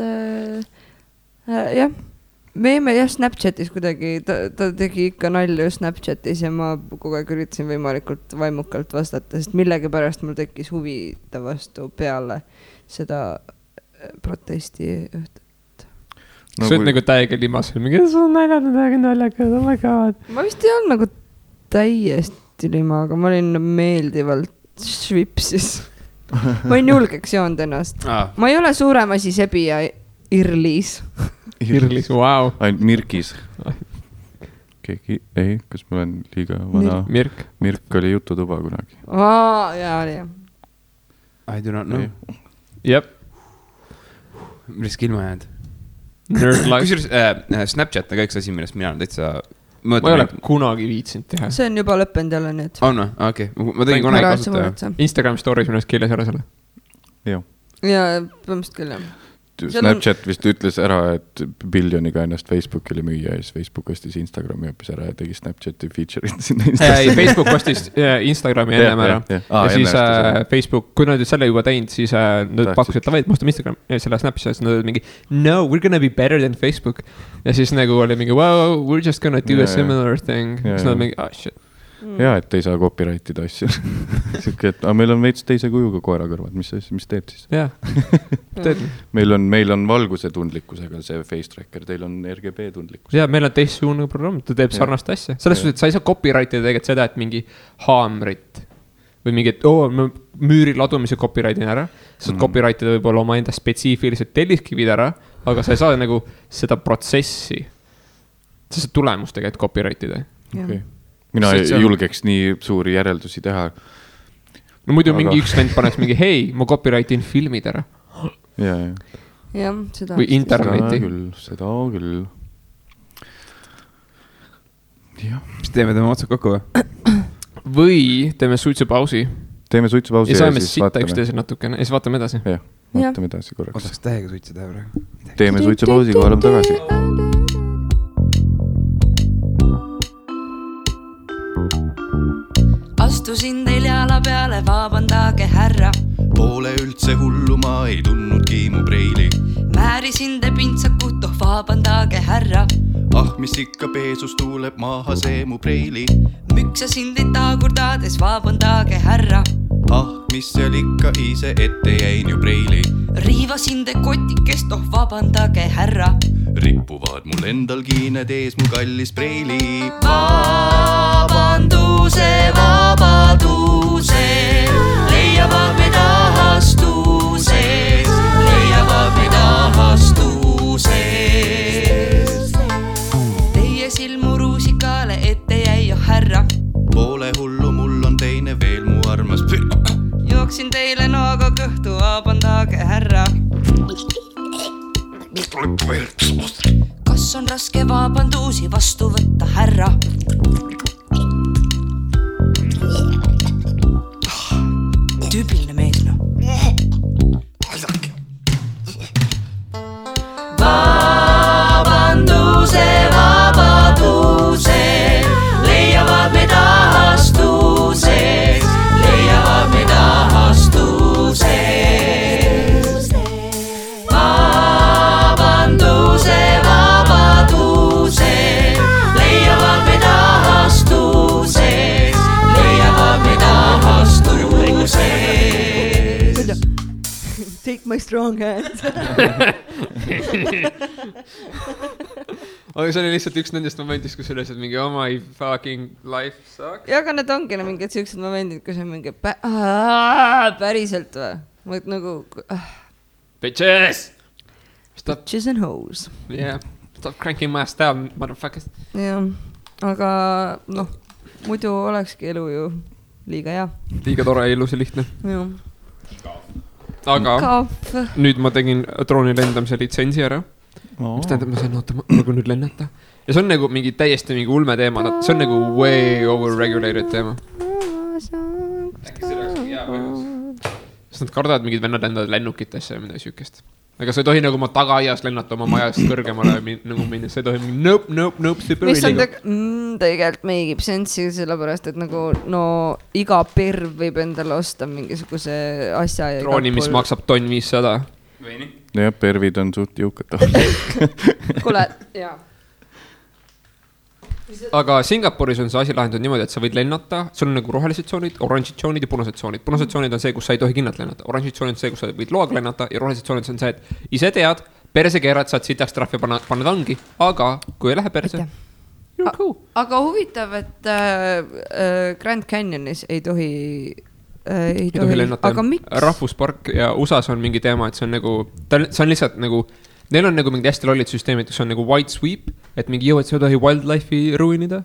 jah, me jäime jah Snapchatis kuidagi, ta tegi ikka nalju Snapchatis ja ma kogu aeg üritasin võimalikult vaimukalt vastata, sest millegipärast mul tekkis huvi ta vastu peale seda protesti õhtut. Sa oled nagu täiega limasel, mingi sul on naljakad, oh my god. Ma vist ei olnud nagu täiesti lima, aga ma olin meeldivalt švipsis. Ma olin julgeks joonud ennast. Ma ei ole suurem asi sebi ja Irlis. Irlis, wow. Ainult Mirkis. Keegi, ei, kas ma olen liiga vana? Mirk oli jututuba kunagi. Jaa, oli jah. I do not know. Jep. Millest ilma jäänud? Nerd life. Kusjuures Snapchat on ka üks asi, millest mina olen täitsa... Ma ei ole kunagi viitsinud teha. See on juba lõppenud jälle nüüd. On või? Okei. Ma tegin kunagi kasutada. Instagram stories millest keeles ära selle. Joo. Ja põhimõtteliselt küll jah. Snapchat vist ütles ära, et biljoniga ennast Facebookile müüa ja siis Facebook ostis Instagrami hoopis ära ja tegi Snapchati feature'id sinna Instasse. Facebook ostis Instagrami ennem ära. Ja siis Facebook, kui nad selle juba teinud, siis nad pakkusid, et ma ostan Instagram ja selle Snapchat, nad olid mingi no, we're gonna be better than Facebook. Ja siis nagu oli mingi wow, we're just gonna do a similar thing. Siis nad mingi, shit. Ja, et ei saa copyrightida asju. Siuke, et meil on veits teise kujuga koera kõrvad, mis teeb siis? Jah, teed. Meil on valguse tundlikkusega see face tracker, teil on RGB tundlikkus. Ja, meil on teistsugune programm, ta teeb sarnast asja. Selles suhtes, et sa ei saa copyrightida tegelikult seda, et mingi haamrit või mingi, et müüri ladumise copyrightin ära. Sa saad copyrightida võib-olla oma enda spetsiifilised telliskivid ära, aga sa ei saa nagu seda protsessi, seda tulemust tegelikult copyrightida. Okei. Mina ei julgeks nii suuri järeldusi teha. No muidu mingi üks vend paneks mingi, hei, ma copyrightin filmid ära. Ja, seda. Või interneti. Seda küll. Mis teeme otsad kokku või? Või teeme suitsupausi. Teeme suitsupausi ja saame sitta üksteise natukene. Ja siis vaatame edasi. Jah, vaatame edasi korraks. Ootaks täiega suitseda praegu. Teeme suitsupausi, kui oleme tagasi. Astusin teil jala peale, vabandage härra. Poole üldse hullu ma ei tundnudki mu preili. Määrisin te pintsakut, vabandage härra. Mis ikka peesus tuuleb maha see mu preili. Müksasin teid taagurdades, vabandage härra. Mis seal ikka ise ette jäin ju preili. Riivasin te kotikest, vabandage härra. Rippuvad mul endal kiined ees mu kallis preili. Vabanduse, vabaduse, leiavad meid ahastuses, leiavad meid ahastuses. Teie silmu ruusikale ette jäi jo härra. Poole hullu mul on teine veel mu armas. Jooksin teile nooga kõhtu, vabandage härra. Kas on raske vabandusi vastu võtta härra? Tüüpiline mees, no. Vabanduse, vabaduse, leiavad meid ahastuses, leiavad meid ahastuses. Vabanduse, vabaduse, leiavad meid ahastuses, leiavad meid ahastuses. Take my strong hand. Aga see oli lihtsalt üks nendest momendist, kus üles, et mingi my fucking life sucks. Ja, aga need ongi mingid sellised momendid, kus on mingi päriselt või? Nagu... Bitches! Bitches and hoes. Yeah, stop cranking my ass down, motherfuckers. Ja, aga noh, muidu olekski elu ju liiga hea. Liiga tore, ilus ja lihtne. Jah. Aga nüüd ma tegin drooni lendamise litsentsi ära. Mis tähendab, ma sain nagu nüüd lennata. Ja see on nagu mingi täiesti mingi ulme teema. See on nagu way overregulated teema. Sest nad kardavad mingid vennad lendavad lennukitesse ja midagi sükest. aga sa ei tohi nagu oma tagaaias lennata oma majast kõrgemale nagu minna, sa ei tohi nope, super mis on tegelikult meigib sensi, sellepärast, et nagu no iga perv võib endale osta mingisuguse asja. Drooni, mis maksab tonn 500. jah, pervid on suht jõukad. Kuule, jaa. Aga Singapuris on see asi lahendatud niimoodi, et sa võid lennata, sul on nagu rohelised tsoonid, oranžid tsoonid ja punased tsoonid. Punased tsoonid on see, kus sa ei tohi kinnalt lennata. Oranžid tsoonid on see, kus sa võid loaga lennata ja rohelised tsoonid on see, et ise tead, perse keerad, saad sitaks trahvi panna vangi, aga kui ei lähe perse, you're cool. Aga huvitav, et Grand Canyonis ei tohi lennata. Aga miks? Rahvuspark ja USAs on mingi teema, et see on nagu, see on lihtsalt nagu, neil on nagu mingi hästi lollid süsteemid, kus on nagu white sweep, et mingi jõu, et sa ei tohi wildlife'i ruinida.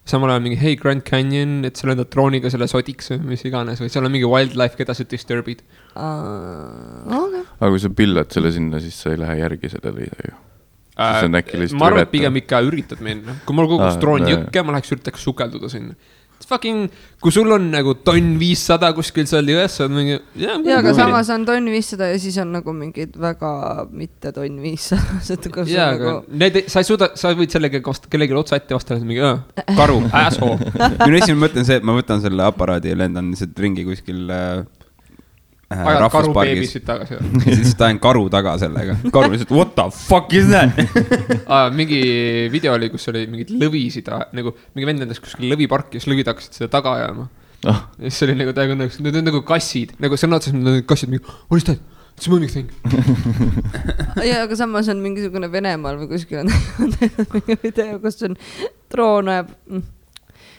Samal ajal mingi, hey Grand Canyon, et sa lendad drooniga selle sodiks või mis iganes, või seal on mingi wildlife, keda sa disturbid. Okay. Aga kui sa pillad selle sinna, siis sa ei lähe järgi sellele ju. Ma arvan, et pigem ikka üritad minna. Kui mul kogus droon jõkke, ma läheks üritaks sukelduda sinna. Fucking, kui sul on nagu tonn 500 kuskil seal jões, on mingi... Ja, aga samas on tonn 500 ja siis on nagu mingid väga mitte tonn 500. Ja, aga sa ei suuda, sa võid sellega kellegi otsa ette vastata, mingi karu, asshole. Minu esimene mõte on see, et ma võtan selle aparaadi ja lendan lihtsalt ringi kuskil ajad karu beebisid tagasi. Ja siis tahan karu taga sellega. Karu lihtsalt, what the fuck is that? Mingi video oli, kus oli mingid lõvisid, nagu mingi vend endas kuskil lõviparki, siis lõvid hakkasid seda taga ajama. Ja siis oli nagu täiega, need on nagu kassid, nagu sõna otseselt need kassid, mingi, what is that? It's a moving thing. Ja, aga samas on mingisugune Venemaal või kuskil on mingi video, kus on droon ajab.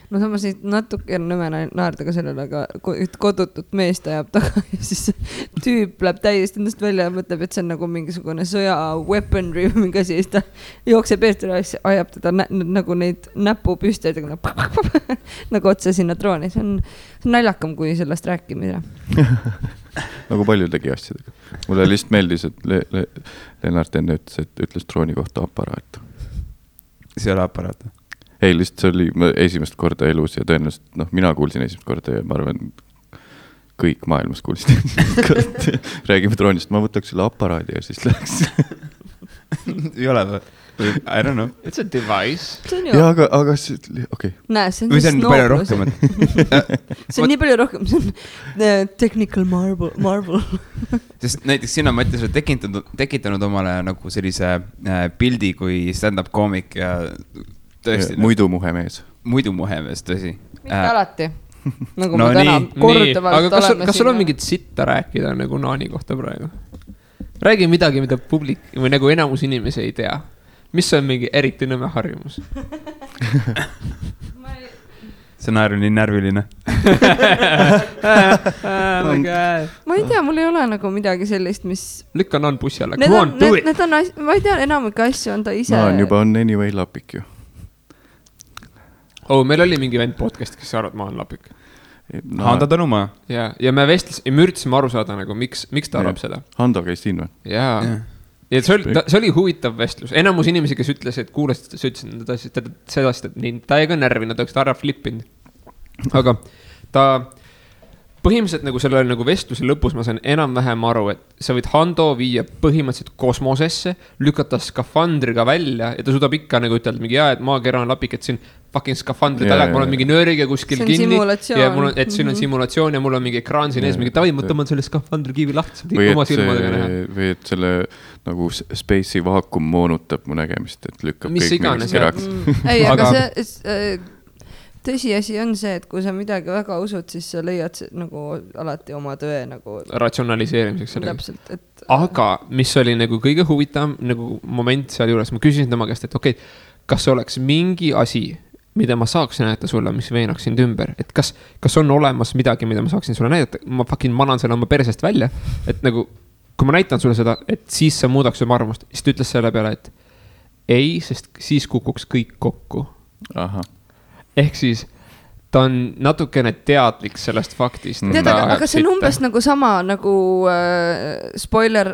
No samas natuke on nõme naerda ka sellele, aga kodutut meest ajab taga ja siis tüüp läheb täiesti endast välja ja mõtleb, et see on nagu mingisugune sõja weaponry või mingi asi ja siis ta jookseb eest ja ajab teda nagu neid näpupüsteid nagu otse sinna drooni. See on naljakam kui sellest rääkimine. Nagu paljudegi asjadega. Mulle lihtsalt meeldis, et Lennart enne ütles drooni kohta aparaat. See ole aparaat? Ei, lihtsalt see oli esimest korda elus ja tõenäoliselt, mina kuulsin esimest korda ja ma arvan, kõik maailmas kuulsin. Räägime droonist, ma võtaks selle aparaadi ja siis läheks. Ei ole või? I don't know. It's a device. Ja, aga see, okei. Näe, see on või see on palju rohkem. See on nii palju rohkem, see on technical marble. Sest näiteks sina, Mattias, oled tekitanud omale nagu sellise pildi kui stand-up koomik ja tõesti. Muidumuhemees, tõsi. Mitte alati. Nagu ma täna korduvalt oleme siin. Kas sul on mingit sitta rääkida nagu Naani kohta praegu? Räägi midagi, mida publik või nagu enamus inimesi ei tea. Mis on mingi eriti nõme harjumus? See naer on nii närviline. Ma ei tea, mul ei ole nagu midagi sellist, mis... Lükka Naan bussi alla. Come on, do it! Ma ei tea, enamik asju on ta ise... Naan juba on anyway lapik ju. Meil oli mingi vend podcast, kes arvad, ma on lapik. Handa Tõnumaa. Ja me üritasime aru saada, nagu, miks ta arvab seda. Hando käis siin või? Jaa. Ja see oli huvitav vestlus. Enamus inimesi, kes ütles, et kuulasid, sa ütlesid seda, et ta ei ka närvi, nad oleks ta ära flippinud. Aga ta põhimõtteliselt nagu selle nagu vestluse lõpus ma sain enam-vähem aru, et sa võid Hando viia põhimõtteliselt kosmosesse, lükata skafandriga välja ja ta suudab ikka nagu ütelda mingi et maakera on lapik, et siin fucking skafandri taga, et mul on mingi nööriga kuskil kinni ja mul on, et siin on simulatsioon ja mul on mingi ekraan siin ees, mingi tavai, ma tõmban selle skafandri kiivi lahti, oma silmadega näha. Või et selle nagu space'i vaakum moonutab mu nägemist, et lükkab mis kõik iganes, keraks. Ei, aga see... Tõsiasi on see, et kui sa midagi väga usud, siis sa leiad nagu alati oma tõe nagu... ratsionaliseerimiseks sellega. Täpselt, et... Aga mis oli nagu kõige huvitavam nagu moment seal juures, ma küsisin tema käest, et okei, kas oleks mingi asi, mida ma saaks näidata sulle, mis veenaks sind ümber, et kas on olemas midagi, mida ma saaksin sulle näidata, ma fucking manan selle oma persest välja, et nagu, kui ma näitan sulle seda, et siis sa muudaks oma arvamust, siis ta ütles selle peale, et ei, sest siis kukuks kõik kokku. Aha. Ehk siis ta on natukene teadlik sellest faktist. Tead, aga see on umbes nagu sama nagu spoiler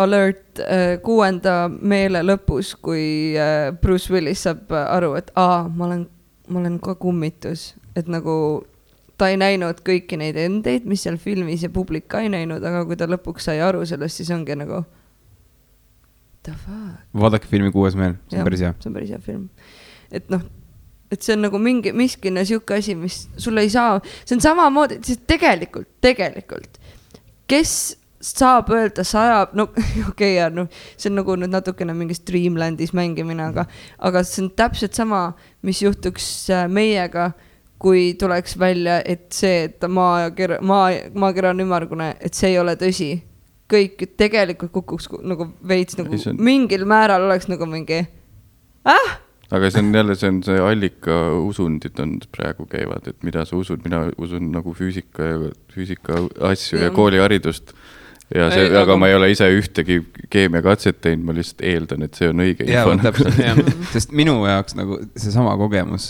alert 6. meele lõpus, kui Bruce Willis saab aru, et ma olen ka kummitus. Et nagu ta ei näinud kõiki neid endeid, mis seal filmis ja publik ka ei näinud, aga kui ta lõpuks sai aru sellest, siis ongi nagu the fuck? Vaadake filmi Kuues meel, see on päris hea. See on päris hea film. Et noh, et see on nagu miskine siuke asi, mis sulle ei saa, see on samamoodi, siis tegelikult, kes saab öelda sajab, no okei, no see on nagu nüüd natukene mingis Dreamlandis mängimine, aga see on täpselt sama, mis juhtuks meiega, kui tuleks välja, et see, et maakera on ümmargune, et see ei ole tõsi. Kõik tegelikult kukuks nagu veits nagu mingil määral oleks nagu mingi Aga see on jälle, see allika usundid on praegu käivad, et mida sa usud, mina usun nagu füüsika asju ja kooliharidust. Ja see, aga ma ei ole ise ühtegi keemiakatset teinud, ma lihtsalt eeldan, et see on õige info. Sest minu jaoks nagu see sama kogemus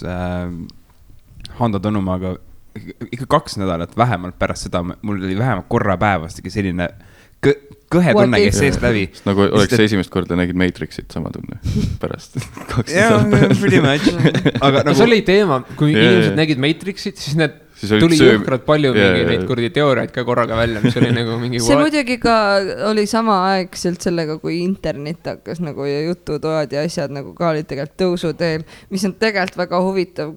Hando Tõnumaaga ikka 2 nädalat vähemalt pärast seda, mul oli vähemalt korra päevastagi selline kõhe tunne, kes seest läbi. Nagu oleks esimest korda nägid Matrixit sama tunne pärast 2 nädalat. Pretty much. Aga see oli teema, kui inimesed nägid Matrixit, siis need tuli jõhkrad palju neid kurdi teooriaid ka korraga välja, mis oli nagu mingi see muidugi ka oli samaaegselt sellega, kui internet hakkas nagu ja jututoad ja asjad nagu ka olid tegelikult tõusuteel, mis on tegelikult väga huvitav,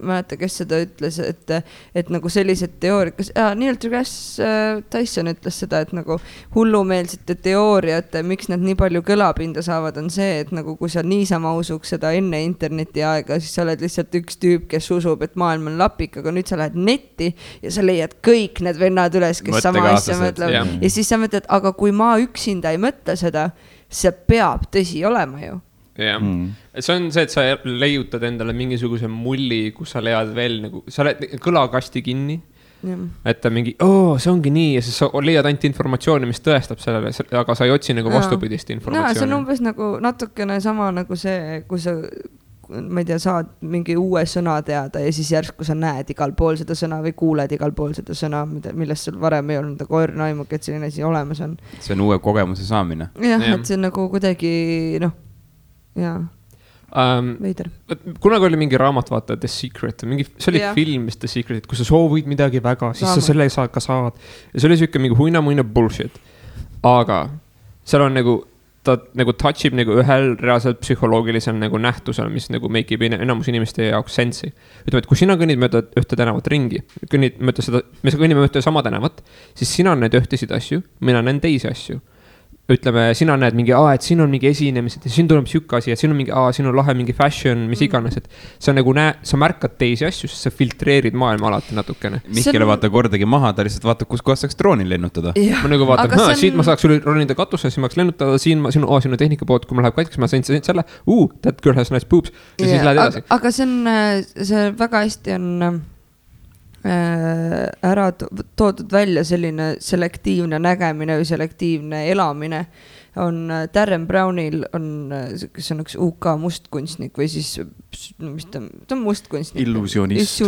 mäleta, kes seda ütles, et nagu sellised teooriad, Neil deGrasse Tyson ütles seda, et nagu hullumeelsete teooriate, miks nad nii palju kõlapinda saavad, on see, et nagu kui sa niisama usuks seda enne interneti aega, siis sa oled lihtsalt üks tüüp, kes usub, et maailm on lapik, aga nüüd sa lähed netti ja sa leiad kõik need vennad üles, kes sama asja mõtleb. Ja siis sa mõtled, aga kui ma üksinda ei mõtle seda, see peab tõsi olema ju. Jah, see on see, et sa leiutad endale mingisuguse mulli, kus sa leiad veel nagu, sa oled kõlakasti kinni, et ta mingi, see ongi nii ja siis sa leiad ainult informatsiooni, mis tõestab sellele, aga sa ei otsi nagu vastupidist informatsiooni. See on umbes nagu natukene sama nagu see, kui sa ma ei tea, saad mingi uue sõna teada ja siis järsku sa näed igal pool seda sõna või kuuled igal pool seda sõna, millest sul varem ei olnud, aga õrnaimugi, et selline asi olemas on. See on uue kogemuse saamine. Jah, et see on nagu kuidagi, veider. Kunagi oli mingi raamat, vaata, The Secret, see oli film, The Secret, kus sa soovid midagi väga, siis sa selle ka saad. Ja see oli siuke mingi huina bullshit. Aga seal on nagu ta nagu touchib nagu ühel reaalselt psühholoogilisel nagu nähtusel, mis nagu make ib enamus inimeste jaoks sensi. Ütleme, et kui sina kõnnid mööda ühte tänavat ringi, me kõnnime mööda sama tänavat, siis sina näed ühtesid asju, mina näen teisi asju. Ütleme, sina näed mingi, et siin on mingi esinemised ja siin tuleb siuke asi, et siin on mingi, siin on lahe mingi fashion, mis iganes, et sa nagu sa märkad teisi asju, sest sa filtreerid maailma alati natukene. Mihkele vaata kordagi maha, ta lihtsalt vaatab, kus kohas saaks droonil lennutada. Ma nagu vaatan, siit ma saaks üle ronida katusse, siin ma saaks lennutada, siin on tehnika pood, kui ma läheb katkeks, ma sain selle, that girl has nice boobs ja siis lähed edasi. Aga see väga hästi on ära toodud välja selline selektiivne nägemine või selektiivne elamine on Darren Brownil on, kes on üks UK mustkunstnik või siis, mis ta on mustkunstnik? Illusionist.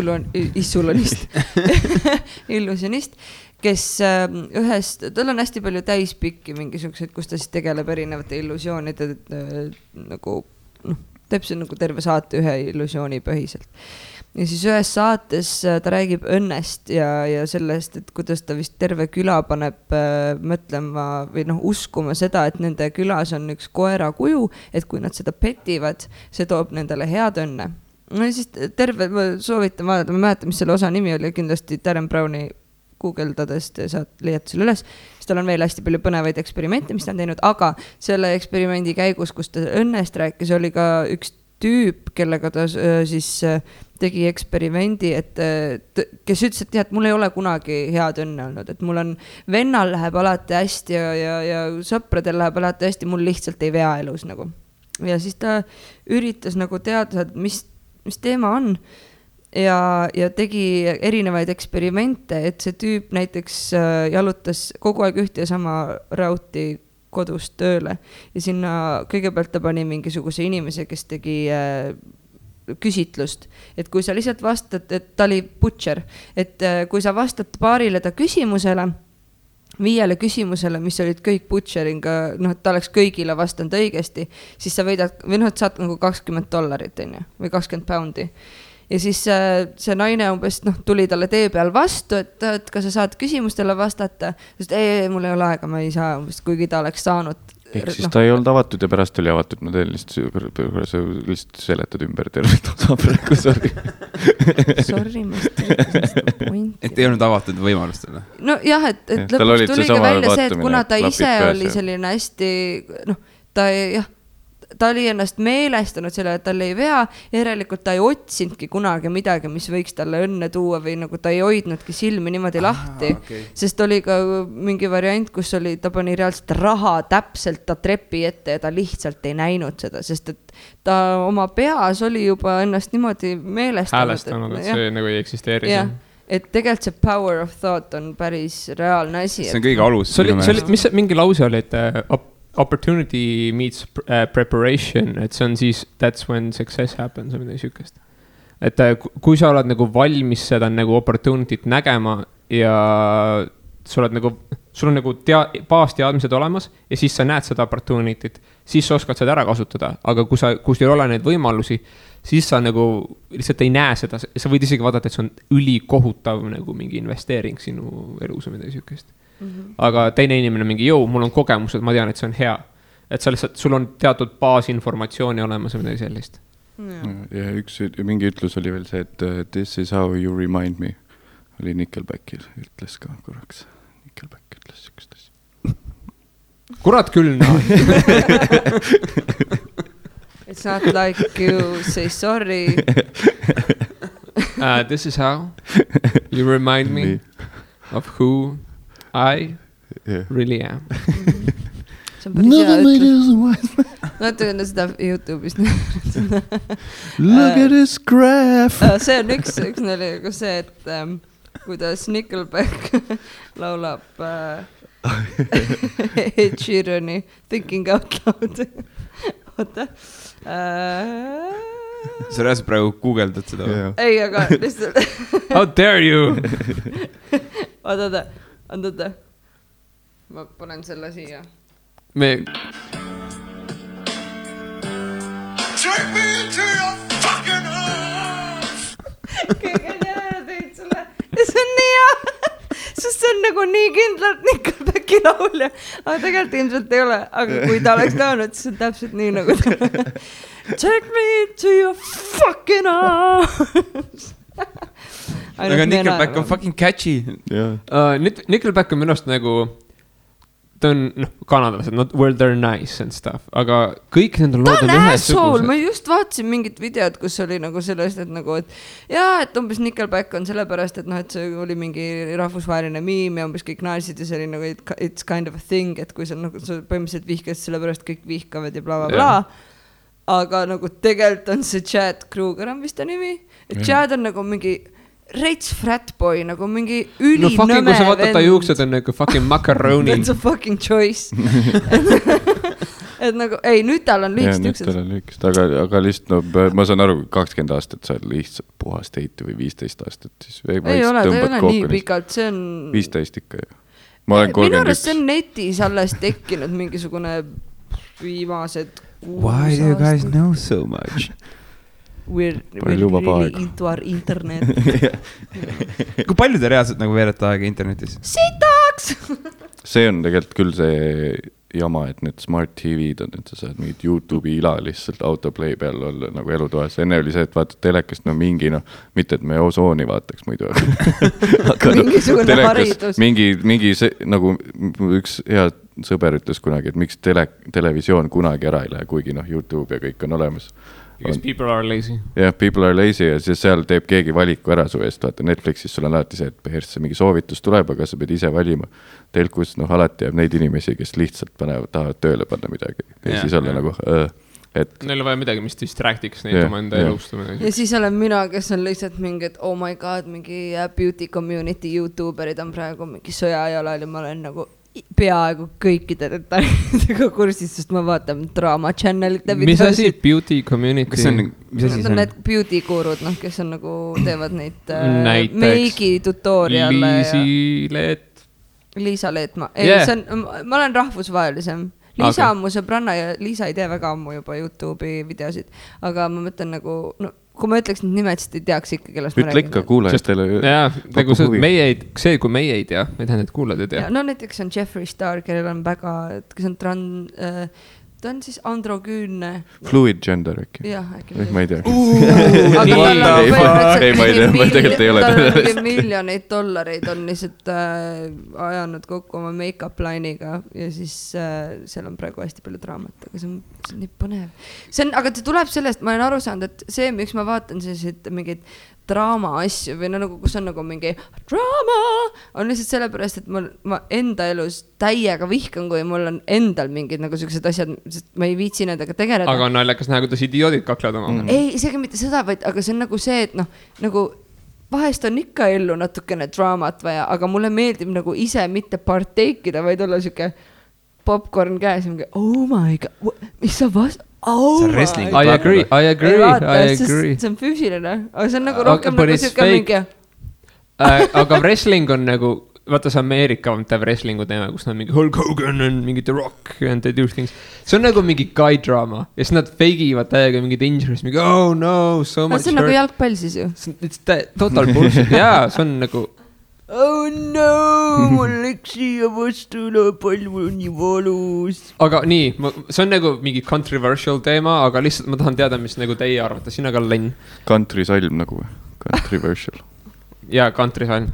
Illusionist, kes tal on hästi palju täispikki mingisugused, kus ta siis tegeleb erinevate illusioonide nagu, teeb see nagu terve saate ühe illusiooni põhiselt. Ja siis ühes saates ta räägib õnnest ja sellest, et kuidas ta vist terve küla paneb mõtlema või uskuma seda, et nende külas on üks koera kuju, et kui nad seda petivad, see toob nendele head õnne. No ja siis ma soovitan vaadata, ma mäletan, mis selle osa nimi oli, kindlasti Darren Browni guugeldadest saad leiata selle üles, siis tal on veel hästi palju põnevaid eksperimente, mis ta on teinud, aga selle eksperimendi käigus, kus ta õnnest rääkis, oli ka üks tüüp, kellega ta siis tegi eksperimendi, kes ütles, et mul ei ole kunagi head õnne olnud, et mul on vennal läheb alati hästi ja sõpradel läheb alati hästi, mul lihtsalt ei vea elus nagu. Ja siis ta üritas nagu teada, mis teema on ja tegi erinevaid eksperimente, et see tüüp näiteks jalutas kogu aeg ühte ja sama rauti kodust tööle ja sinna kõigepealt ta pani mingisuguse inimese, kes tegi küsitlust, et kui sa lihtsalt vastad, et ta oli butcher, et kui sa vastad paarile ta küsimusele, 5 küsimusele, mis olid kõik butcheringa, et ta oleks kõigile vastanud õigesti, siis sa võidad, või saad nagu $20 või 20 poundi. Ja siis see naine umbes tuli talle tee peal vastu, et kas sa saad küsimustele vastata, sest mul ei ole aega, ma ei saa umbes, kuigi ta oleks saanud ehk siis ta ei olnud avatud ja pärast oli avatud, ma teen lihtsalt seletad ümber tervet osa praegu, sorry. Sorry, ma seda pointi. Et ei olnud avatud võimalustele. No jah, et lõpuks tuli ka välja see, et kuna ta ise oli selline hästi, ta oli ennast meelestanud selle, et tal ei vea, järelikult ta ei otsinudki kunagi midagi, mis võiks talle õnne tuua või nagu ta ei hoidnudki silmi niimoodi lahti, sest oli ka mingi variant, kus oli, ta pani reaalselt raha täpselt ta trepi ette ja ta lihtsalt ei näinud seda, sest et ta oma peas oli juba ennast niimoodi häälestanud, et see nagu ei eksisteeri. Et tegelikult see power of thought on päris reaalne asi. See on kõige alus. Mis mingi lause oli, et opportunity meets preparation, et see on siis that's when success happens või midagi sükest. Et kui sa oled nagu valmis seda nagu opportunity't nägema ja sul on nagu baasteadmised olemas ja siis sa näed seda opportunity't, siis sa oskad seda ära kasutada, aga kui sul ei ole neid võimalusi, siis sa nagu lihtsalt ei näe seda, sa võid isegi vaadata, et see on ülikohutav nagu mingi investeering sinu elus või midagi sükest. Aga teine inimene mingi, mul on kogemused, ma tean, et see on hea. Et sa lihtsalt, sul on teatud baasinformatsiooni olemas või midagi sellist. Ja mingi ütlus oli veel see, et this is how you remind me. Oli Nickelbackil, ütles ka korraks. Nickelback ütles sükest asja. Kurat küll, no. It's not like you say sorry. This is how you remind me of who I really am. See on päris hea ütlus. Natuke seda YouTube'ist. Look at this graph. See on üks nali, kus see, et kuidas Nickelback laulab Ed Sheerani Thinking Out Loud. Oota. Sa rääsid praegu Google'dad seda või? Ei, aga lihtsalt. How dare you? Oota. Ma panen selle siia. Take me into your fucking arms! Kõige teada teid sulle. Ja see on nii hea. Sest see on nagu nii kindlalt Nickelbacki laulja. Aga tegelikult ilmselt ei ole. Aga kui ta oleks laulnud, siis on täpselt nii nagu ta. Take me into your fucking arms! Aga Nickelback on fucking catchy. Nickelback on minust nagu, ta on kanadalased, not where they're nice and stuff, aga kõik nende lood on ühesugused. Ma just vaatasin mingit videot, kus oli nagu sellest, et nagu, et umbes Nickelback on sellepärast, et et see oli mingi rahvusvaheline miim ja umbes kõik naised ja see oli nagu it's kind of a thing, et kui sa põhimõtteliselt vihkad sellepärast kõik vihkavad ja bla bla bla. Aga nagu tegelikult on see Chad Kruger on vist ta nimi, et Chad on nagu mingi reits fratboy, nagu mingi ülinõme vend. Kui sa vaatad ta juuksed on nagu fucking macaroni. That's a fucking choice. Et nagu, ei, nüüd tal on lühikest juuksed. Nüüd tal on lühikest, aga lihtsalt, ma saan aru, 20 aastat sa oled lihtsalt puhast heiti või 15 aastat. Siis ei ole, ta ei ole nii pikalt, see on... 15 ikka ju. Ma olen 31. Minu arust see on netis alles tekkinud mingisugune viimased 6 Why do you guys know so much? We're really into our internet. Kui palju te reaalselt nagu veerete aega internetis? Sitaks! See on tegelikult küll see jama, et need smart TV-d on, et sa saad mingid YouTube'i ila lihtsalt autoplay peal olla nagu elutoas. Enne oli see, et vaatad telekast mingi, mitte et me osooni vaataks muidu. Mingisugune haridus. Mingi see, nagu üks hea sõber ütles kunagi, et miks televisioon kunagi ära ei lähe, kuigi YouTube ja kõik on olemas. Because people are lazy. Yeah, people are lazy ja siis seal teeb keegi valiku ära su eest. Vaata Netflixis sul on alati see, et põhjärjest mingi soovitus tuleb, aga sa pead ise valima. Telkus alati jääb neid inimesi, kes lihtsalt tahavad tööle panna midagi. Ja siis olla nagu... Neil on vaja midagi, mis distractiks neid oma enda elust. Ja siis olen mina, kes on lihtsalt mingi, et oh my god, mingi beauty community YouTuberid on praegu mingi sõjajalal ja ma olen nagu peaaegu kõikide detailidega kursis, sest ma vaatan Drama Channelite videosid. Mis asi beauty community? Mis asi see on? Need beauty gurud, kes on nagu teevad neid meigi tutoriale. Liisa Leetma. Ei, ma olen rahvusvahelisem. Liisa on mu sõbranna ja Liisa ei tee väga ammu juba YouTube'i videosid. Aga ma mõtlen nagu, kui ma ütleks need nimed, siis te ei teaks ikka, kellest ma räägin. Ütle ikka kuulajatele. Jaa, nagu see, kui meie ei tea, me tähendab, et kuulad ei tea. No näiteks on Jeffree Star, kellel on väga, kes on ta on siis androgüünne. Fluid gender äkki? Jah, äkki. Ma ei tea. Aga ma tegelikult ei ole. Tal on miljoneid dollareid on lihtsalt ajanud kokku oma make-up line'iga ja siis seal on praegu hästi palju draamat, aga see on nii põnev. Aga see tuleb sellest, ma olen aru saanud, et see, miks ma vaatan selliseid mingeid draama asju või nagu, kus on nagu mingi draama, on lihtsalt sellepärast, et ma enda elus täiega vihkan, kui mul on endal mingid nagu sellised asjad, sest ma ei viitsi nendega tegeleda. Aga on naljakas näha, kuidas idioodid kaklevad oma. Ei, isegi mitte seda, vaid, aga see on nagu see, et nagu vahest on ikka ellu natukene draamat vaja, aga mulle meeldib nagu ise mitte parteikida, vaid olla siuke popcorn käes ja mingi, oh my god, mis sa vast... Oh I agree. See on füüsiline, aga see on nagu rohkem nagu siuke mingi. Aga wrestling on nagu, vaata see Ameerika teeb wrestlingu teema, kus nad mingi Hulk Hogan on mingi The Rock and they do things. See on nagu mingi guy drama ja siis nad feigivad täiega mingid injuries, mingi oh no, so much hurt. See on nagu jalgpall siis ju. It's total bullshit, jaa, see on nagu oh no, mul läks siia vastule, palju on nii valus. Aga nii, see on nagu mingi controversial teema, aga lihtsalt ma tahan teada, mis nagu teie arvate, sina ka Len. Country salm nagu, controversial. Jaa, country salm.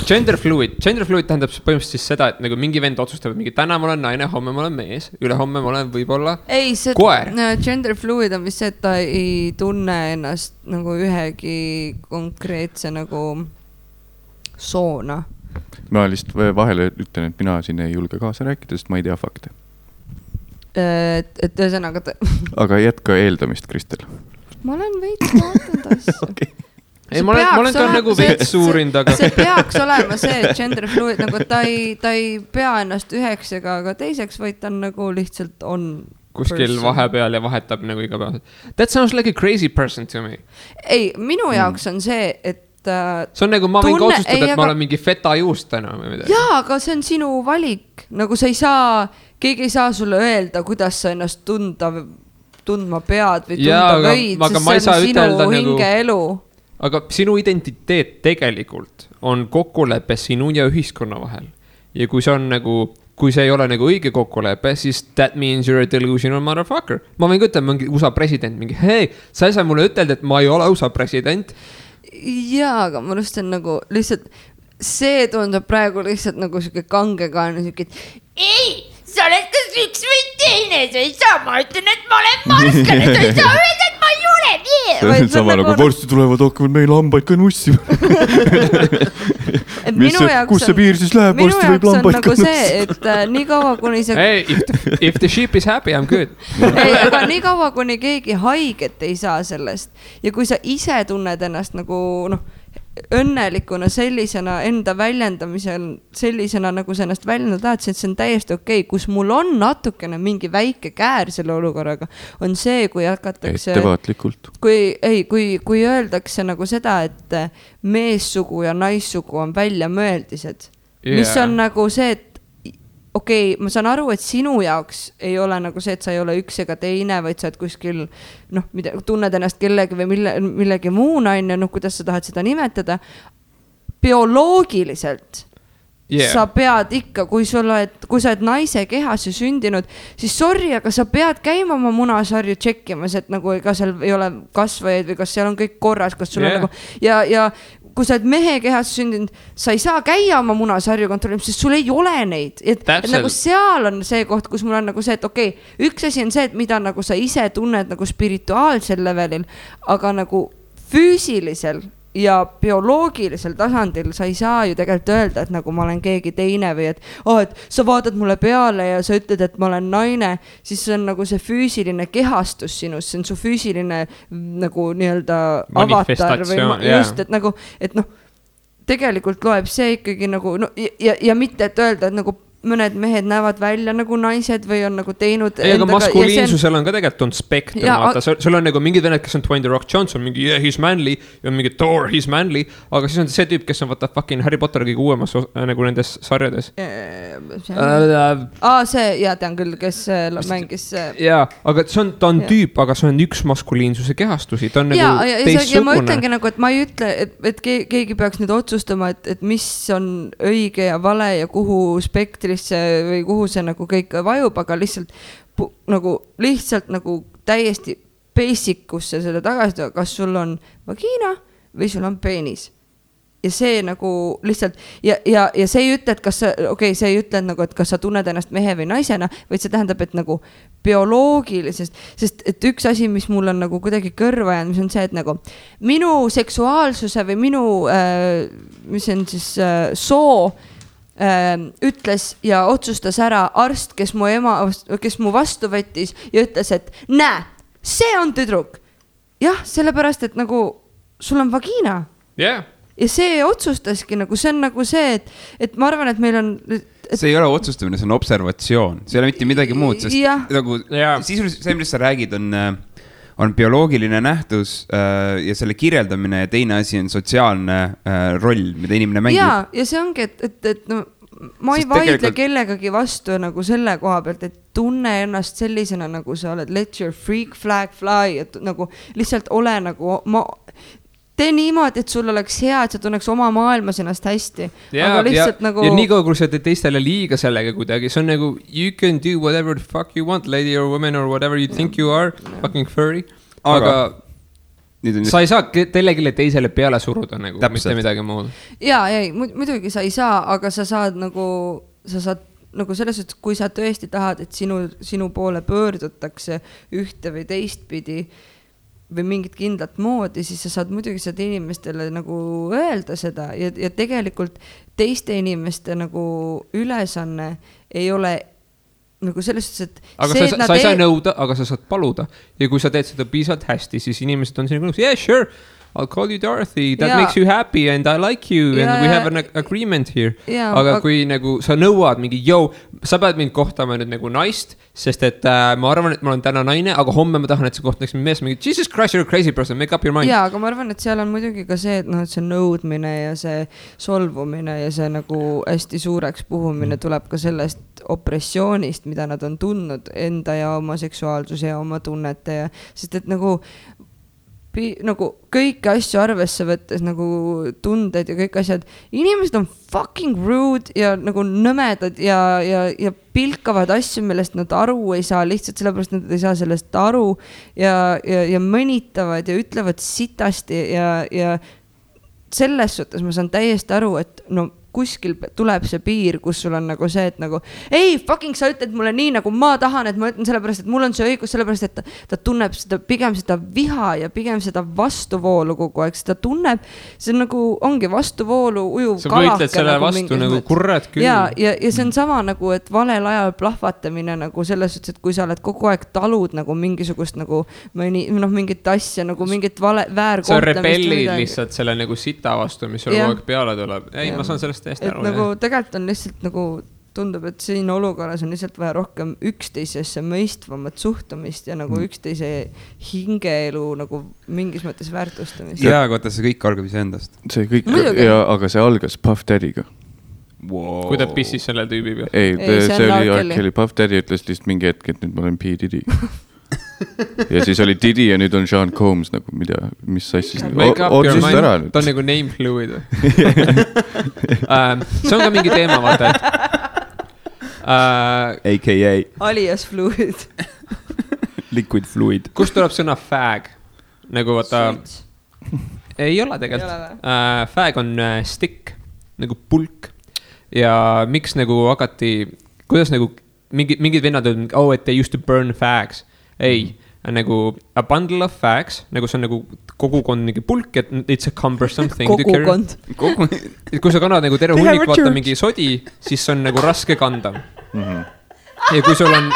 Gender fluid tähendab põhimõtteliselt siis seda, et nagu mingi vend otsustab, et mingi täna ma olen naine, homme ma olen mees, ülehomme ma olen võib-olla koer. Gender fluid on vist see, et ta ei tunne ennast nagu ühegi konkreetse nagu soona. Ma lihtsalt vahele ütlen, et mina siin ei julge kaasa rääkida, sest ma ei tea fakte. Et ühesõnaga Aga jätka eeldamist, Kristel. Ma olen veits vaatanud asju. Okay. Ei, ma olen ka nagu veits suurind, aga see peaks olema see, et gender fluid, nagu ta ei pea ennast üheks ega ka teiseks, vaid ta on nagu lihtsalt on kuskil vahepeal ja vahetab nagu iga päev. That sounds like a crazy person to me. Ei, minu jaoks on see, et see on nagu, ma võin ka otsustada, et ma olen mingi feta juust täna või midagi. Jaa, aga see on sinu valik. Nagu sa ei saa, keegi ei saa sulle öelda, kuidas sa ennast tundma pead või tunda võid, sest see on sinu hingeelu. Aga sinu identiteet tegelikult on kokkulepe sinu ja ühiskonna vahel. Ja kui see on nagu, kui see ei ole nagu õige kokkulepe, siis that means you're a delusional motherfucker. Ma võin ka ütelda mingi USA president, mingi hei, sa ei saa mulle ütelda, et ma ei ole USA president. Jaa, aga ma lustan nagu lihtsalt, see tundub praegu lihtsalt nagu siuke kangekaane, siuke, ei, sa oled kas üks või teine, sa ei saa, ma ütlen, et ma olen marskane, sa ei saa öelda, et ma ei ole see on sama nagu varsti tulevad, hakkavad meil lambaid ka nussima. Kus see piir siis läheb, varsti võib lambaid ka nussima. See, et nii kaua, kuni see... Hey, if the sheep is happy, I'm good. Ei, aga nii kaua, kuni keegi haiget ei saa sellest ja kui sa ise tunned ennast nagu õnnelikuna sellisena enda väljendamisel, sellisena nagu sa ennast väljendada tahad, et see on täiesti okei. Kus mul on natukene mingi väike käär selle olukorraga, on see, kui hakatakse... Ettevaatlikult. Kui öeldakse nagu seda, et meessugu ja naissugu on väljamõeldised. Mis on nagu see, et okei, ma saan aru, et sinu jaoks ei ole nagu see, et sa ei ole üks ega teine, vaid sa oled kuskil, tunned ennast kellegi või millegi muu naine, kuidas sa tahad seda nimetada. Bioloogiliselt sa pead ikka, kui sa oled naise kehas ja sündinud, siis sorry, aga sa pead käima oma munasarju tšekkimas, et nagu ega seal ei ole kasvajaid või kas seal on kõik korras, kas sul on nagu ja kui sa oled mehe kehas sündinud, sa ei saa käia oma munasarju kontrollimas, sest sul ei ole neid. Et nagu seal on see koht, kus mul on nagu see, et okei, üks asi on see, et mida nagu sa ise tunned nagu spirituaalsel levelil, aga nagu füüsilisel ja bioloogilisel tasandil sa ei saa ju tegelikult öelda, et nagu ma olen keegi teine või et sa vaatad mulle peale ja sa ütled, et ma olen naine, siis see on nagu see füüsiline kehastus sinus, see on su füüsiline nagu nii-öelda avatar või just, et nagu, et tegelikult loeb see ikkagi nagu ja mitte, et öelda, et nagu mõned mehed näevad välja nagu naised või on nagu teinud aga maskuliinsusel on ka tegelikult on spektrum, vaata, sul on nagu mingid vened, kes on Dwayne The Rock Johnson, mingi yeah, he's manly, ja mingi Thor, he's manly, aga siis on see tüüp, kes on vaata fucking Harry Potter kõige uuemas nagu nendes sarjades. See, tean küll, kes mängis. Aga ta on tüüp, aga see on üks maskuliinsuse kehastusi, ta on nagu teistsugune. Ja ma ütlengi nagu, et ma ei ütle, et keegi peaks nüüd otsustama, et mis on õige ja vale ja kuhu spektrisse või kuhu see nagu kõik vajub, aga lihtsalt nagu täiesti basic'usse selle tagasi, kas sul on vagiina või sul on peenis. Ja see nagu lihtsalt, ja see ei ütle, et kas sa, see ei ütle nagu, et kas sa tunned ennast mehe või naisena, vaid see tähendab, et nagu bioloogilisest, sest et üks asi, mis mul on nagu kuidagi kõrva jäänud, mis on see, et nagu minu seksuaalsuse või minu, mis on siis soo, ütles ja otsustas ära arst, kes mu vastu võttis ja ütles, et näe, see on tüdruk. Jah, sellepärast, et nagu sul on vagiina. Yeah. Ja see otsustaski nagu, see on nagu see, et ma arvan, et meil on... See ei ole otsustamine, see on observatsioon. See ei ole mitte midagi muud, sest nagu sisuliselt see, mis sa räägid, on bioloogiline nähtus ja selle kirjeldamine ja teine asi on sotsiaalne roll, mida inimene mängib. Ja see ongi, et no, ma ei vaidle kellegagi vastu nagu selle koha pealt, et tunne ennast sellisena, nagu sa oled, let your freak flag fly, et nagu lihtsalt ole nagu, tee niimoodi, et sul oleks hea, et sa tunneks oma maailmas ennast hästi. Aga lihtsalt nagu... Ja nii kaua, kui sa teed teistele liiga sellega kuidagi, see on nagu, you can do whatever the fuck you want, lady or woman or whatever you think you are, fucking furry. Aga sa ei saa telegile teisele peale suruda nagu, mitte midagi muud. Muidugi sa ei saa, aga sa saad nagu selles, et kui sa tõesti tahad, et sinu poole pöördutakse ühte või teistpidi või mingit kindlat moodi, siis sa saad muidugi seda inimestele nagu öelda seda ja tegelikult teiste inimeste nagu ülesanne ei ole nagu selles suhtes, et aga sa ei saa nõuda, aga sa saad paluda ja kui sa teed seda piisavalt hästi, siis inimesed on sinuga nõus, yeah, sure, I'll call you Dorothy, that makes you happy and I like you and we have an agreement here. Aga kui nagu sa nõuad mingi, sa pead mind kohtama nüüd nagu naist, sest et ma arvan, et ma olen täna naine, aga homme ma tahan, et sa kohtaks mind mees, mingi Jesus Christ, you're a crazy person, make up your mind. Aga ma arvan, et seal on muidugi ka see, et see nõudmine ja see solvumine ja see nagu hästi suureks puhumine tuleb ka sellest opressioonist, mida nad on tundnud enda ja oma seksuaalsuse ja oma tunnete ja sest et nagu kõiki asju arvesse võttes nagu tunded ja kõik asjad, inimesed on fucking rude ja nagu nõmedad ja pilkavad asju, millest nad aru ei saa, lihtsalt sellepärast nad ei saa sellest aru ja mõnitavad ja ütlevad sitasti ja selles suhtes ma saan täiesti aru, et no kuskil tuleb see piir, kus sul on nagu see, et nagu ei, fucking sa ütled mulle nii, nagu ma tahan, et ma ütlen sellepärast, et mul on see õigus, sellepärast, et ta tunneb seda, pigem seda viha ja pigem seda vastuvoolu kogu aeg, seda tunneb, see on nagu, ongi vastuvoolu ujuv kalake. Sa võitled selle nagu vastu nagu kurred küll. Ja see on sama nagu, et valel ajal plahvatamine nagu selles suhtes, et kui sa oled kogu aeg talud nagu mingisugust nagu mingit asja, nagu mingit väärkohtamist. Sa rebellid lihtsalt selle nagu sita vastu, mis sul kogu aeg peale tuleb. Ei, ma saan sellest et nagu tegelikult on lihtsalt nagu tundub, et siin olukorras on lihtsalt vaja rohkem üksteisesse mõistvamat suhtumist ja nagu üksteise hingeelu nagu mingis mõttes väärtustamist. Koota, see kõik algab iseendast. See kõik, aga see algas Puff Daddy'ga. Wow. Kui ta pissis selle tüübi peal? Ei, see oli Arkeli. Puff Daddy ütles lihtsalt mingi hetk, et nüüd ma olen P. Diddy. Ja siis oli Diddy ja nüüd on Sean Combs nagu, mis asjis Make up your mind, ta on nagu name fluid. See on ka mingi teema, vaata, et AKA alias fluid. Liquid fluid. Kust tuleb sõna fag? Nagu vaata ei ole tegelikult. Fag on stick, nagu pulk. Ja miks nagu hakati, kuidas nagu mingid vennad on, et they used to burn fags. Ei, nagu a bundle of fags, nagu see on nagu kogukond mingi pulk, et it's a cumbersome thing. Kogukond. Kui sa kannad nagu terve hunnik vaata mingi sodi, siis see on nagu raske kanda. Ja kui sul on...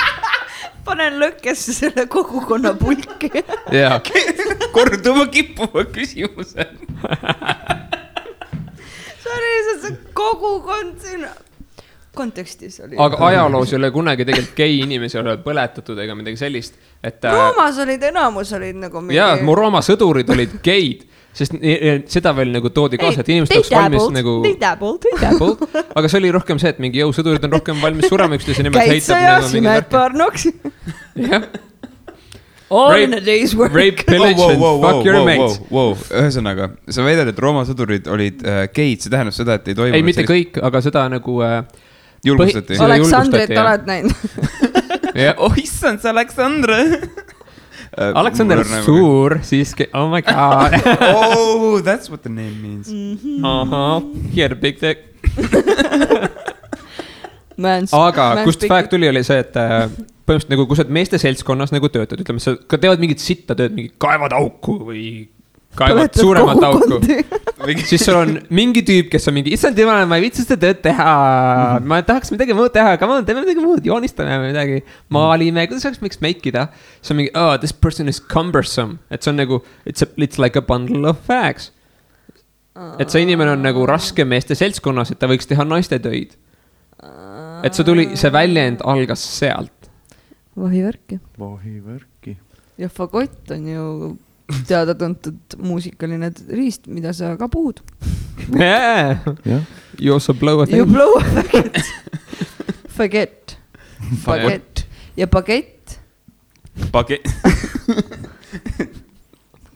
Panen lõkkesse selle kogukonna pulki. Korduma kippuva küsimuse. Sorry, see kogukond siin... kontekstis oli. Aga ajaloos ei ole kunagi tegelikult gei inimesi ole põletatud ega midagi sellist, et Roomas olid enamus olid nagu mingi... Jaa, mu Rooma sõdurid olid geid, sest seda veel nagu toodi kaasa, et inimesed oleks valmis nagu... They dabbled. Aga see oli rohkem see, et mingi sõdurid on rohkem valmis surema üksteise nimelt heitab. Käid sa ja simed parnoks. Jah. All in a day's work. Rape, pillage and fuck your mates. Ühesõnaga, sa väidad, et Rooma sõdurid olid geid, see tähendab seda, et ei toimunud... Ei, mitte kõik, aga seda nagu... Julgustati. Aleksandrit oled näinud. Oh, issand, see Aleksandr. Aleksandr suur, siiski, oh my god. Oh, that's what the name means. He had a big dick. Aga kust fact tuli, oli see, et põhimõtteliselt nagu, kui sa meeste seltskonnas nagu töötad, ütleme, sa ka teevad mingit sitta tööd, mingi kaevad auku või kaevad suuremat auku. Siis sul on mingi tüüp, kes on mingi, issand jumala, ma ei viitsi seda tööd teha. Ma tahaks midagi muud teha, aga teeme midagi muud, joonistame midagi, maalime, kuidas oleks miks meikida. See on mingi, oh, this person is cumbersome. Et see on nagu, it's like a bundle of facts. Et see inimene on nagu raske meeste seltskonnas, et ta võiks teha naiste töid. Et see väljend algas sealt. Vahivärki. Ja fagott on ju teada tuntud muusikaline riist, mida sa ka puhud. Yeah. You also blow a thing. You blow a fagett. Fagett. Ja bagett. Bagett.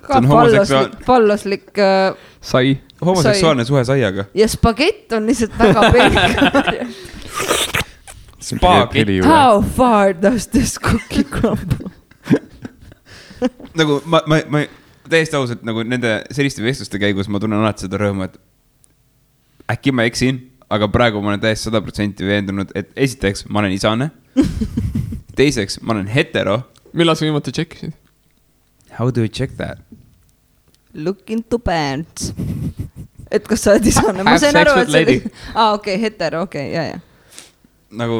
Ka palloslik sai. Homoseksuaalne suhe saiaga. Ja spagett on lihtsalt väga pelk. Spagett. How far does this cookie crumble? Nagu ma täiesti ausalt nagu nende selliste vestluste käigus ma tunnen alati seda rõõmu, et äkki ma eksin, aga praegu ma olen täiesti 100% veendunud, et esiteks ma olen isane, teiseks ma olen hetero. Millal sa viimati tšekkisid? How do we check that? Look into pants. Et kas sa oled isane? Ma sain aru, et see... okei, hetero, okei, jah. Nagu,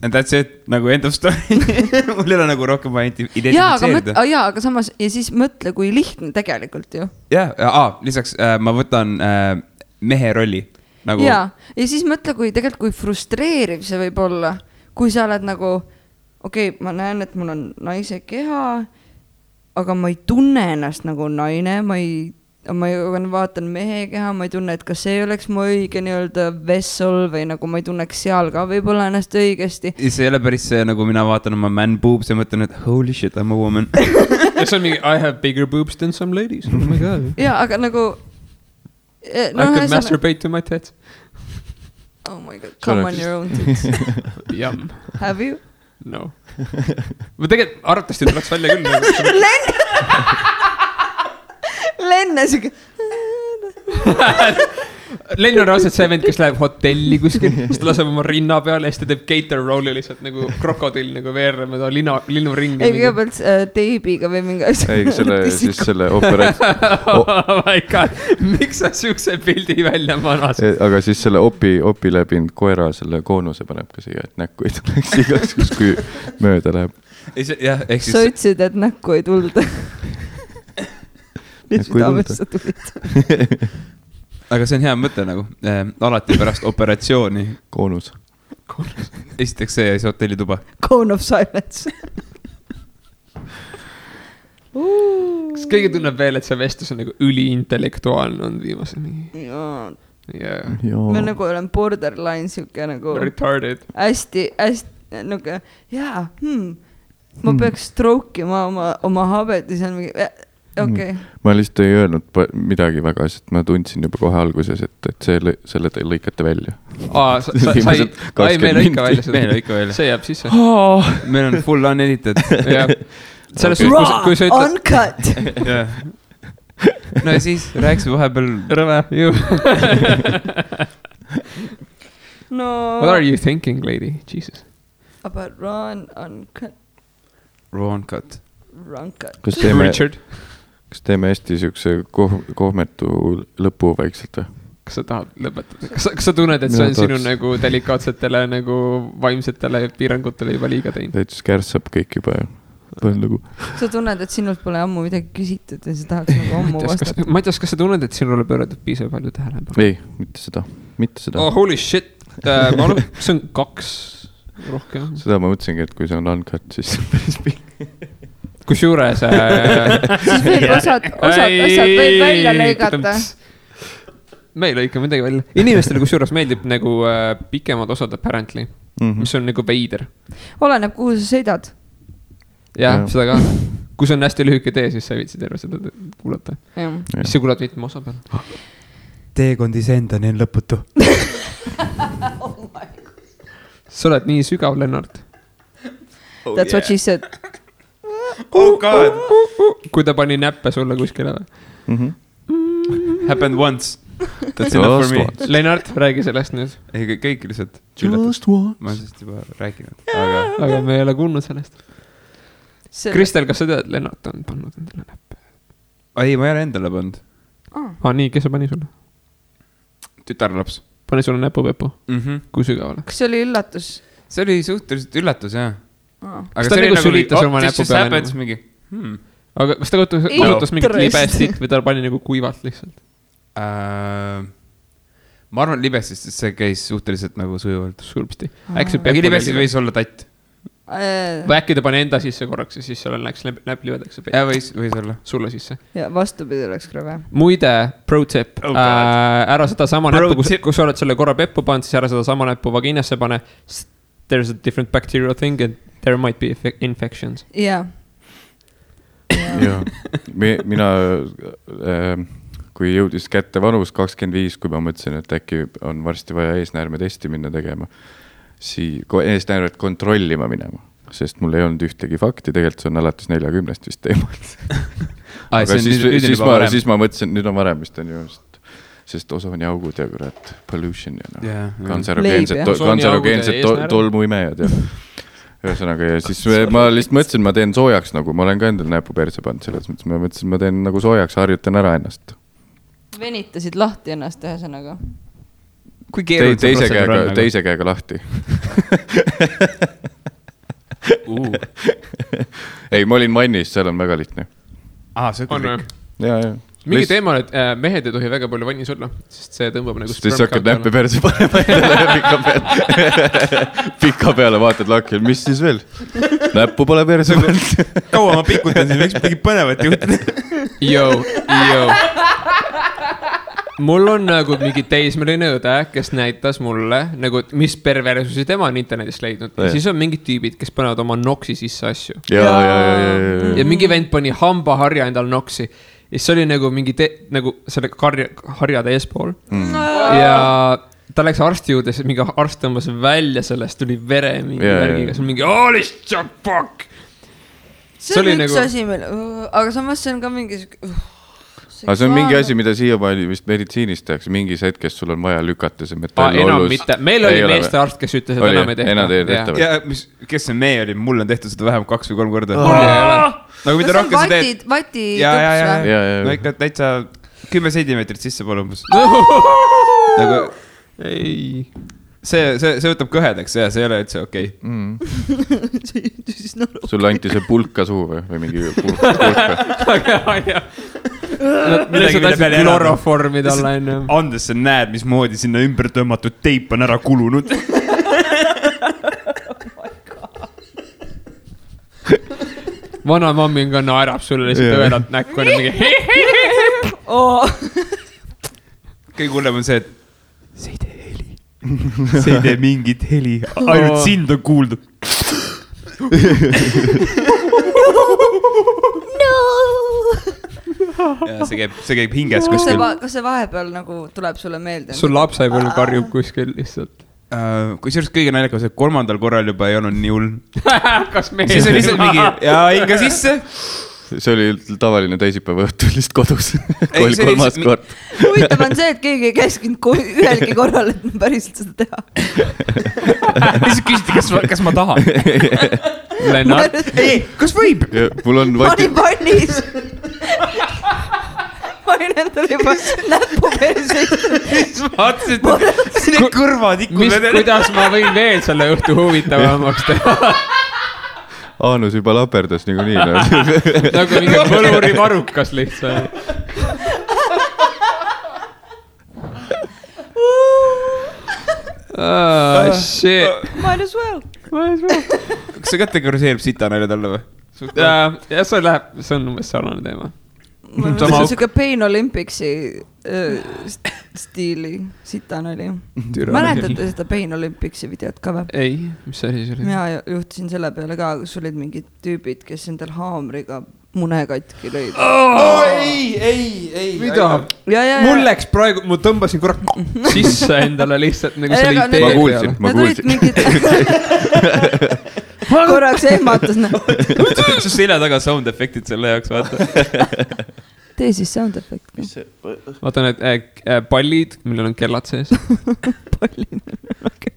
and that's it, nagu end of story. Mul ei ole nagu rohkem vaja identifitseerida. Aga samas, ja siis mõtle, kui lihtne tegelikult ju. Lisaks ma võtan mehe rolli. Nagu... Ja siis mõtle, kui frustreeriv see võib olla, kui sa oled nagu, okei, ma näen, et mul on naise keha, aga ma ei tunne ennast nagu naine, ma vaatan mehe keha, ma ei tunne, et kas see oleks mu õige nii-öelda vessel või nagu ma ei tunneks seal ka võib-olla ennast õigesti. See ei ole päris see, nagu mina vaatan oma man boobs ja mõtlen, et holy shit, I'm a woman. Ja see on mingi, I have bigger boobs than some ladies. Oh my god. Ja, aga nagu... I could masturbate to my tits. Oh my god, come on your own tits. Yum. Have you? No. Ma tegelikult arvatavasti tuleks välja küll. Lenne siuke. Lenn on raudselt see vend, kes läheb hotelli kuskil, siis ta laseb oma rinna peale ja siis ta teeb gator rolli lihtsalt nagu krokodill nagu veereb mööda linnuringi. Ei, kõigepealt teibiga või mingi asja. Ei, siis selle operatsioon. Oh my god, miks sa siukse pildi välja manas? Aga siis selle opi läbinud koera selle koonuse paneb ka siia, et näkku ei tuleks igaks, kui mööda läheb. Sa ütlesid, et näkku ei tulda. Südamesse tulid. Aga see on hea mõte nagu. Alati pärast operatsiooni. Koonus. Esiteks see ja siis hotellituba. Cone of silence. Kas keegi tunneb veel, et see vestlus on nagu üliintellektuaalne on viimasel mingi? Jaa. Me nagu olen borderline siuke nagu... Retarded. Hästi nagu, ma peaks strokeima oma habet ja see on mingi... Okay. Ma lihtsalt ei öelnud midagi väga, sest ma tundsin juba kohe alguses, et selle te lõikate välja. Me lõika välja. See jääb sisse. Meil on full unedited. Raw, uncut. No ja siis rääkis vahepeal rõve. No. What are you thinking, lady? Jesus. About raw and uncut. Raw uncut. Kas teeme hästi siukse kohmetu lõpu vaikselt või? Kas sa tahad lõpetada? Kas sa tunned, et see on sinu nagu delikaatsetele nagu vaimsetele piirangutele juba liiga teinud? Täitsa kärssab kõik juba ju. Sa tunned, et sinult pole ammu midagi küsitud ja sa tahaks nagu ammu vastata. Ma ei tea, kas sa tunned, et sinule pööratud piisavalt palju tähelepanu? Ei, mitte seda. Oh, holy shit. see on 2 rohkem. Seda ma mõtlesingi, et kui see on uncut, siis see on päris pikk. Kusjuures siis võib osad asjad võib välja lõigata. Me ei lõika midagi välja. Inimestele kusjuures meeldib nagu pikemad osad apparently, mis on nagu veider. Oleneb, kuhu sa sõidad. Jah, seda ka. Kui see on hästi lühike tee, siis sa ei viitsi terve seda kuulata. Siis sa kuulad mitme osa peal. Teekondis endani on lõputu. Sa oled nii sügav, Lennart. That's what she said. Oh god. Kui ta pani näppe sulle kuskile. Happened once. That's enough for me. Lennart, räägi sellest nüüd. Ei, kõik lihtsalt. Just once. Ma olen sellest juba rääkinud. Aga me ei ole kuulnud sellest. Kristel, kas sa tead, Lennart on pannud endale näppe? Ei, ma ei ole endale pannud. Nii, kes sa pani sulle? Tütarlaps. Pani sulle näpupepu? Kui sügavale? Kas see oli üllatus? See oli suhteliselt üllatus, jah. Kas ta nagu sülitas oma näpu peale? Aga kas ta kasutas mingit libestit või ta pani nagu kuivalt lihtsalt? Ma arvan libestist, sest see käis suhteliselt nagu sujuvalt. Sulpsti. Äkki libestist võis olla tatt. Või äkki ta pani enda sisse korraks ja siis seal läks näpp libedaks. Ja võis olla. Sulle sisse. Ja vastupidi läks krõve. Muide, pro tip. Ära seda sama näppu, kus sa oled selle korra peppu pannud, siis ära seda sama näppu vaginasse pane. There's a different bacterial thing and there might be infections. Jaa. Mina, kui jõudis kätte vanus 25, kui ma mõtlesin, et äkki on varsti vaja eesnäärme testi minna tegema, eesnäärmet kontrollima minema, sest mul ei olnud ühtegi fakti, tegelikult see on alates 40 vist teemalt. Aga siis ma mõtlesin, nüüd on varem vist on ju, sest osooniaugud ja kurat pollution ja kantserogeensed tolmuimejad ja ühesõnaga ja siis ma lihtsalt mõtlesin, ma teen soojaks nagu, ma olen ka endal näpu perse pannud selles mõttes, ma mõtlesin, ma teen nagu soojaks, harjutan ära ennast. Venitasid lahti ennast ühesõnaga. Kui teise käega lahti. Ei, ma olin vannis, seal on väga lihtne. See on kõik. Ja. Mingi teema on, et mehed ei tohi väga palju vannis olla, sest see tõmbab nagu siis sa hakkad näppe perse panema pika peale vaatad lakil, mis siis veel? Näppu pole perse pannud. Kaua ma pikutan siin, võiks midagi põnevat juhtuda. Mul on nagu mingi teismeline õde, kes näitas mulle, nagu, mis perversusi tema on internetist leidnud. Ja siis on mingid tüübid, kes panevad oma noksi sisse asju. Ja mingi vend pani hambaharja endal noksi. Ja see oli nagu mingi nagu selle harjade eespool. Ja ta läks arsti juurde, siis mingi arst tõmbas välja sellest, tuli vere mingi värgiga. See on mingi, holy fuck! See on üks asi meil, aga samas see on ka mingi... Aga see on mingi asi, mida siiamaani vist meditsiinis tehakse, mingis hetkes sul on vaja lükata see metall ollus. Meil oli meeste arst, kes ütles, et enam ei tehta. Ja kes see mee oli? Mul on tehtud seda vähem 2 või 3 korda. Nagu mida rohkem sa teed. Vati tups või? No ikka täitsa 10 sentimeetrit sisse pole umbes. Ei. See võtab kõhedaks ja see ei ole üldse okei. Sulle anti see pulka suu või mingi pulka. Kloroformid alla enne. Andes sa näed, mismoodi sinna ümber tõmmatud teip on ära kulunud. Vana mammi on ka naerab sulle lihtsalt õedalt näkku. Kõige hullem on see, et see ei tee heli. See ei tee mingit heli. Ainult sind on kuuldud. Ja see käib hinges kuskil. Kas see vahepeal nagu tuleb sulle meelde? Sul lapsepõlv karjub kuskil lihtsalt. Kui sellest kõige naljakas, et 3. korral juba ei olnud nii hull. Kas mees? Siis oli lihtsalt mingi, ja hinga sisse. See oli tavaline teisipäeva õhtul lihtsalt kodus. Kui oli 3. kord. Huvitav on see, et keegi ei käskinud ühelgi korral, et päriselt seda teha. Lihtsalt küsiti, kas ma tahan. Lennart. Ei, kas võib? Mul on ma olin vannis. Ma olin endale juba näppu perseist. Vaatasid, need kõrvad ikku. Kuidas ma võin veel selle õhtu huvitavamaks teha? Aanus juba laperdas nagu nii. Nagu mingi põluri varukas lihtsalt. Shit. Might as well. Kas see kategoriseerib sitanalja talle või? Ja see on umbes sarnane teema. See on siuke Pain Olympicsi stiili sitanali. Mäletate seda Pain Olympicsi videot ka või? Ei, mis asi see oli? Mina juhtusin selle peale ka, kus olid mingid tüübid, kes endal haamriga mune katki lõid. Ei. Mida? Mul läks praegu, ma tõmbasin korra sisse endale lihtsalt nagu selle idee peale. Ma kuulsin. Korraks ehmatas. See selja taga sound efektid selle jaoks, vaata. Tee siis sound efekt. Vaata need pallid, millel on kellad sees.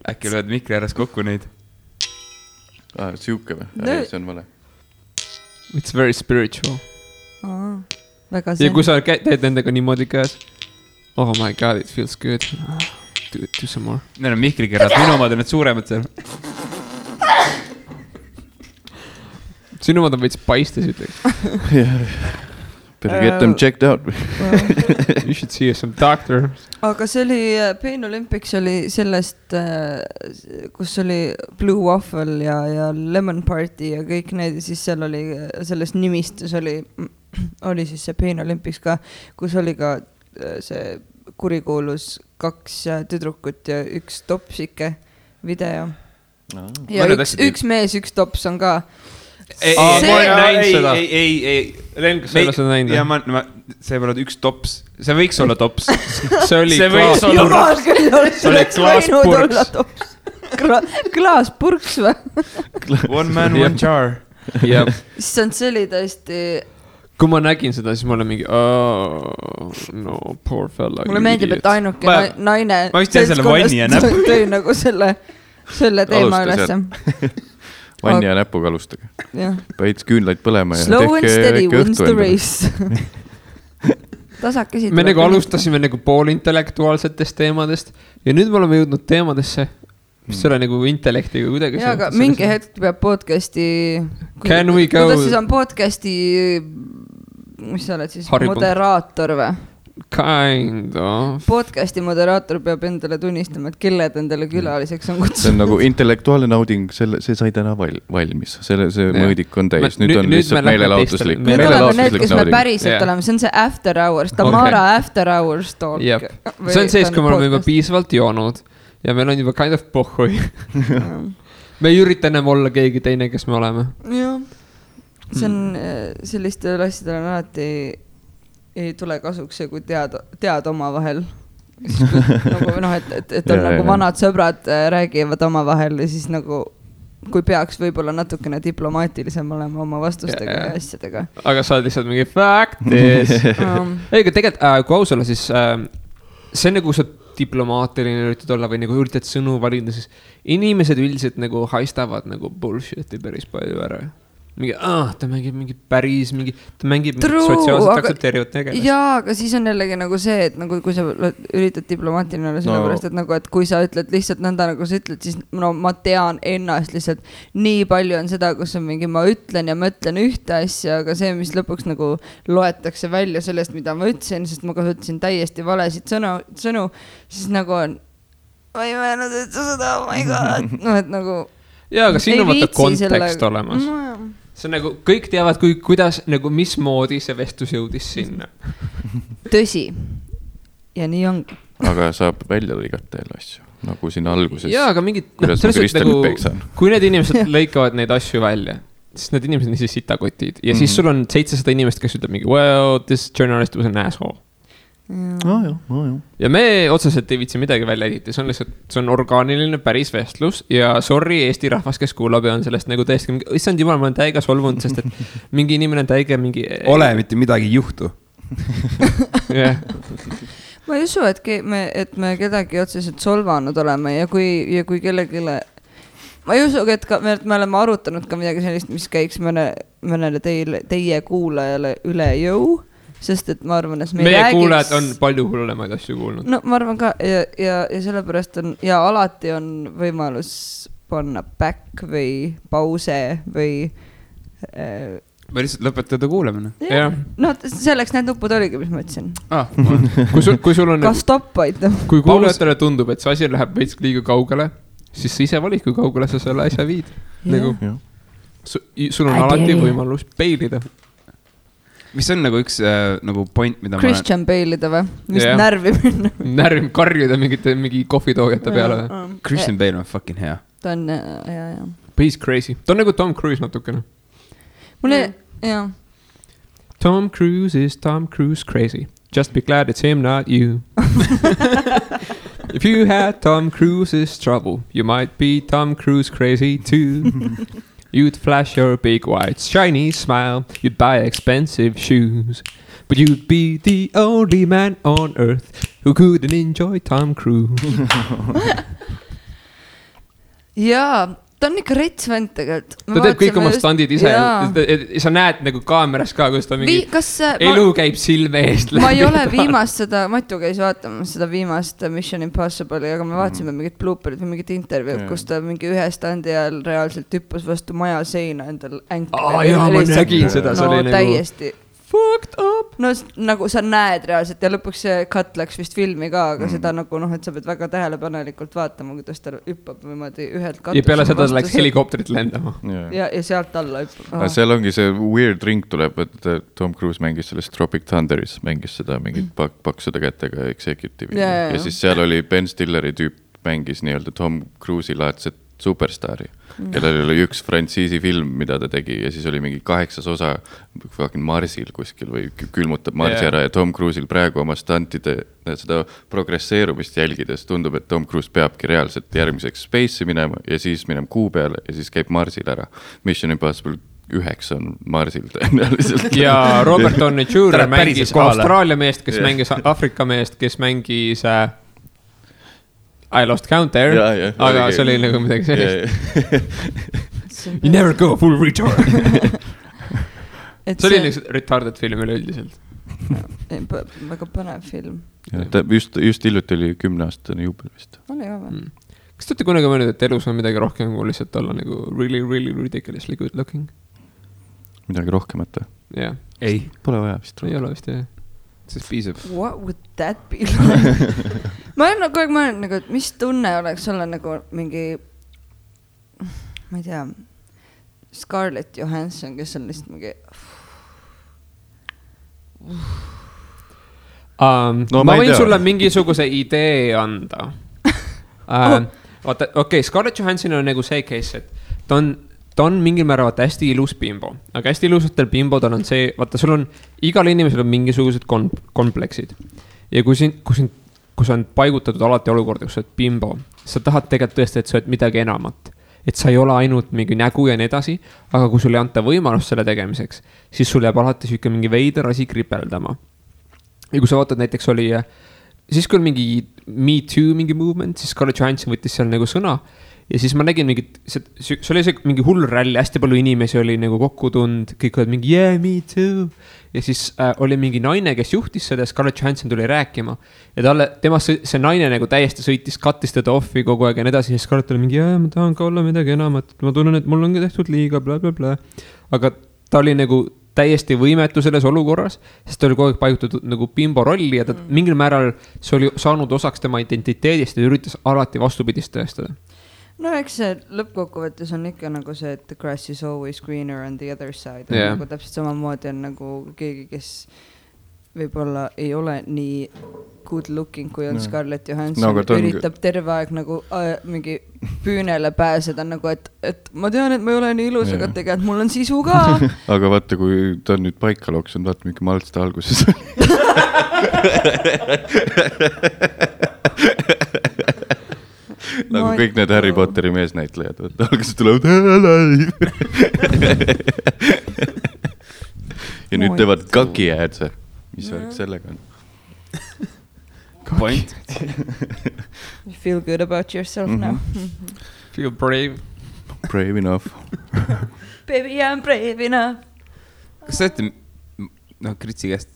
Äkki lööd mikri ääres kokku neid? Siuke või? See on vale. It's very spiritual. Väga see. Ja kui sa teed nendega niimoodi käes. Oh my god, it feels good. Do some more. Need on mikrikerrad, minu omad on need suuremad seal. Sinu omad on veits paistes, ütleks. Better get them checked out. You should see some doctor. Aga see oli, Pain Olympics oli sellest, kus oli Blue Waffle ja Lemon Party ja kõik need, ja siis seal oli, selles nimistus oli siis see Pain Olympics ka, kus oli ka see kurikuulus 2 tüdrukut ja 1 topsike video. Ja üks mees, 1 tops on ka. Ma olen näinud seda. Ei. Len, kas sa ei ole seda näinud? Ja see ei ole 1 tops. See võiks olla tops. See oli klaaspurks. Klaaspurks või? One man, one jar. See oli tõesti... Kui ma nägin seda, siis ma olen mingi no, poor fella. Mulle meeldib, et ainuke naine ma vist tean selle vanni ja näpp. Tõi nagu selle teema ülesse. Vanni ja näpuga alustage. Päits küünlaid põlema ja slow and steady wins the race. Tasakesi. Me nagu alustasime nagu poolintellektuaalsetest teemadest ja nüüd me oleme jõudnud teemadesse, mis ole nagu intellektiga kuidagi. Ja, aga mingi hetk peab podcasti... Can we go... Kuidas siis on podcasti... Mis sa oled siis? Moderaator või? Kind of. Podcasti moderaator peab endale tunnistama, et kelled endale külaliseks on kutsunud. See on nagu intellektuaalne nauding, see sai täna valmis. See mõõdik on täis. Nüüd on lihtsalt meelelaotuslik. Nüüd oleme need, kes me päriselt oleme. See on see after hours. Tamara after hours talk. See on sees, kui me oleme juba piisavalt joonud ja meil on juba kind of pohhui. Me ei ürita enam olla keegi teine, kes me oleme. Jah. See on sellistel asjadel on alati ei tule kasuks see, kui tead oma vahel. Nagu, noh, et on nagu vanad sõbrad räägivad oma vahel ja siis nagu, kui peaks võib-olla natukene diplomaatilisem olema oma vastustega ja asjadega. Aga sa oled lihtsalt mingi factis. Ega tegelikult, kui aus olla, siis see nagu sa diplomaatiline üritad olla või nagu üritad sõnu valida, siis inimesed üldiselt nagu haistavad nagu bullshiti päris palju ära. Mingi, ta mängib mingi päris, ta mängib sotsiaalselt aktsepteerivat tegelast. Jaa, aga siis on jällegi nagu see, et nagu, kui sa üritad diplomaatiline olla sellepärast, et nagu, et kui sa ütled lihtsalt nõnda, nagu sa ütled, siis no ma tean ennast lihtsalt nii palju on seda, kus on mingi, ma ütlen ja ma ütlen ühte asja, aga see, mis lõpuks nagu loetakse välja sellest, mida ma ütlesin, sest ma kasutasin täiesti valesid sõnu, siis nagu on, ma ei mõelnud, et sa seda, oh my god, no et nagu jaa, aga siin on vaata kontekst olemas. See on nagu, kõik teavad, kuidas, nagu mismoodi see vestlus jõudis sinna. Tõsi. Ja nii ongi. Aga saab välja lõigata jälle asju, nagu siin alguses. Jaa, aga mingid, kui need inimesed lõikavad neid asju välja, siis need inimesed on siis sitakotid. Ja siis sul on 700 inimest, kes ütleb mingi, well, this journalist was an asshole. Ja me otseselt ei viitsi midagi välja editi, see on lihtsalt, see on orgaaniline päris vestlus ja sorry Eesti rahvas, kes kuulab ja on sellest nagu tõesti mingi, issand jumal, ma olen täiega solvunud, sest et mingi inimene on täiega mingi ole, mitte midagi ei juhtu. Ma ei usu, et me kedagi otseselt solvanud oleme ja kui kellegile ma ei usu, et me oleme arutanud ka midagi sellist, mis käiks mõnele teie kuulajale üle jõu. Sest et ma arvan, et meie kuulajad on palju hullemaid asju kuulnud. No ma arvan ka ja sellepärast on ja alati on võimalus panna back või pause või või lihtsalt lõpetada kuulamine. No selleks need nupud oligi, mis ma ütlesin. Kui sul on... Ka stopp aita. Kui kuulajatele tundub, et see asi läheb veits liiga kaugele, siis sa ise valid, kui kaugele sa selle asja viid. Nagu, sul on alati võimalus peilida. Mis on nagu üks nagu point, mida Christian Bale'ida või? Mis närvi minna? Närvi karjuda mingi kohvitoogete peale. Christian Bale on fucking hea. Ta on, jah. He's crazy. Ta on nagu Tom Cruise natukene. Mulle, jah. Tom Cruise is Tom Cruise crazy. Just be glad it's him, not you. If you had Tom Cruise's trouble, you might be Tom Cruise crazy too. You'd flash your big white shiny smile. You'd buy expensive shoes. But you'd be the only man on earth who couldn't enjoy Tom Cruise. Jaa, ta on ikka rets vend tegelikult. Ta teeb kõik oma standid ise. Sa näed nagu kaameras ka, kus ta mingi elu käib silme eest. Ma ei ole viimast seda, Matu käis vaatama seda viimast Mission Impossible'i, aga me vaatasime mingit blooperit või mingit intervjuud, kus ta mingi ühe standi ajal reaalselt hüppas vastu maja seina endal änkle. Jaa, ma nägin seda. No täiesti fucked up. No nagu sa näed reaalselt ja lõpuks see cut läks vist filmi ka, aga seda nagu et sa pead väga tähelepanelikult vaatama, kuidas ta hüppab niimoodi ühelt katusele. Ja peale seda läks helikopterit lendama. Ja sealt alla hüppab. Seal ongi see weird ring tuleb, et Tom Cruise mängis sellest Tropic Thunderis, mängis seda mingit paksude kätega executive'i. Ja siis seal oli Ben Stilleri tüüp mängis nii-öelda Tom Cruise'i laadset superstaari, kellel oli üks frantsiisi film, mida ta tegi ja siis oli mingi 8 osa Marsil kuskil või külmutab Marsi ära ja Tom Cruise'il praegu oma stantide seda progresseerumist jälgides tundub, et Tom Cruise peabki reaalselt järgmiseks Space'i minema ja siis minema Kuu peale ja siis käib Marsil ära. Mission Impossible 9 on Marsil tõenäoliselt. Ja Robert Downey Jr. mängis Austraalia meest, kes mängis Afrika meest, kes mängis I lost count there, aga see oli nagu midagi sellist. You never go full retard. See oli nagu retarded film üleüldiselt. Väga põnev film. Just hiljuti oli 10-aastane juubel vist. Oli ka või? Kas te olete kunagi mõelnud, et elus on midagi rohkem kui lihtsalt olla nagu really, really ridiculously good looking? Midagi rohkemat? Jah. Ei. Pole vaja vist. Ei ole vist, jah. Sest piisab. What would that be like? Ma olen kogu aeg mõelnud, nagu, et mis tunne oleks olla nagu mingi, ma ei tea, Scarlett Johansson, kes on lihtsalt mingi... ma võin sulle mingisuguse idee anda. Vaata, okei, Scarlett Johansson on nagu see case, et ta on mingil määral hästi ilus bimbo, aga hästi ilusatel bimbodel on see, vaata, sul on, igal inimesel on mingisugused kompleksid. Ja kui sa on paigutatud alati olukorda, kus sa oled bimbo, sa tahad tegelikult tõesti, et sa oled midagi enamat. Et sa ei ole ainult mingi nägu ja nii edasi, aga kui sul ei anta võimalust selle tegemiseks, siis sul jääb alati süke mingi veider asi kripeldama. Ja kui sa vaatad, näiteks oli, siis kui on mingi Me Too mingi movement, siis Scarlett Johansson võttis seal nagu sõna. Ja siis ma nägin mingit, see oli see mingi hull ralli, hästi palju inimesi oli nagu kokku tund, kõik olid mingi yeah, me too. Ja siis oli mingi naine, kes juhtis seda, Scarlett Johansson tuli rääkima. Ja see naine nagu täiesti sõitis, kattis teda offi kogu aeg ja nii edasi. Ja Scarlett oli mingi, ma tahan ka olla midagi enamat, ma tunnen, et mul ongi tehtud liiga, bla, bla, bla. Aga ta oli nagu täiesti võimetu selles olukorras, sest ta oli kogu aeg paigutatud nagu bimbo rolli ja ta mingil määral see oli saanud osaks tema identiteedist ja üritas alati vastupidist tõestada. No eks see lõppkokkuvõttes on ikka nagu see, et the grass is always greener on the other side. Nagu täpselt samamoodi on nagu keegi, kes võib-olla ei ole nii good looking, kui on Scarlett Johansson. Üritab terve aeg nagu mingi püünele pääseda, nagu et ma tean, et ma ei ole nii ilus, aga tegelikult mul on sisu ka. Aga vaata, kui ta on nüüd paika loksunud, vaata mingi maltste alguses. Nagu kõik need Harry Potteri meesnäitlejad, alguses tulevad ja nüüd teevad kaki äädse. Mis värk sellega on? Point. You feel good about yourself now. Feel brave. Brave enough. Baby, I'm brave enough. Kas sa olete, Kritsi käest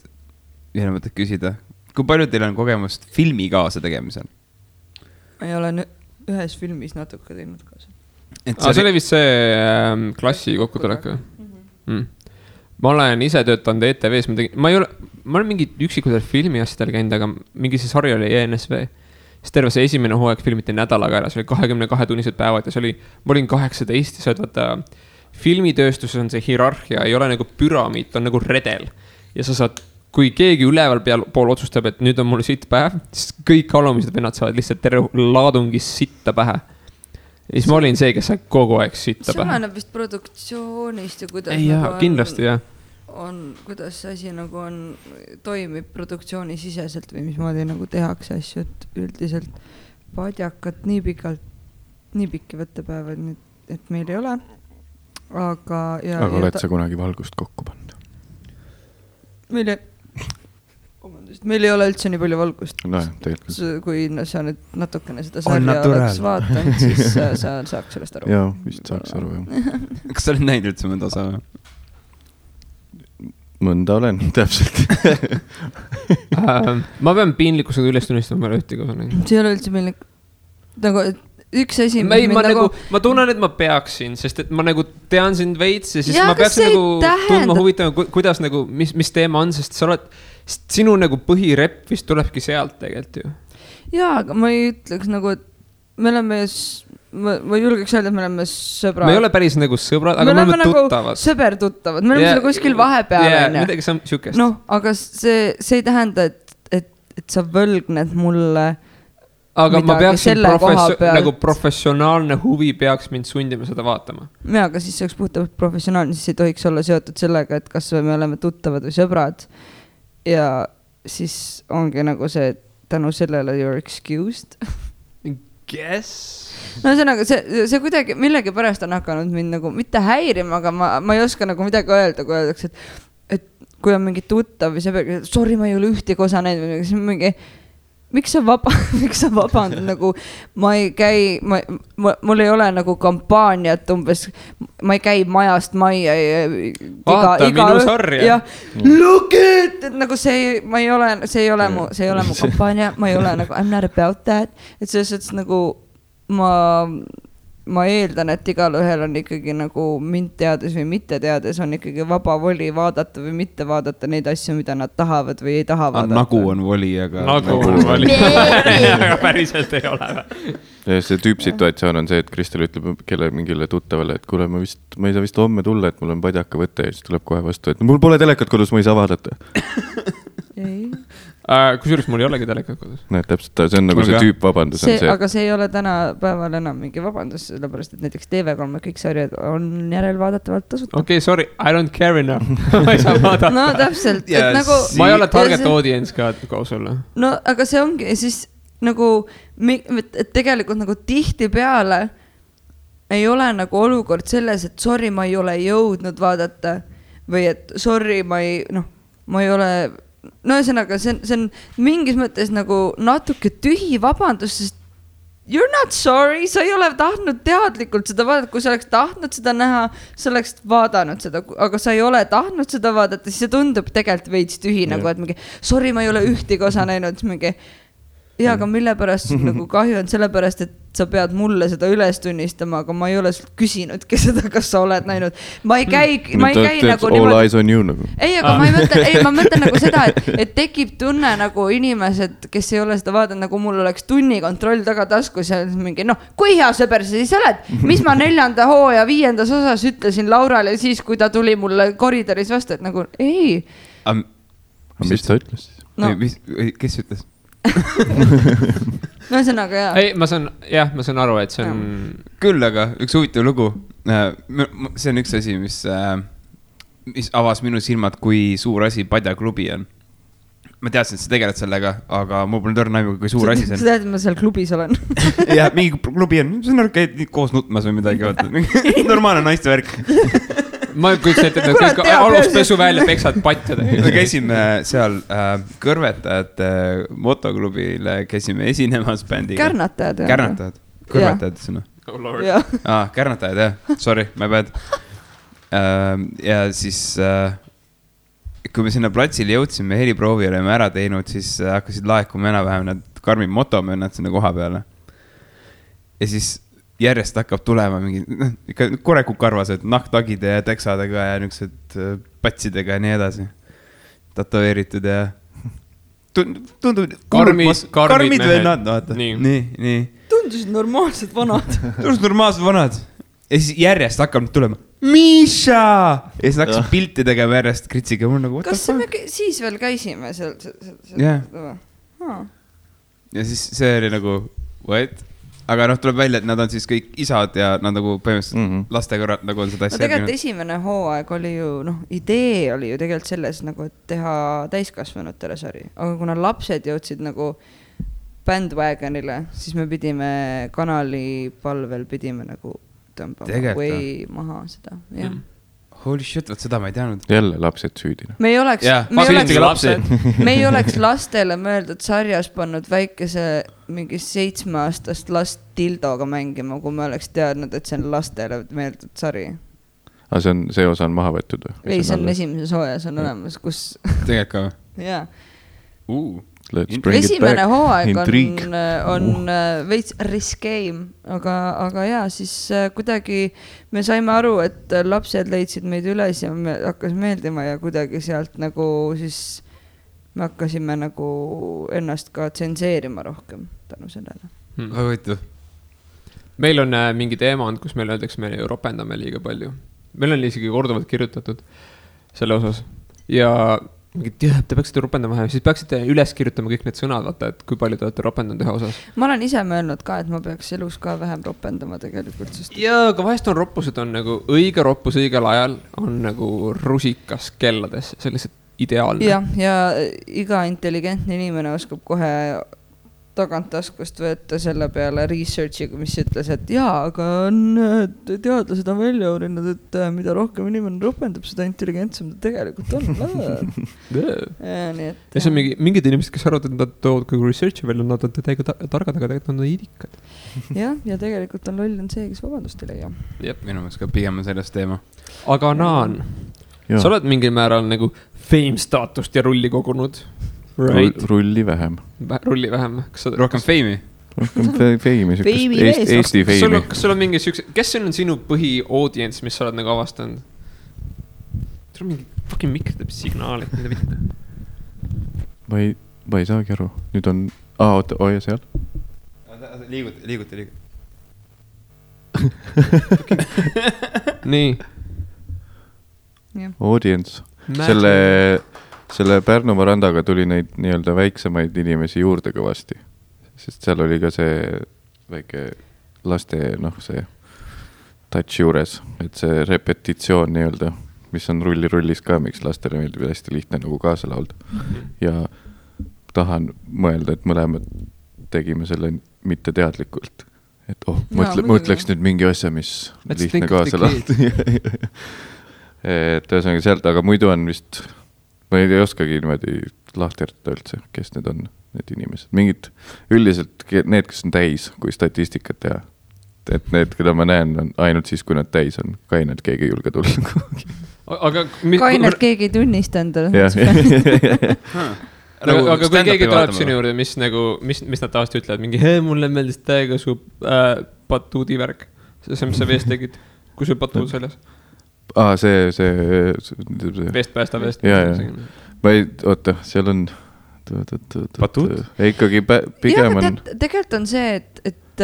ühele mõtet küsida, kui palju teil on kogemust filmi kaasa tegemisel? Ma ei ole ühes filmis natuke teinud kaasa. See oli vist see klassi kokkutulek või? ma olen ise töötanud ETV-s, ma olen mingi üksikutel filmi asjadel käinud, aga mingi see sari oli ENSV. Siis terve see esimene hooaeg filmiti nädalaga ära, see oli 22 tunnised päevad ja see oli, ma olin 18 ja sa vaata, filmitööstuses on see hierarhia, ei ole nagu püramiid, on nagu redel. Ja sa saad, kui keegi üleval pool otsustab, et nüüd on mul sitt päev, siis kõik alumised vennad saavad lihtsalt terve laadungis sitta pähe. Ja siis ma olin see, kes sai kogu aeg sitta pähe. See oleneb vist produktsioonist ja kuidas ei, nagu kindlasti, jah. Kuidas see asi nagu toimib produktsiooni siseselt või mismoodi nagu tehakse asju, et üldiselt padjakat nii pikki võttepäevad, et meil ei ole. Aga oled sa kunagi valgust kokku pannud? Meil ei ole üldse nii palju valgust. No, tegelikult. Kui sa nüüd natukene seda sarja oleks vaatanud, siis sa saaks sellest aru. Jaa, vist saaks aru, jah. Kas sa oled näinud üldse mõnda osa? Mõnda olen, täpselt. Ma pean piinlikkusega üles tunnistama peale ühtegi osa. See ei ole üldse piinlik. Nagu üks asi, ma tunnen, et ma peaksin, sest et ma nagu tean sind veits ja siis ma peaks nagu tundma huvitama, kuidas nagu, mis teema on, sest sa oled, sinu nagu põhirepp vist tulebki sealt tegelikult ju. Jaa, aga ma ei ütleks nagu, et me oleme, ma julgeks öelda, et me oleme sõbrad. Me ei ole päris nagu sõbrad, aga me oleme tuttavad. Nagu sõber-tuttavad, me oleme kuskil vahepeal. Midagi siukest. Noh, aga see ei tähenda, et sa võlgned mulle aga ma peaksin nagu professionaalne huvi peaks mind sundima seda vaatama. Jaa, aga siis see oleks puhtalt professionaalne, siis ei tohiks olla seotud sellega, et kas me oleme tuttavad või sõbrad. Ja siis ongi nagu see, tänu sellele you're excused. Guess? No see kuidagi millegi pärast on hakanud mind nagu mitte häirima, aga ma ei oska nagu midagi öelda, kui öeldakse, et kui on mingi tuttav või see, sorry, ma ei ole ühtegi osa näinud või siis mingi miks sa vabandad, nagu ma ei käi, mul ei ole nagu kampaaniat umbes, ma ei käi majast majja vaata minu sarja look it, et nagu see ei ole mu kampaania, ma ei ole nagu I'm not about that, et selles nagu ma eeldan, et igal ühel on ikkagi nagu mind teades või mitte teades on ikkagi vaba voli vaadata või mitte vaadata neid asju, mida nad tahavad või ei taha vaadata. Nagu on voli, aga... Nagu on voli. Aga päriselt ei ole. Ja see tüüpsituatsioon on see, et Kristel ütleb mingile tuttavale, et kuule, ma ei saa vist homme tulla, et mul on padjaka võte ja siis tuleb kohe vastu, et mul pole telekat kodus, ma ei saa vaadata. Ei. Kusjuures mul ei olegi telekat kodus. Näed, täpselt, see on nagu see tüüp vabandus. Aga see ei ole täna päeval enam mingi vabandus, sellepärast, et näiteks TV3 kõik sarjad on järelvaadatavalt tasuta. Okei, sorry, I don't care enough. Ma ei saa vaadata. No täpselt. Nagu, ma ei ole target audience ka koos olla. No, aga see ongi siis nagu, et tegelikult nagu tihti peale ei ole nagu olukord selles, et sorry, ma ei ole jõudnud vaadata või et sorry, ma ei ole... No ühesõnaga, see on mingis mõttes nagu natuke tühi vabandus, sest you're not sorry, sa ei ole tahtnud teadlikult seda vaadata, kui sa oleks tahtnud seda näha, sa oleks vaadanud seda, aga sa ei ole tahtnud seda vaadata, siis see tundub tegelikult veits tühi, nagu et mingi, sorry, ma ei ole ühtegi osa näinud, mingi, ja aga mille pärast nagu kahju on sellepärast, et sa pead mulle seda üles tunnistama, aga ma ei ole sult küsinudki seda, kas sa oled näinud. Ma ei käi nagu all eyes on you nagu. Ei, aga ma mõtlen nagu seda, et tekib tunne nagu inimesed, kes ei ole seda vaadanud, nagu mul oleks tunnikontroll taga taskus ja mingi, kui hea sõber sa siis oled? Mis ma 4. hooaja 5. osas ütlesin Laurale siis, kui ta tuli mulle koridoris vastu, et nagu ei. Mis ta ütles siis? Kes ütles? No ühesõnaga, jah. Ei, ma saan aru, et see on... Küll, aga üks huvitav lugu. See on üks asi, mis avas minu silmad, kui suur asi padjaklubi on. Ma teadsin, et sa tegeled sellega, aga mul pole tõrna aimu, kui suur asi see on. Sa tead, et ma seal klubis olen. Jah, mingi klubi on. See on käid koos nutmas või midagi. Normaalne naiste värk. Ma kujutan ette, et kõik aluspesu välja peksad patjad. Me käisime seal kõrvetajate motoklubile, käisime esinemas bändiga. Kärnatajad. Kärnatajad. Kõrvetajad sõna. Kärnatajad, jah. Sorry, my bad. Ja siis, kui me sinna platsile jõudsime, heliproovi oleme ära teinud, siis hakkasid laekuma enam-vähem need karmid motomönnad sinna koha peale. Ja siis järjest hakkab tulema mingi, ikka korekukarvased nahktagide ja teksadega ja niisugused patsidega ja nii edasi. Tatoveeritud ja tundub karmid vennad, vaata. Nii. Tundusid normaalsed vanad. Ja siis järjest hakkab tulema Miša! Ja siis hakkasid pilti tegema järjest Kritsiga. Kas me siis veel käisime seal? Ja siis see oli nagu, what? Aga tuleb välja, et nad on siis kõik isad ja nad nagu põhimõtteliselt lastega nagu on seda asja. Tegelikult esimene hooaeg oli ju, idee oli ju tegelikult selles nagu, et teha täiskasvanutele sari. Aga kuna lapsed jõudsid nagu bandwagonile, siis me pidime kanali palvel nagu tõmbama või maha seda, jah. Holy shit, võt seda ma ei teadnud. Jälle lapsed süüdina. Me ei oleks lastele mõeldud sarjas pannud väikese mingi 7-aastast last dildoga mängima, kui me oleks teadnud, et see on lastele mõeldud sari. Aga see osa on maha võetud või? Ei, see on esimeses hooajas on olemas, kus... Tegelikult ka või? Jaa. Esimene hooaeg on veits riskeim, aga jaa, siis kuidagi me saime aru, et lapsed leidsid meid üles ja me hakkas meeldima ja kuidagi sealt nagu siis me hakkasime nagu ennast ka tsenseerima rohkem tänu sellele. Meil on mingi teema olnud, kus meil öeldakse, me ropendame liiga palju. Meil on isegi korduvalt kirjutatud selle osas ja te peaksite ropendama vähem, siis peaksite üles kirjutama kõik need sõnad, vaata, et kui palju te olete ropendanud ühe osas. Ma olen ise mõelnud ka, et ma peaks elus ka vähem ropendama tegelikult. Jaa, aga vahest on roppused on nagu õige roppus õigel ajal on nagu rusikas kellades, see on lihtsalt ideaalne. Ja iga intelligentne inimene oskab kohe tagant taskust võtta selle peale researchiga, mis ütles, et jaa, aga teadlased on välja uurinud, et mida rohkem inimene ropendab, seda intelligentsem ta tegelikult on. Ja see on mingid inimesed, kes arvavad, et nad toovad kogu researchi välja, nad on täiega targad, aga tegelikult nad on idikad. Ja tegelikult on loll on see, kes vabandust ei leia. Minu mõttes ka pigem on sellest teema. Aga Naan, sa oled mingil määral nagu fame staatust ja rulli kogunud. Right. Rulli vähem. Rohkem feimi? Rohkem feimi, Eesti feimi. Kas sul on mingi sükse, kes on sinu põhi-audience, mis sa oled nagu avastanud? Sul on mingi fucking mikro teeb signaali, mida mitte. Ma ei saagi aru. Nüüd on, ja seal? Liiguti. Nii. Audience. Selle Pärnumaa randaga tuli neid nii-öelda väiksemaid inimesi juurde kõvasti, sest seal oli ka see väike laste, see touch juures, et see repetitsioon nii-öelda, mis on rullis ka, miks lastele meeldib hästi lihtne nagu kaasa laulda. Ja tahan mõelda, et mõlemad tegime selle mitte teadlikult, et mõtleks nüüd mingi asja, mis lihtne kaasa laulda. Et ühesõnaga sealt, aga muidu on vist... Ma ei oskagi niimoodi lahterda üldse, kes need on, need inimesed. Mingid üldiselt need, kes on täis, kui statistikat teha. Et need, keda ma näen, on ainult siis, kui nad täis on. Kainelt keegi ei julge tulla. Kainelt keegi ei tunnista endale. Aga kui keegi tuleb sinu juurde, mis nad tavaliselt ütlevad, mingi, mulle meeldis täiega su patuudi värk. See, mis sa veest tegid, kui sul patuud selles. See Vest päästa. Ma ei, oota, seal on patuud? Ikkagi pigem on tegelikult on see, et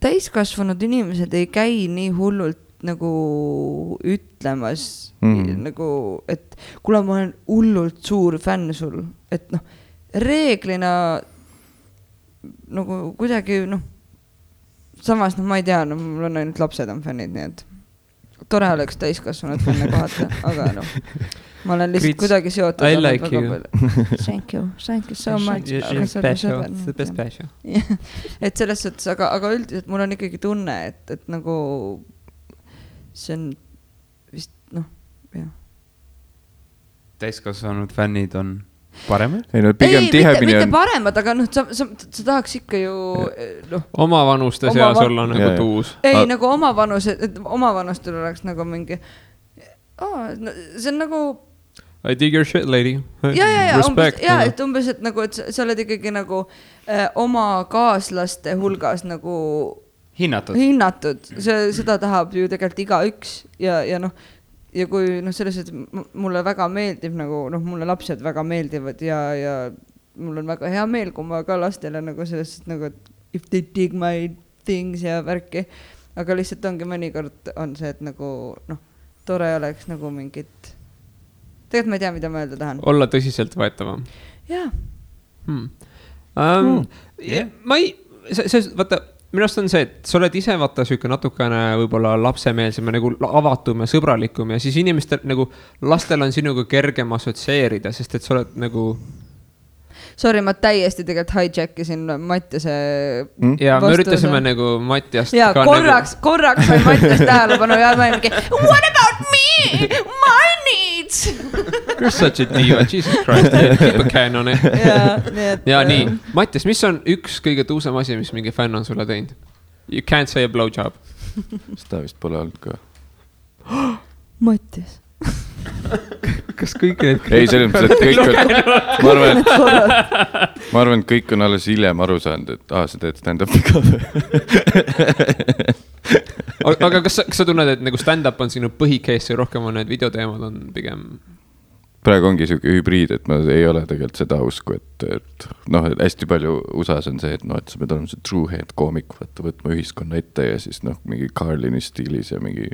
täiskasvanud inimesed ei käi nii hullult nagu ütlemas nagu, et kuule, ma olen hullult suur fänn sul, et reeglina nagu kuidagi samas ma ei tea, mul on ainult lapsed on fännid, nii et tore oleks täiskasvanud fänne kohata, aga ma olen lihtsalt kuidagi seotud. I like you. Thank you so much. The best passion. Et selles suhtes, aga üldiselt mul on ikkagi tunne, et nagu see on vist, jah. Täiskasvanud fännid on paremad? Mitte paremad, aga sa tahaks ikka ju oma vanuste seas olla nagu tuus. Ei, nagu oma vanustel oleks nagu mingi see on nagu I dig your shit, lady. Ja, et umbes, et nagu, et sa oled ikkagi nagu oma kaaslaste hulgas nagu hinnatud, seda tahab ju tegelikult igaüks ja noh, ja kui noh, selles, et mulle väga meeldib nagu noh, mulle lapsed väga meeldivad ja mul on väga hea meel, kui ma ka lastele nagu selles, nagu if they dig my things ja värki, aga lihtsalt ongi mõnikord on see, et nagu noh, tore oleks nagu mingit, tegelikult ma ei tea, mida ma öelda tahan. Olla tõsiselt võetavam. Jaa. Ma ei, vaata, minust on see, et sa oled ise vaata süke natukene võib-olla lapsemeelsem ja nagu avatum ja sõbralikum ja siis inimestel nagu lastel on sinuga kergem assotsieerida, sest et sa oled nagu Sorry, ma täiesti tegelikult hijackisin Mattiase ja me üritasime nagu Mattiast ja korraks sai Mattias tähelepanu ja ma mingi what about me? My needs! You're such a diva, Jesus Christ, keep a can on it. Ja nii, Mattias, mis on üks kõige tuusem asi, mis mingi fänn on sulle teinud? You can't say a blowjob. Seda vist pole olnud ka. Mattias. Kas kõik need... Ei, selles mõttes, et kõik on... Ma arvan, et kõik on alles hiljem aru saanud, et sa teed stand-upi ka. Aga kas sa tunned, et nagu stand-up on sinu põhikees ja rohkem on need videoteemad on pigem... Praegu ongi selline hübriid, et ma ei ole tegelikult seda usku, et noh, hästi palju USAs on see, et noh, et sa pead olema see true head koomik, võtma ühiskonna ette ja siis noh, mingi Carlini stiilis ja mingi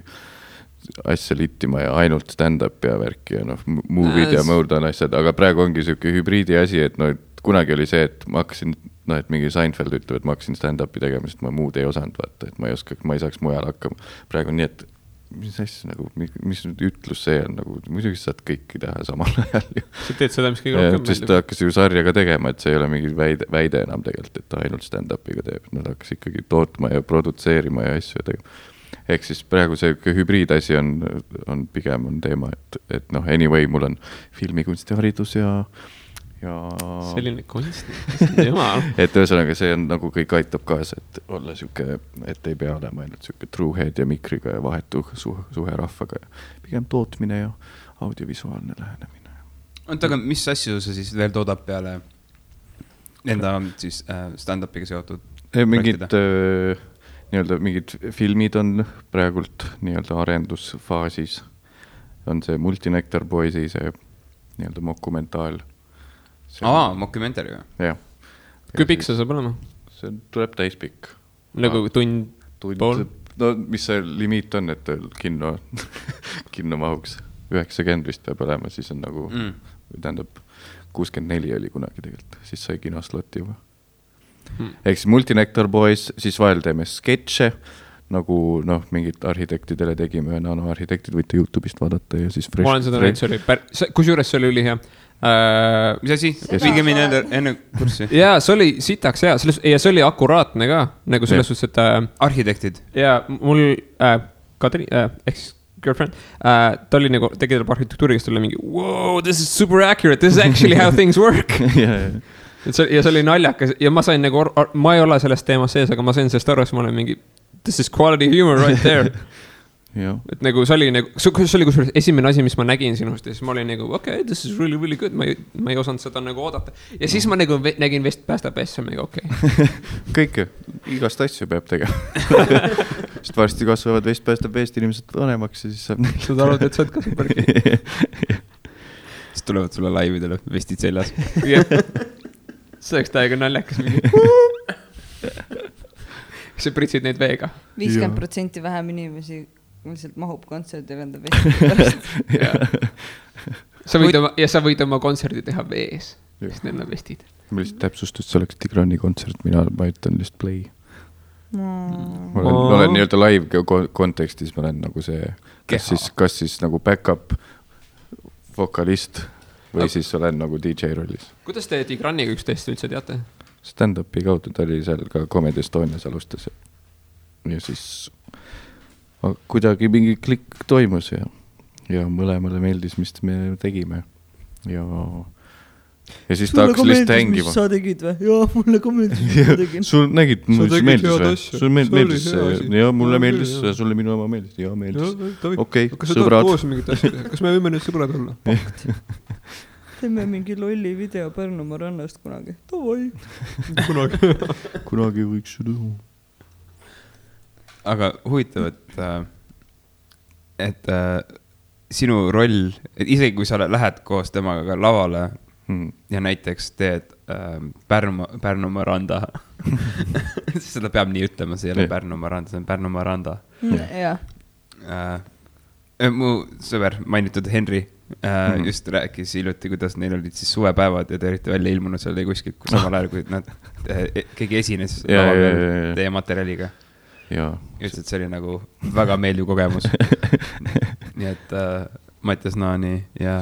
asja littima ja ainult stand-up ja värki ja noh, movie'd ja muud on asjad, aga praegu ongi selline hübriidi asi, et noh, et kunagi oli see, et ma hakkasin, noh, et mingi Seinfeld ütleb, et ma hakkasin stand-upi tegema, sest ma muud ei osanud vaata, et ma ei saaks mujal hakkama. Praegu on nii, et mis asja nagu, mis ütlus see on nagu, muidugi saad kõiki teha samal ajal. Sa teed seda, mis kõige rohkem meeldib. Sest ta hakkas ju sarjaga tegema, et see ei ole mingi väide enam tegelikult, et ta ainult stand-upiga teeb. Nad hakkas ikkagi tootma ja produtseerima ja asju tegema. Ehk siis praegu see hübriidasi on pigem on teema, et noh, anyway, mul on filmikunstiharidus ja selline kunst, jumal. Et ühesõnaga see on nagu kõik aitab kaasa, et olla süke, et ei pea olema ainult süke true head ja mikriga ja vahetu suhe rahvaga ja pigem tootmine ja audiovisuaalne lähenemine. Aga mis asju sa siis veel toodab peale enda siis stand-upiga seotud? Mingid filmid on praegult nii-öelda arendusfaasis. On see Multinectar Boysi, see nii-öelda mokumentaal. Mockumentary või? Jah. Kui pikk see saab olema? See tuleb täispikk. Nagu tund pool? No mis see limiit on, et kinno mahuks 90 vist peab olema, siis on nagu, tähendab 64 oli kunagi tegelikult, siis sai kinosloti juba. Ehk siis Multinectar Boys, siis vahel teeme sketše, nagu noh, mingid arhitektidele tegime, nanoarhitektid võite YouTube'ist vaadata ja siis ma olen seda näinud, see oli kusjuures see oli ülihea. Mis asi? Viige mine enne kurssi. Jaa, see oli sitaks hea, ja see oli akuraatne ka, nagu selles suhtes, et arhitektid. Ja mul Kadri, ex-girlfriend, ta oli nagu, tegi tal arhitektuuri, kes tuli mingi wow, this is super accurate, this is actually how things work. Ja see oli naljakas ja ma sain nagu, ma ei ole sellest teemast sees, aga ma sain sellest aru, et ma olen mingi this is quality humor right there. Et nagu see oli nagu, see oli kusjuures esimene asi, mis ma nägin sinust ja siis ma olin nagu, okay, this is really, really good, ma ei osanud seda nagu oodata. Ja siis ma nagu nägin Vest päästab S, mingi okei. Kõike, igast asju peab tegema. Sest varsti kasvavad Vest päästab Vest inimesed vanemaks ja siis saab neil. Sa arvad, et sa oled ka super. Siis tulevad sulle laividele vestid seljas. See oleks täiega naljakas mingi. Kas sa pritsid neid veega? 50% vähem inimesi lihtsalt mahub kontserdi venda vesti pärast. Sa võid oma kontserdi teha vees, sest need on vestid. Ma lihtsalt täpsustust, see oleks Tigrani kontsert, ma ütlen lihtsalt play. Ma olen nii-öelda live kontekstis, ma olen nagu see, kas siis nagu back-up vokalist või siis olen nagu DJ rollis. Kuidas te Tigraniga üksteist üldse teate? Stand-upi kaudu, ta oli seal ka Comedy Estonias alustas ja siis kuidagi mingi klikk toimus ja mõlemale meeldis, mis me tegime ja siis ta hakkas lihtsalt hängima. Sa tegid või? Jaa, mulle ka meeldis, mis ma tegin. Sul nägid, mulle meeldis või? Sul meeldis ja mulle meeldis, sulle minu oma meeldis. Jaa, meeldis. Okei, sõbrad. Kas me võime nüüd sõbrad olla? Pakt. Teeme mingi lolli video Pärnumaa rannast kunagi. Tavai. Kunagi võiks seda. aga huvitav, et sinu roll, et isegi kui sa lähed koos temaga ka lavale ja näiteks teed Pärnumaa randa seda peab nii ütlema, see ei ole Pärnumaa randa, see on Pärnumaa randa. Mu sõber mainitud Henri just rääkis hiljuti, kuidas neil olid siis suvepäevad ja te olite välja ilmunud seal kuskilt, kus samal ajal, kui nad keegi esines teie materjaliga. Ütles, et see oli nagu väga meeldiv kogemus. Nii et Mattias Naani ja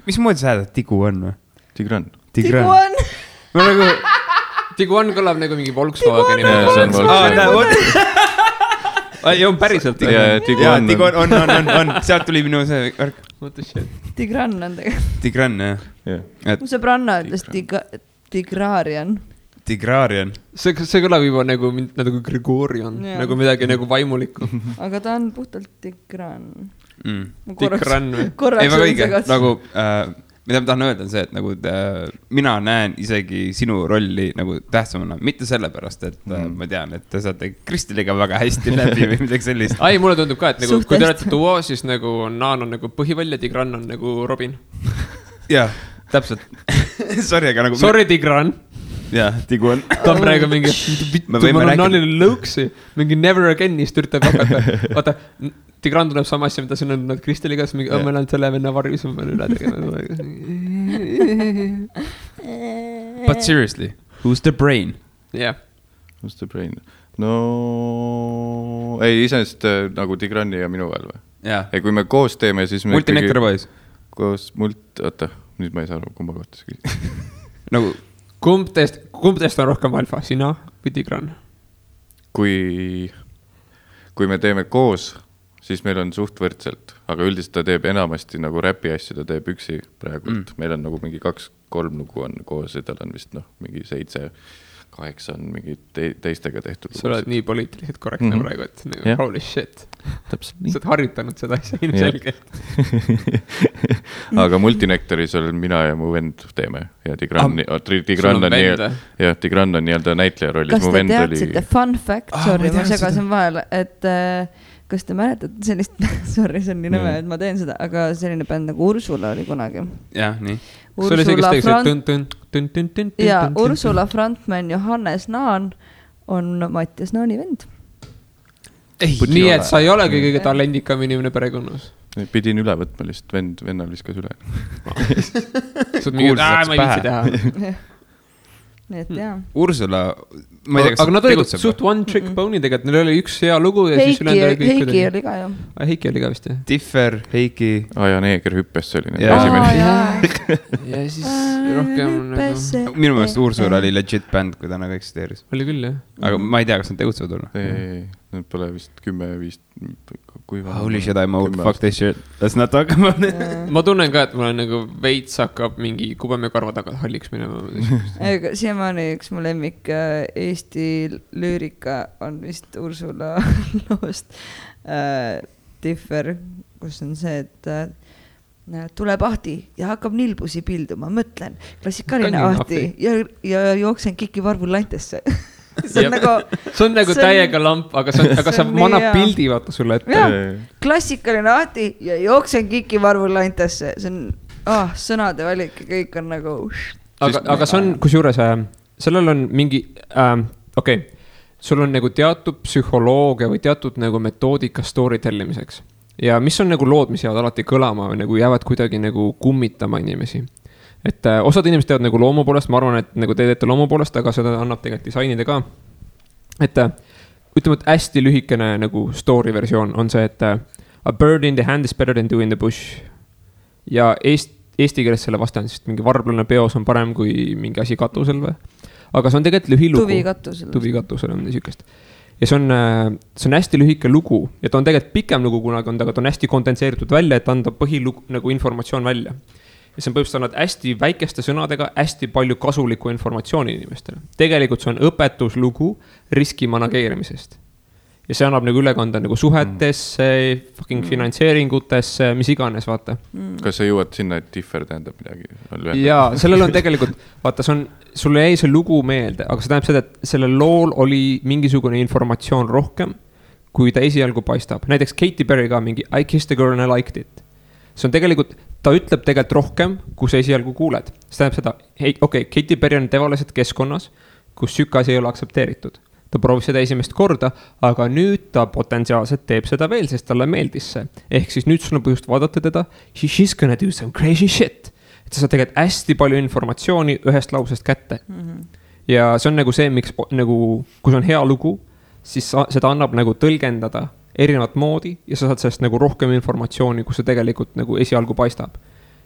mis moodi sa häädad Tigu on või? Tigran. Tiguan kõlab nagu mingi Volkswageni. See on Volkswagen. On päriselt. Tiguan on. Sealt tuli minu see värk. Tigran on tegelikult. Tigran, jah. Mu sõbranna ütles Tigrarian. Tigrarian. See kõlab juba nagu Gregorian, nagu midagi nagu vaimulikku. Aga ta on puhtalt Tigran. Tigran või? Ei, väga õige. Nagu, mida ma tahan öelda on see, et nagu mina näen isegi sinu rolli nagu tähtsamana. Mitte sellepärast, et ma tean, et te saate Kristiliga väga hästi läbi või midagi sellist. Ai, mulle tundub ka, et nagu, kui te olete duo, siis nagu Naan on nagu põhiväll ja Tigran on nagu Robin. Jah, täpselt. Sorry, aga nagu... Sorry, Tigran. Jah, Tigu on. Ta on praegu mingi, ma olen Naanile lõuksi, mingi never again'ist üritab hakata. Vaata, Tigran tuleb sama asja, mida siin on nad Kristeliga, siis mingi, ma olen selle venna varjus, ma pean üle tegema. But seriously, who's the brain? Yeah. Who's the brain? No, ei, iseenesest nagu Tigrani ja minu vahel või? Jah. Ei, kui me koos teeme, siis me Multinectar Boys. Koos oota, nüüd ma ei saa aru, kumba kohta see küsida. Nagu Kumb teist on rohkem alfa, sina või Tigran? Kui me teeme koos, siis meil on suht võrdselt, aga üldiselt ta teeb enamasti nagu räpi asju, ta teeb üksi praegu. Meil on nagu mingi 2-3 lugu on koos ja tal on vist mingi 7-8 on mingi teistega tehtud. Sa oled nii poliitiliselt korrektne praegu, et nagu, holy shit. Täpselt nii. Sa oled harjutanud seda asja ilmselgelt. Aga Multinectaris olen mina ja mu vend teeme ja Tigran on nii-öelda näitleja rollis. Kas te teadsite fun fact, sorry, ma segasin vahel, et kas te mäletate sellist, sorry, see on nii nõme, et ma teen seda, aga selline bänd nagu Ursula oli kunagi. Jah, nii. Ursula frontman Johannes Naan on Mattias Naani vend. Nii, et sa ei olegi kõige talendikam inimene perekonnas. Pidin üle võtma lihtsalt, vennal viskas üle. Sa oled mingi, ma ei viitsi teha. Nii et jah. Ursula, ma ei tea, kas aga nad olid suht one trick pony tegelikult, neil oli üks hea lugu ja siis ülend oli kõik. Heiki oli ka ju. Heiki oli ka vist, jah. Differ, Heiki. Ja Neeger hüppes, see oli esimene. Ja siis rohkem nagu... Minu meelest Ursula oli legit band, kui täna ka eksisteeris. Oli küll, jah. Aga ma ei tea, kas nad tegutsevad olla. Ei, nad pole vist 10-5... Holy shit, I'm old, fuck this shit. Let's not talk about it. Ma tunnen ka, et mul on nagu veits hakkab mingi kubeme karva tagad halliks minema. Siiamaani üks mu lemmik Eesti lüürika on vist Ursula loost Differ, kus on see, et tuleb ahti ja hakkab nilbusi pilduma, mõtlen, klassikaline ahti ja jooksen Kiki Varvul lantesse. See on nagu täiega lamp, aga sa manab pildi vaata sulle ette. Klassikaline ahti ja jooksen Kiki Varvul lantesse. See on sõnade valik ja kõik on nagu... Aga see on, kusjuures, sellel on mingi, sul on nagu teatud psühholoogia või teatud nagu metoodika story tellimiseks. Ja mis on nagu lood, mis jäävad alati kõlama või nagu jäävad kuidagi nagu kummitama inimesi. Et osad inimesed teevad nagu loomu poolest, ma arvan, et nagu te teete loomu poolest, aga seda annab tegelikult disainide ka. Et ütleme, et hästi lühikene nagu story versioon on see, et a bird in the hand is better than two in the bush. Ja eesti keeles selle vastan, sest mingi varblane peos on parem kui mingi asi katusel või. Aga see on tegelikult lühilugu. Tuvi katusel on niisugust. Ja see on hästi lühike lugu ja ta on tegelikult pikem lugu kunagi on, aga ta on hästi kondenseeritud välja, et anda põhilugu nagu informatsioon välja. Ja see on põhimõtteliselt annad hästi väikeste sõnadega hästi palju kasulikku informatsiooni inimestele. Tegelikult see on õpetuslugu riski manageerimisest. Ja see annab nagu ülekanda nagu suhetesse, fucking finantseeringutesse, mis iganes, vaata. Kas sa jõuad sinna, et Differ tähendab midagi? Jaa, sellel on tegelikult, vaata, see on sulle jäi see lugu meelde, aga see tähendab seda, et sellel lool oli mingisugune informatsioon rohkem, kui ta esialgu paistab. Näiteks Katy Perry ka mingi I kissed a girl and I liked it. See on tegelikult, ta ütleb tegelikult rohkem, kui sa esialgu kuuled. See tähendab seda, okei, Katy Perry on tavaliselt keskkonnas, kus sükasi ei ole aktsepteeritud. Ta proovis seda esimest korda, aga nüüd ta potentsiaalselt teeb seda veel, sest talle meeldis see. Ehk siis nüüd sul on põhjust vaadata teda, she's gonna do some crazy shit. Et sa saad tegelikult hästi palju informatsiooni ühest lausest kätte. Ja see on nagu see, miks nagu, kui see on hea lugu, siis seda annab nagu tõlgendada erinevat moodi ja sa saad sellest nagu rohkem informatsiooni, kus see tegelikult nagu esialgu paistab.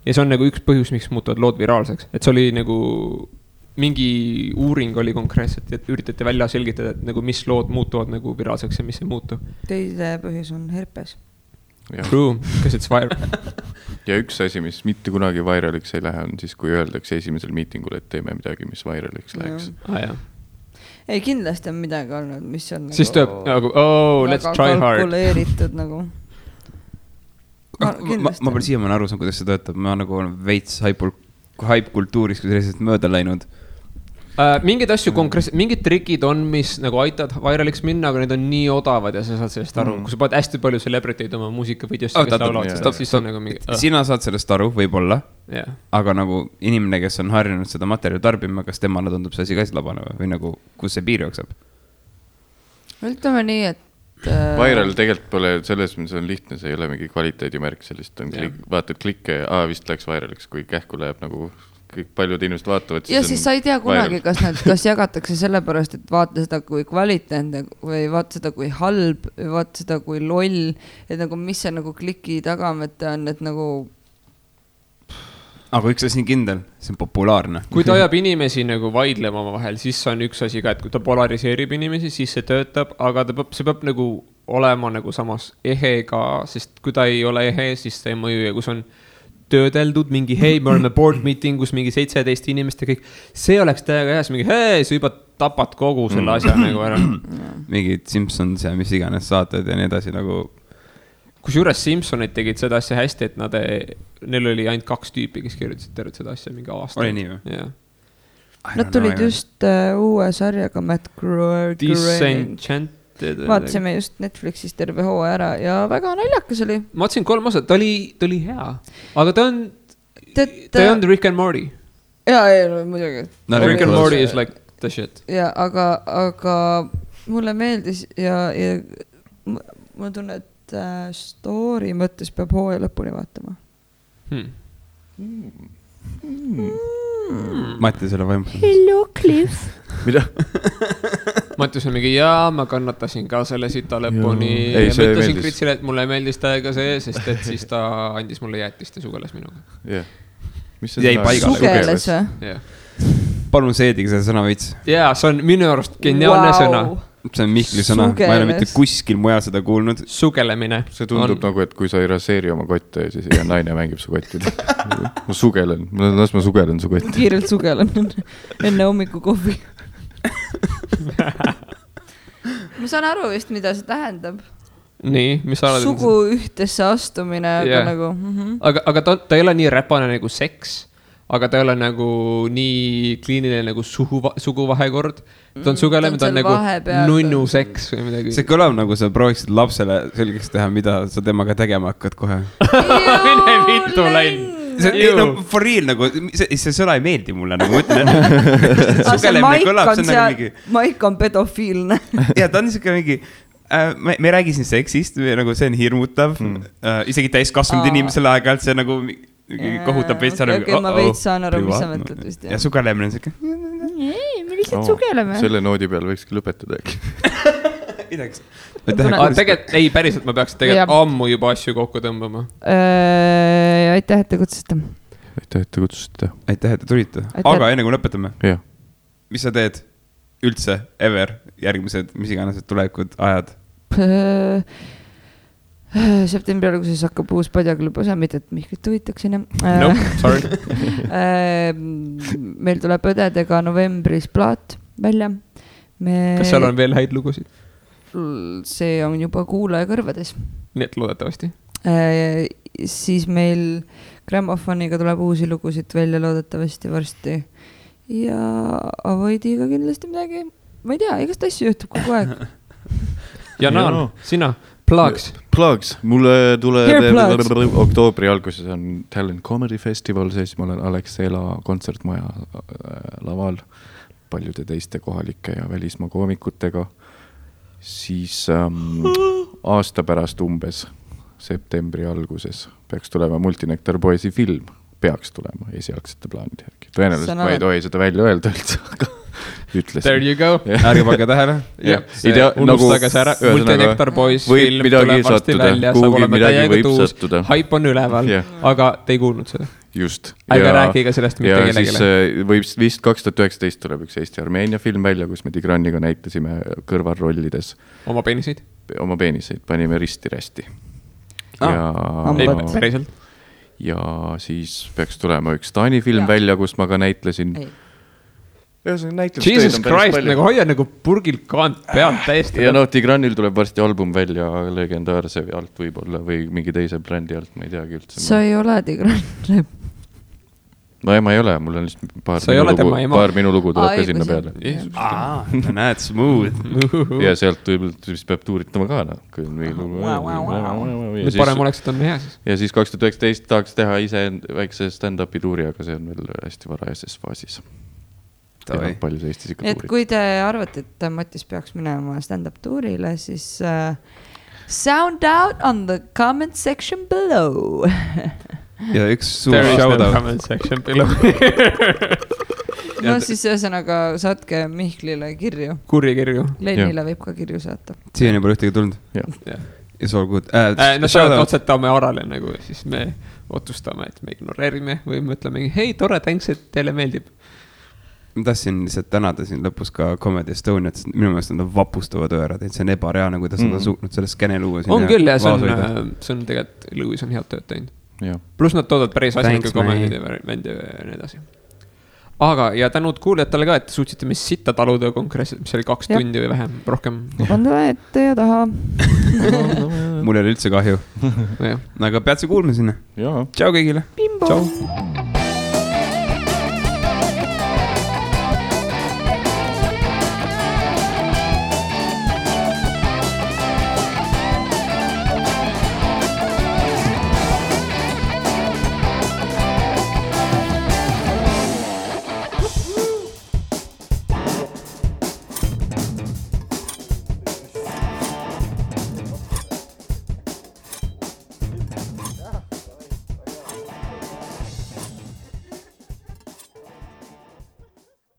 Ja see on nagu üks põhjus, miks muutuvad lood viraalseks. Et see oli nagu mingi uuring oli konkreetselt, et üritati välja selgitada, et nagu mis lood muutuvad nagu viraalseks ja mis ei muutu. Teise põhjus on herpes. True, because it's viral. Ja üks asi, mis mitte kunagi viraliks ei lähe, on siis, kui öeldakse esimesel miitingul, et teeme midagi, mis viraliks läheks. Ei, kindlasti on midagi olnud, mis on siis nagu tööb, let's try hard. Kalkuleeritud nagu. Ma pole siiamaani aru saan, kuidas see töötab. Ma nagu veits hype-kultuuris, kui sellisest mööda läinud. Mingid asju konkreetselt, mingid trikid on, mis nagu aitavad viraliks minna, aga need on nii odavad ja sa saad sellest aru. Kui sa paned hästi palju celebrity'd oma muusikavideosse, kes laulavad, siis on nagu mingi... Sina saad sellest aru, võib-olla, aga nagu inimene, kes on harjunud seda materjali tarbima, kas temale tundub see asi ka labane või nagu, kus see piir jookseb? Ütleme nii, et viral tegelikult pole selles, mis on lihtne, see ei ole mingi kvaliteedimärk, sellist on vaatad klikke, vist läks viraliks, kui kähku läheb nagu kõik paljud inimesed vaatavad. Ja siis sa ei tea kunagi, kas jagatakse sellepärast, et vaata seda kui kvaliteetne või vaata seda kui halb või vaata seda kui loll, et nagu mis see nagu kliki tagamete on, et nagu... Aga üks asi on kindel, see on populaarne. Kui ta ajab inimesi nagu vaidlema oma vahel, siis on üks asi ka, et kui ta polariseerib inimesi, siis see töötab, aga see peab nagu olema nagu samas ehe ka, sest kui ta ei ole ehe, siis ta ei mõju ja kui see on töödeldud mingi, hei, me oleme board meeting, kus mingi 17 inimest ja kõik, see oleks täiega hea, mingi, hei, sa juba tapad kogu selle asja nagu ära. Mingid Simpsons ja mis iganes saated ja nii edasi nagu... Kusjuures Simpsonid tegid seda asja hästi, et neil oli ainult 2 tüüpi, kes kirjutasid tervet seda asja mingi aasta. Oli nii või? Jah. Nad tulid just uue sarjaga Matt Groening. Disenchant. Vaatasime just Netflixis terve hoo ära ja väga naljakas oli. Ma vaatasin 3 osa, ta oli hea. Aga ta on Rick and Morty. Jaa, muidugi. Rick and Morty is like the shit. Ja, aga mulle meeldis ja ma tunnen, et story mõttes peab hooja lõpuni vaatama. Mattias ole vaimus. Hello, Cliff. Mida? Mattias on mingi, ma kannatasin ka selle sita lõpuni. Ma ütlesin Kritsile, et mulle meeldis täiega see, sest et siis ta andis mulle jäätist ja sugeles minuga. Jäi paigale. Sugeles või? Palun seedige selle sõna veits. Jaa, see on minu arust geniaalne sõna. See on Mihkli sõna, ma ei ole mitte kuskil mujal seda kuulnud. Sugelemine. See tundub nagu, et kui sa ei raseeri oma kotte, siis ja naine mängib su kottida. Ma sugelen, ma sugelen su kotti. Kiirelt sugelen enne hommiku kohvi. Ma saan aru vist, mida see tähendab. Nii, mis sa oled? Sugu ühtesse astumine, aga nagu... Aga ta ei ole nii räpane nagu seks, aga ta ei ole nagu nii kliiniline nagu suguvahekord. Ta on sugelem, ta on nagu nunnu seks või midagi. See kõlab nagu sa prooviksid lapsele selgeks teha, mida sa temaga tegema hakkad kohe. Mine vittu läin. For real nagu, see sõna ei meeldi mulle nagu mõtlen. Sugelemine kõlab, see on nagu mingi... Maik on pedofiilne. Ja ta on niisugune mingi... Me räägi siin seksist, nagu see on hirmutav. Isegi täiskasvanud inimesele aeg-ajalt see nagu... kohutab veits aru. Ma veits saan aru, mis sa mõtled vist. Ja sugelemine on siuke. Me lihtsalt sugeleme. Selle noodi peal võikski lõpetada äkki. Tegelikult, ei päriselt, ma peaks tegelikult ammu juba asju kokku tõmbama. Aitäh, et te kutsusite. Aitäh, et te tulite. Aga enne kui lõpetame. Mis sa teed üldse, ever, järgmised, mis iganes tulevikud ajad? Septembri alguses hakkab uus padjaklubi osa, mitte et Mihklit huvitaksin. Nope, sorry. Meil tuleb õdedega novembris plaat välja. Kas seal on veel häid lugusid? See on juba kuulaja kõrvades. Nii et loodetavasti. Siis meil grammofoniga tuleb uusi lugusid välja loodetavasti varsti. ja Avoidiga kindlasti midagi, ma ei tea, igast asju juhtub kogu aeg. Ja Naan, sina, Plugs, mulle tuleb oktoobri alguses on Talent Comedy Festival, siis ma olen Alexela kontsertmaja laval paljude teiste kohalike ja välismaa koomikutega. Siis aasta pärast umbes septembri alguses peaks tulema Multinektar Boysi film, peaks tulema esialgsete plaanide järgi. Tõenäoliselt ma ei tohi seda välja öelda üldse, aga ütlesin. There you go. Ärge pange tähele. Unustage see ära, Multinektar Boys film tuleb varsti välja, saab olema täiega tuus, haip on üleval, aga te ei kuulnud seda. Just. Ärge rääkiga sellest mitte kellegile. Ja siis võib vist 2019 tuleb üks Eesti-Armeenia film välja, kus me Tigraniga näitasime kõrvalrollides. Oma peeniseid? Oma peeniseid, panime risti-rästi. Päriselt. Ja siis peaks tulema üks Taani film välja, kus ma ka näitlesin. Jesus Christ, nagu hoia nagu purgil kaant pealt täiesti. Ja Tigranil tuleb varsti album välja legendaarse alt võib-olla või mingi teise brändi alt, ma ei teagi üldse. Sa ei ole Tigran. No ma ei ole, mul on lihtsalt paar minu lugu tuleb ka sinna peale. Näed, smooth. Ja sealt vist peab tuuritama ka. Nüüd parem oleks, et on hea siis. Ja siis 2019 tahaks teha ise väikse stand-upi tuuri, aga see on veel hästi varajases faasis. Et kui te arvate, et Mattis peaks minema stand-up tuurile, siis sound out on the comment section below. Ja üks suur shoutout. No siis ühesõnaga saatke Mihklile kirju. Kurri kirju. Lennile võib ka kirju saata. Siiani pole ühtegi tulnud. It's all good. No otsetame Arale nagu, siis me otsustame, et me ignoreerime või mõtleme, hei, tore, thanks, et teile meeldib. Ma tahtsin lihtsalt tänada siin lõpus ka Comedy Estoniat, sest minu meelest on vapustavad öörad, et see on ebareaalne, kuidas nad on suutnud selle skene luua. On küll ja see on tegelikult, Lewis on head tööd teinud. Plus nad toodavad päris asjalikke komendid ja nii edasi. Aga ja tänud kuulijatele ka, et suutsite mis sitta taluda konkreetselt, mis oli 2 tundi või vähem, rohkem. Vanda ette ja taha. Mul ei ole üldse kahju. Aga pead see kuulma sinna. Tšau kõigile. Bimbo. Tšau.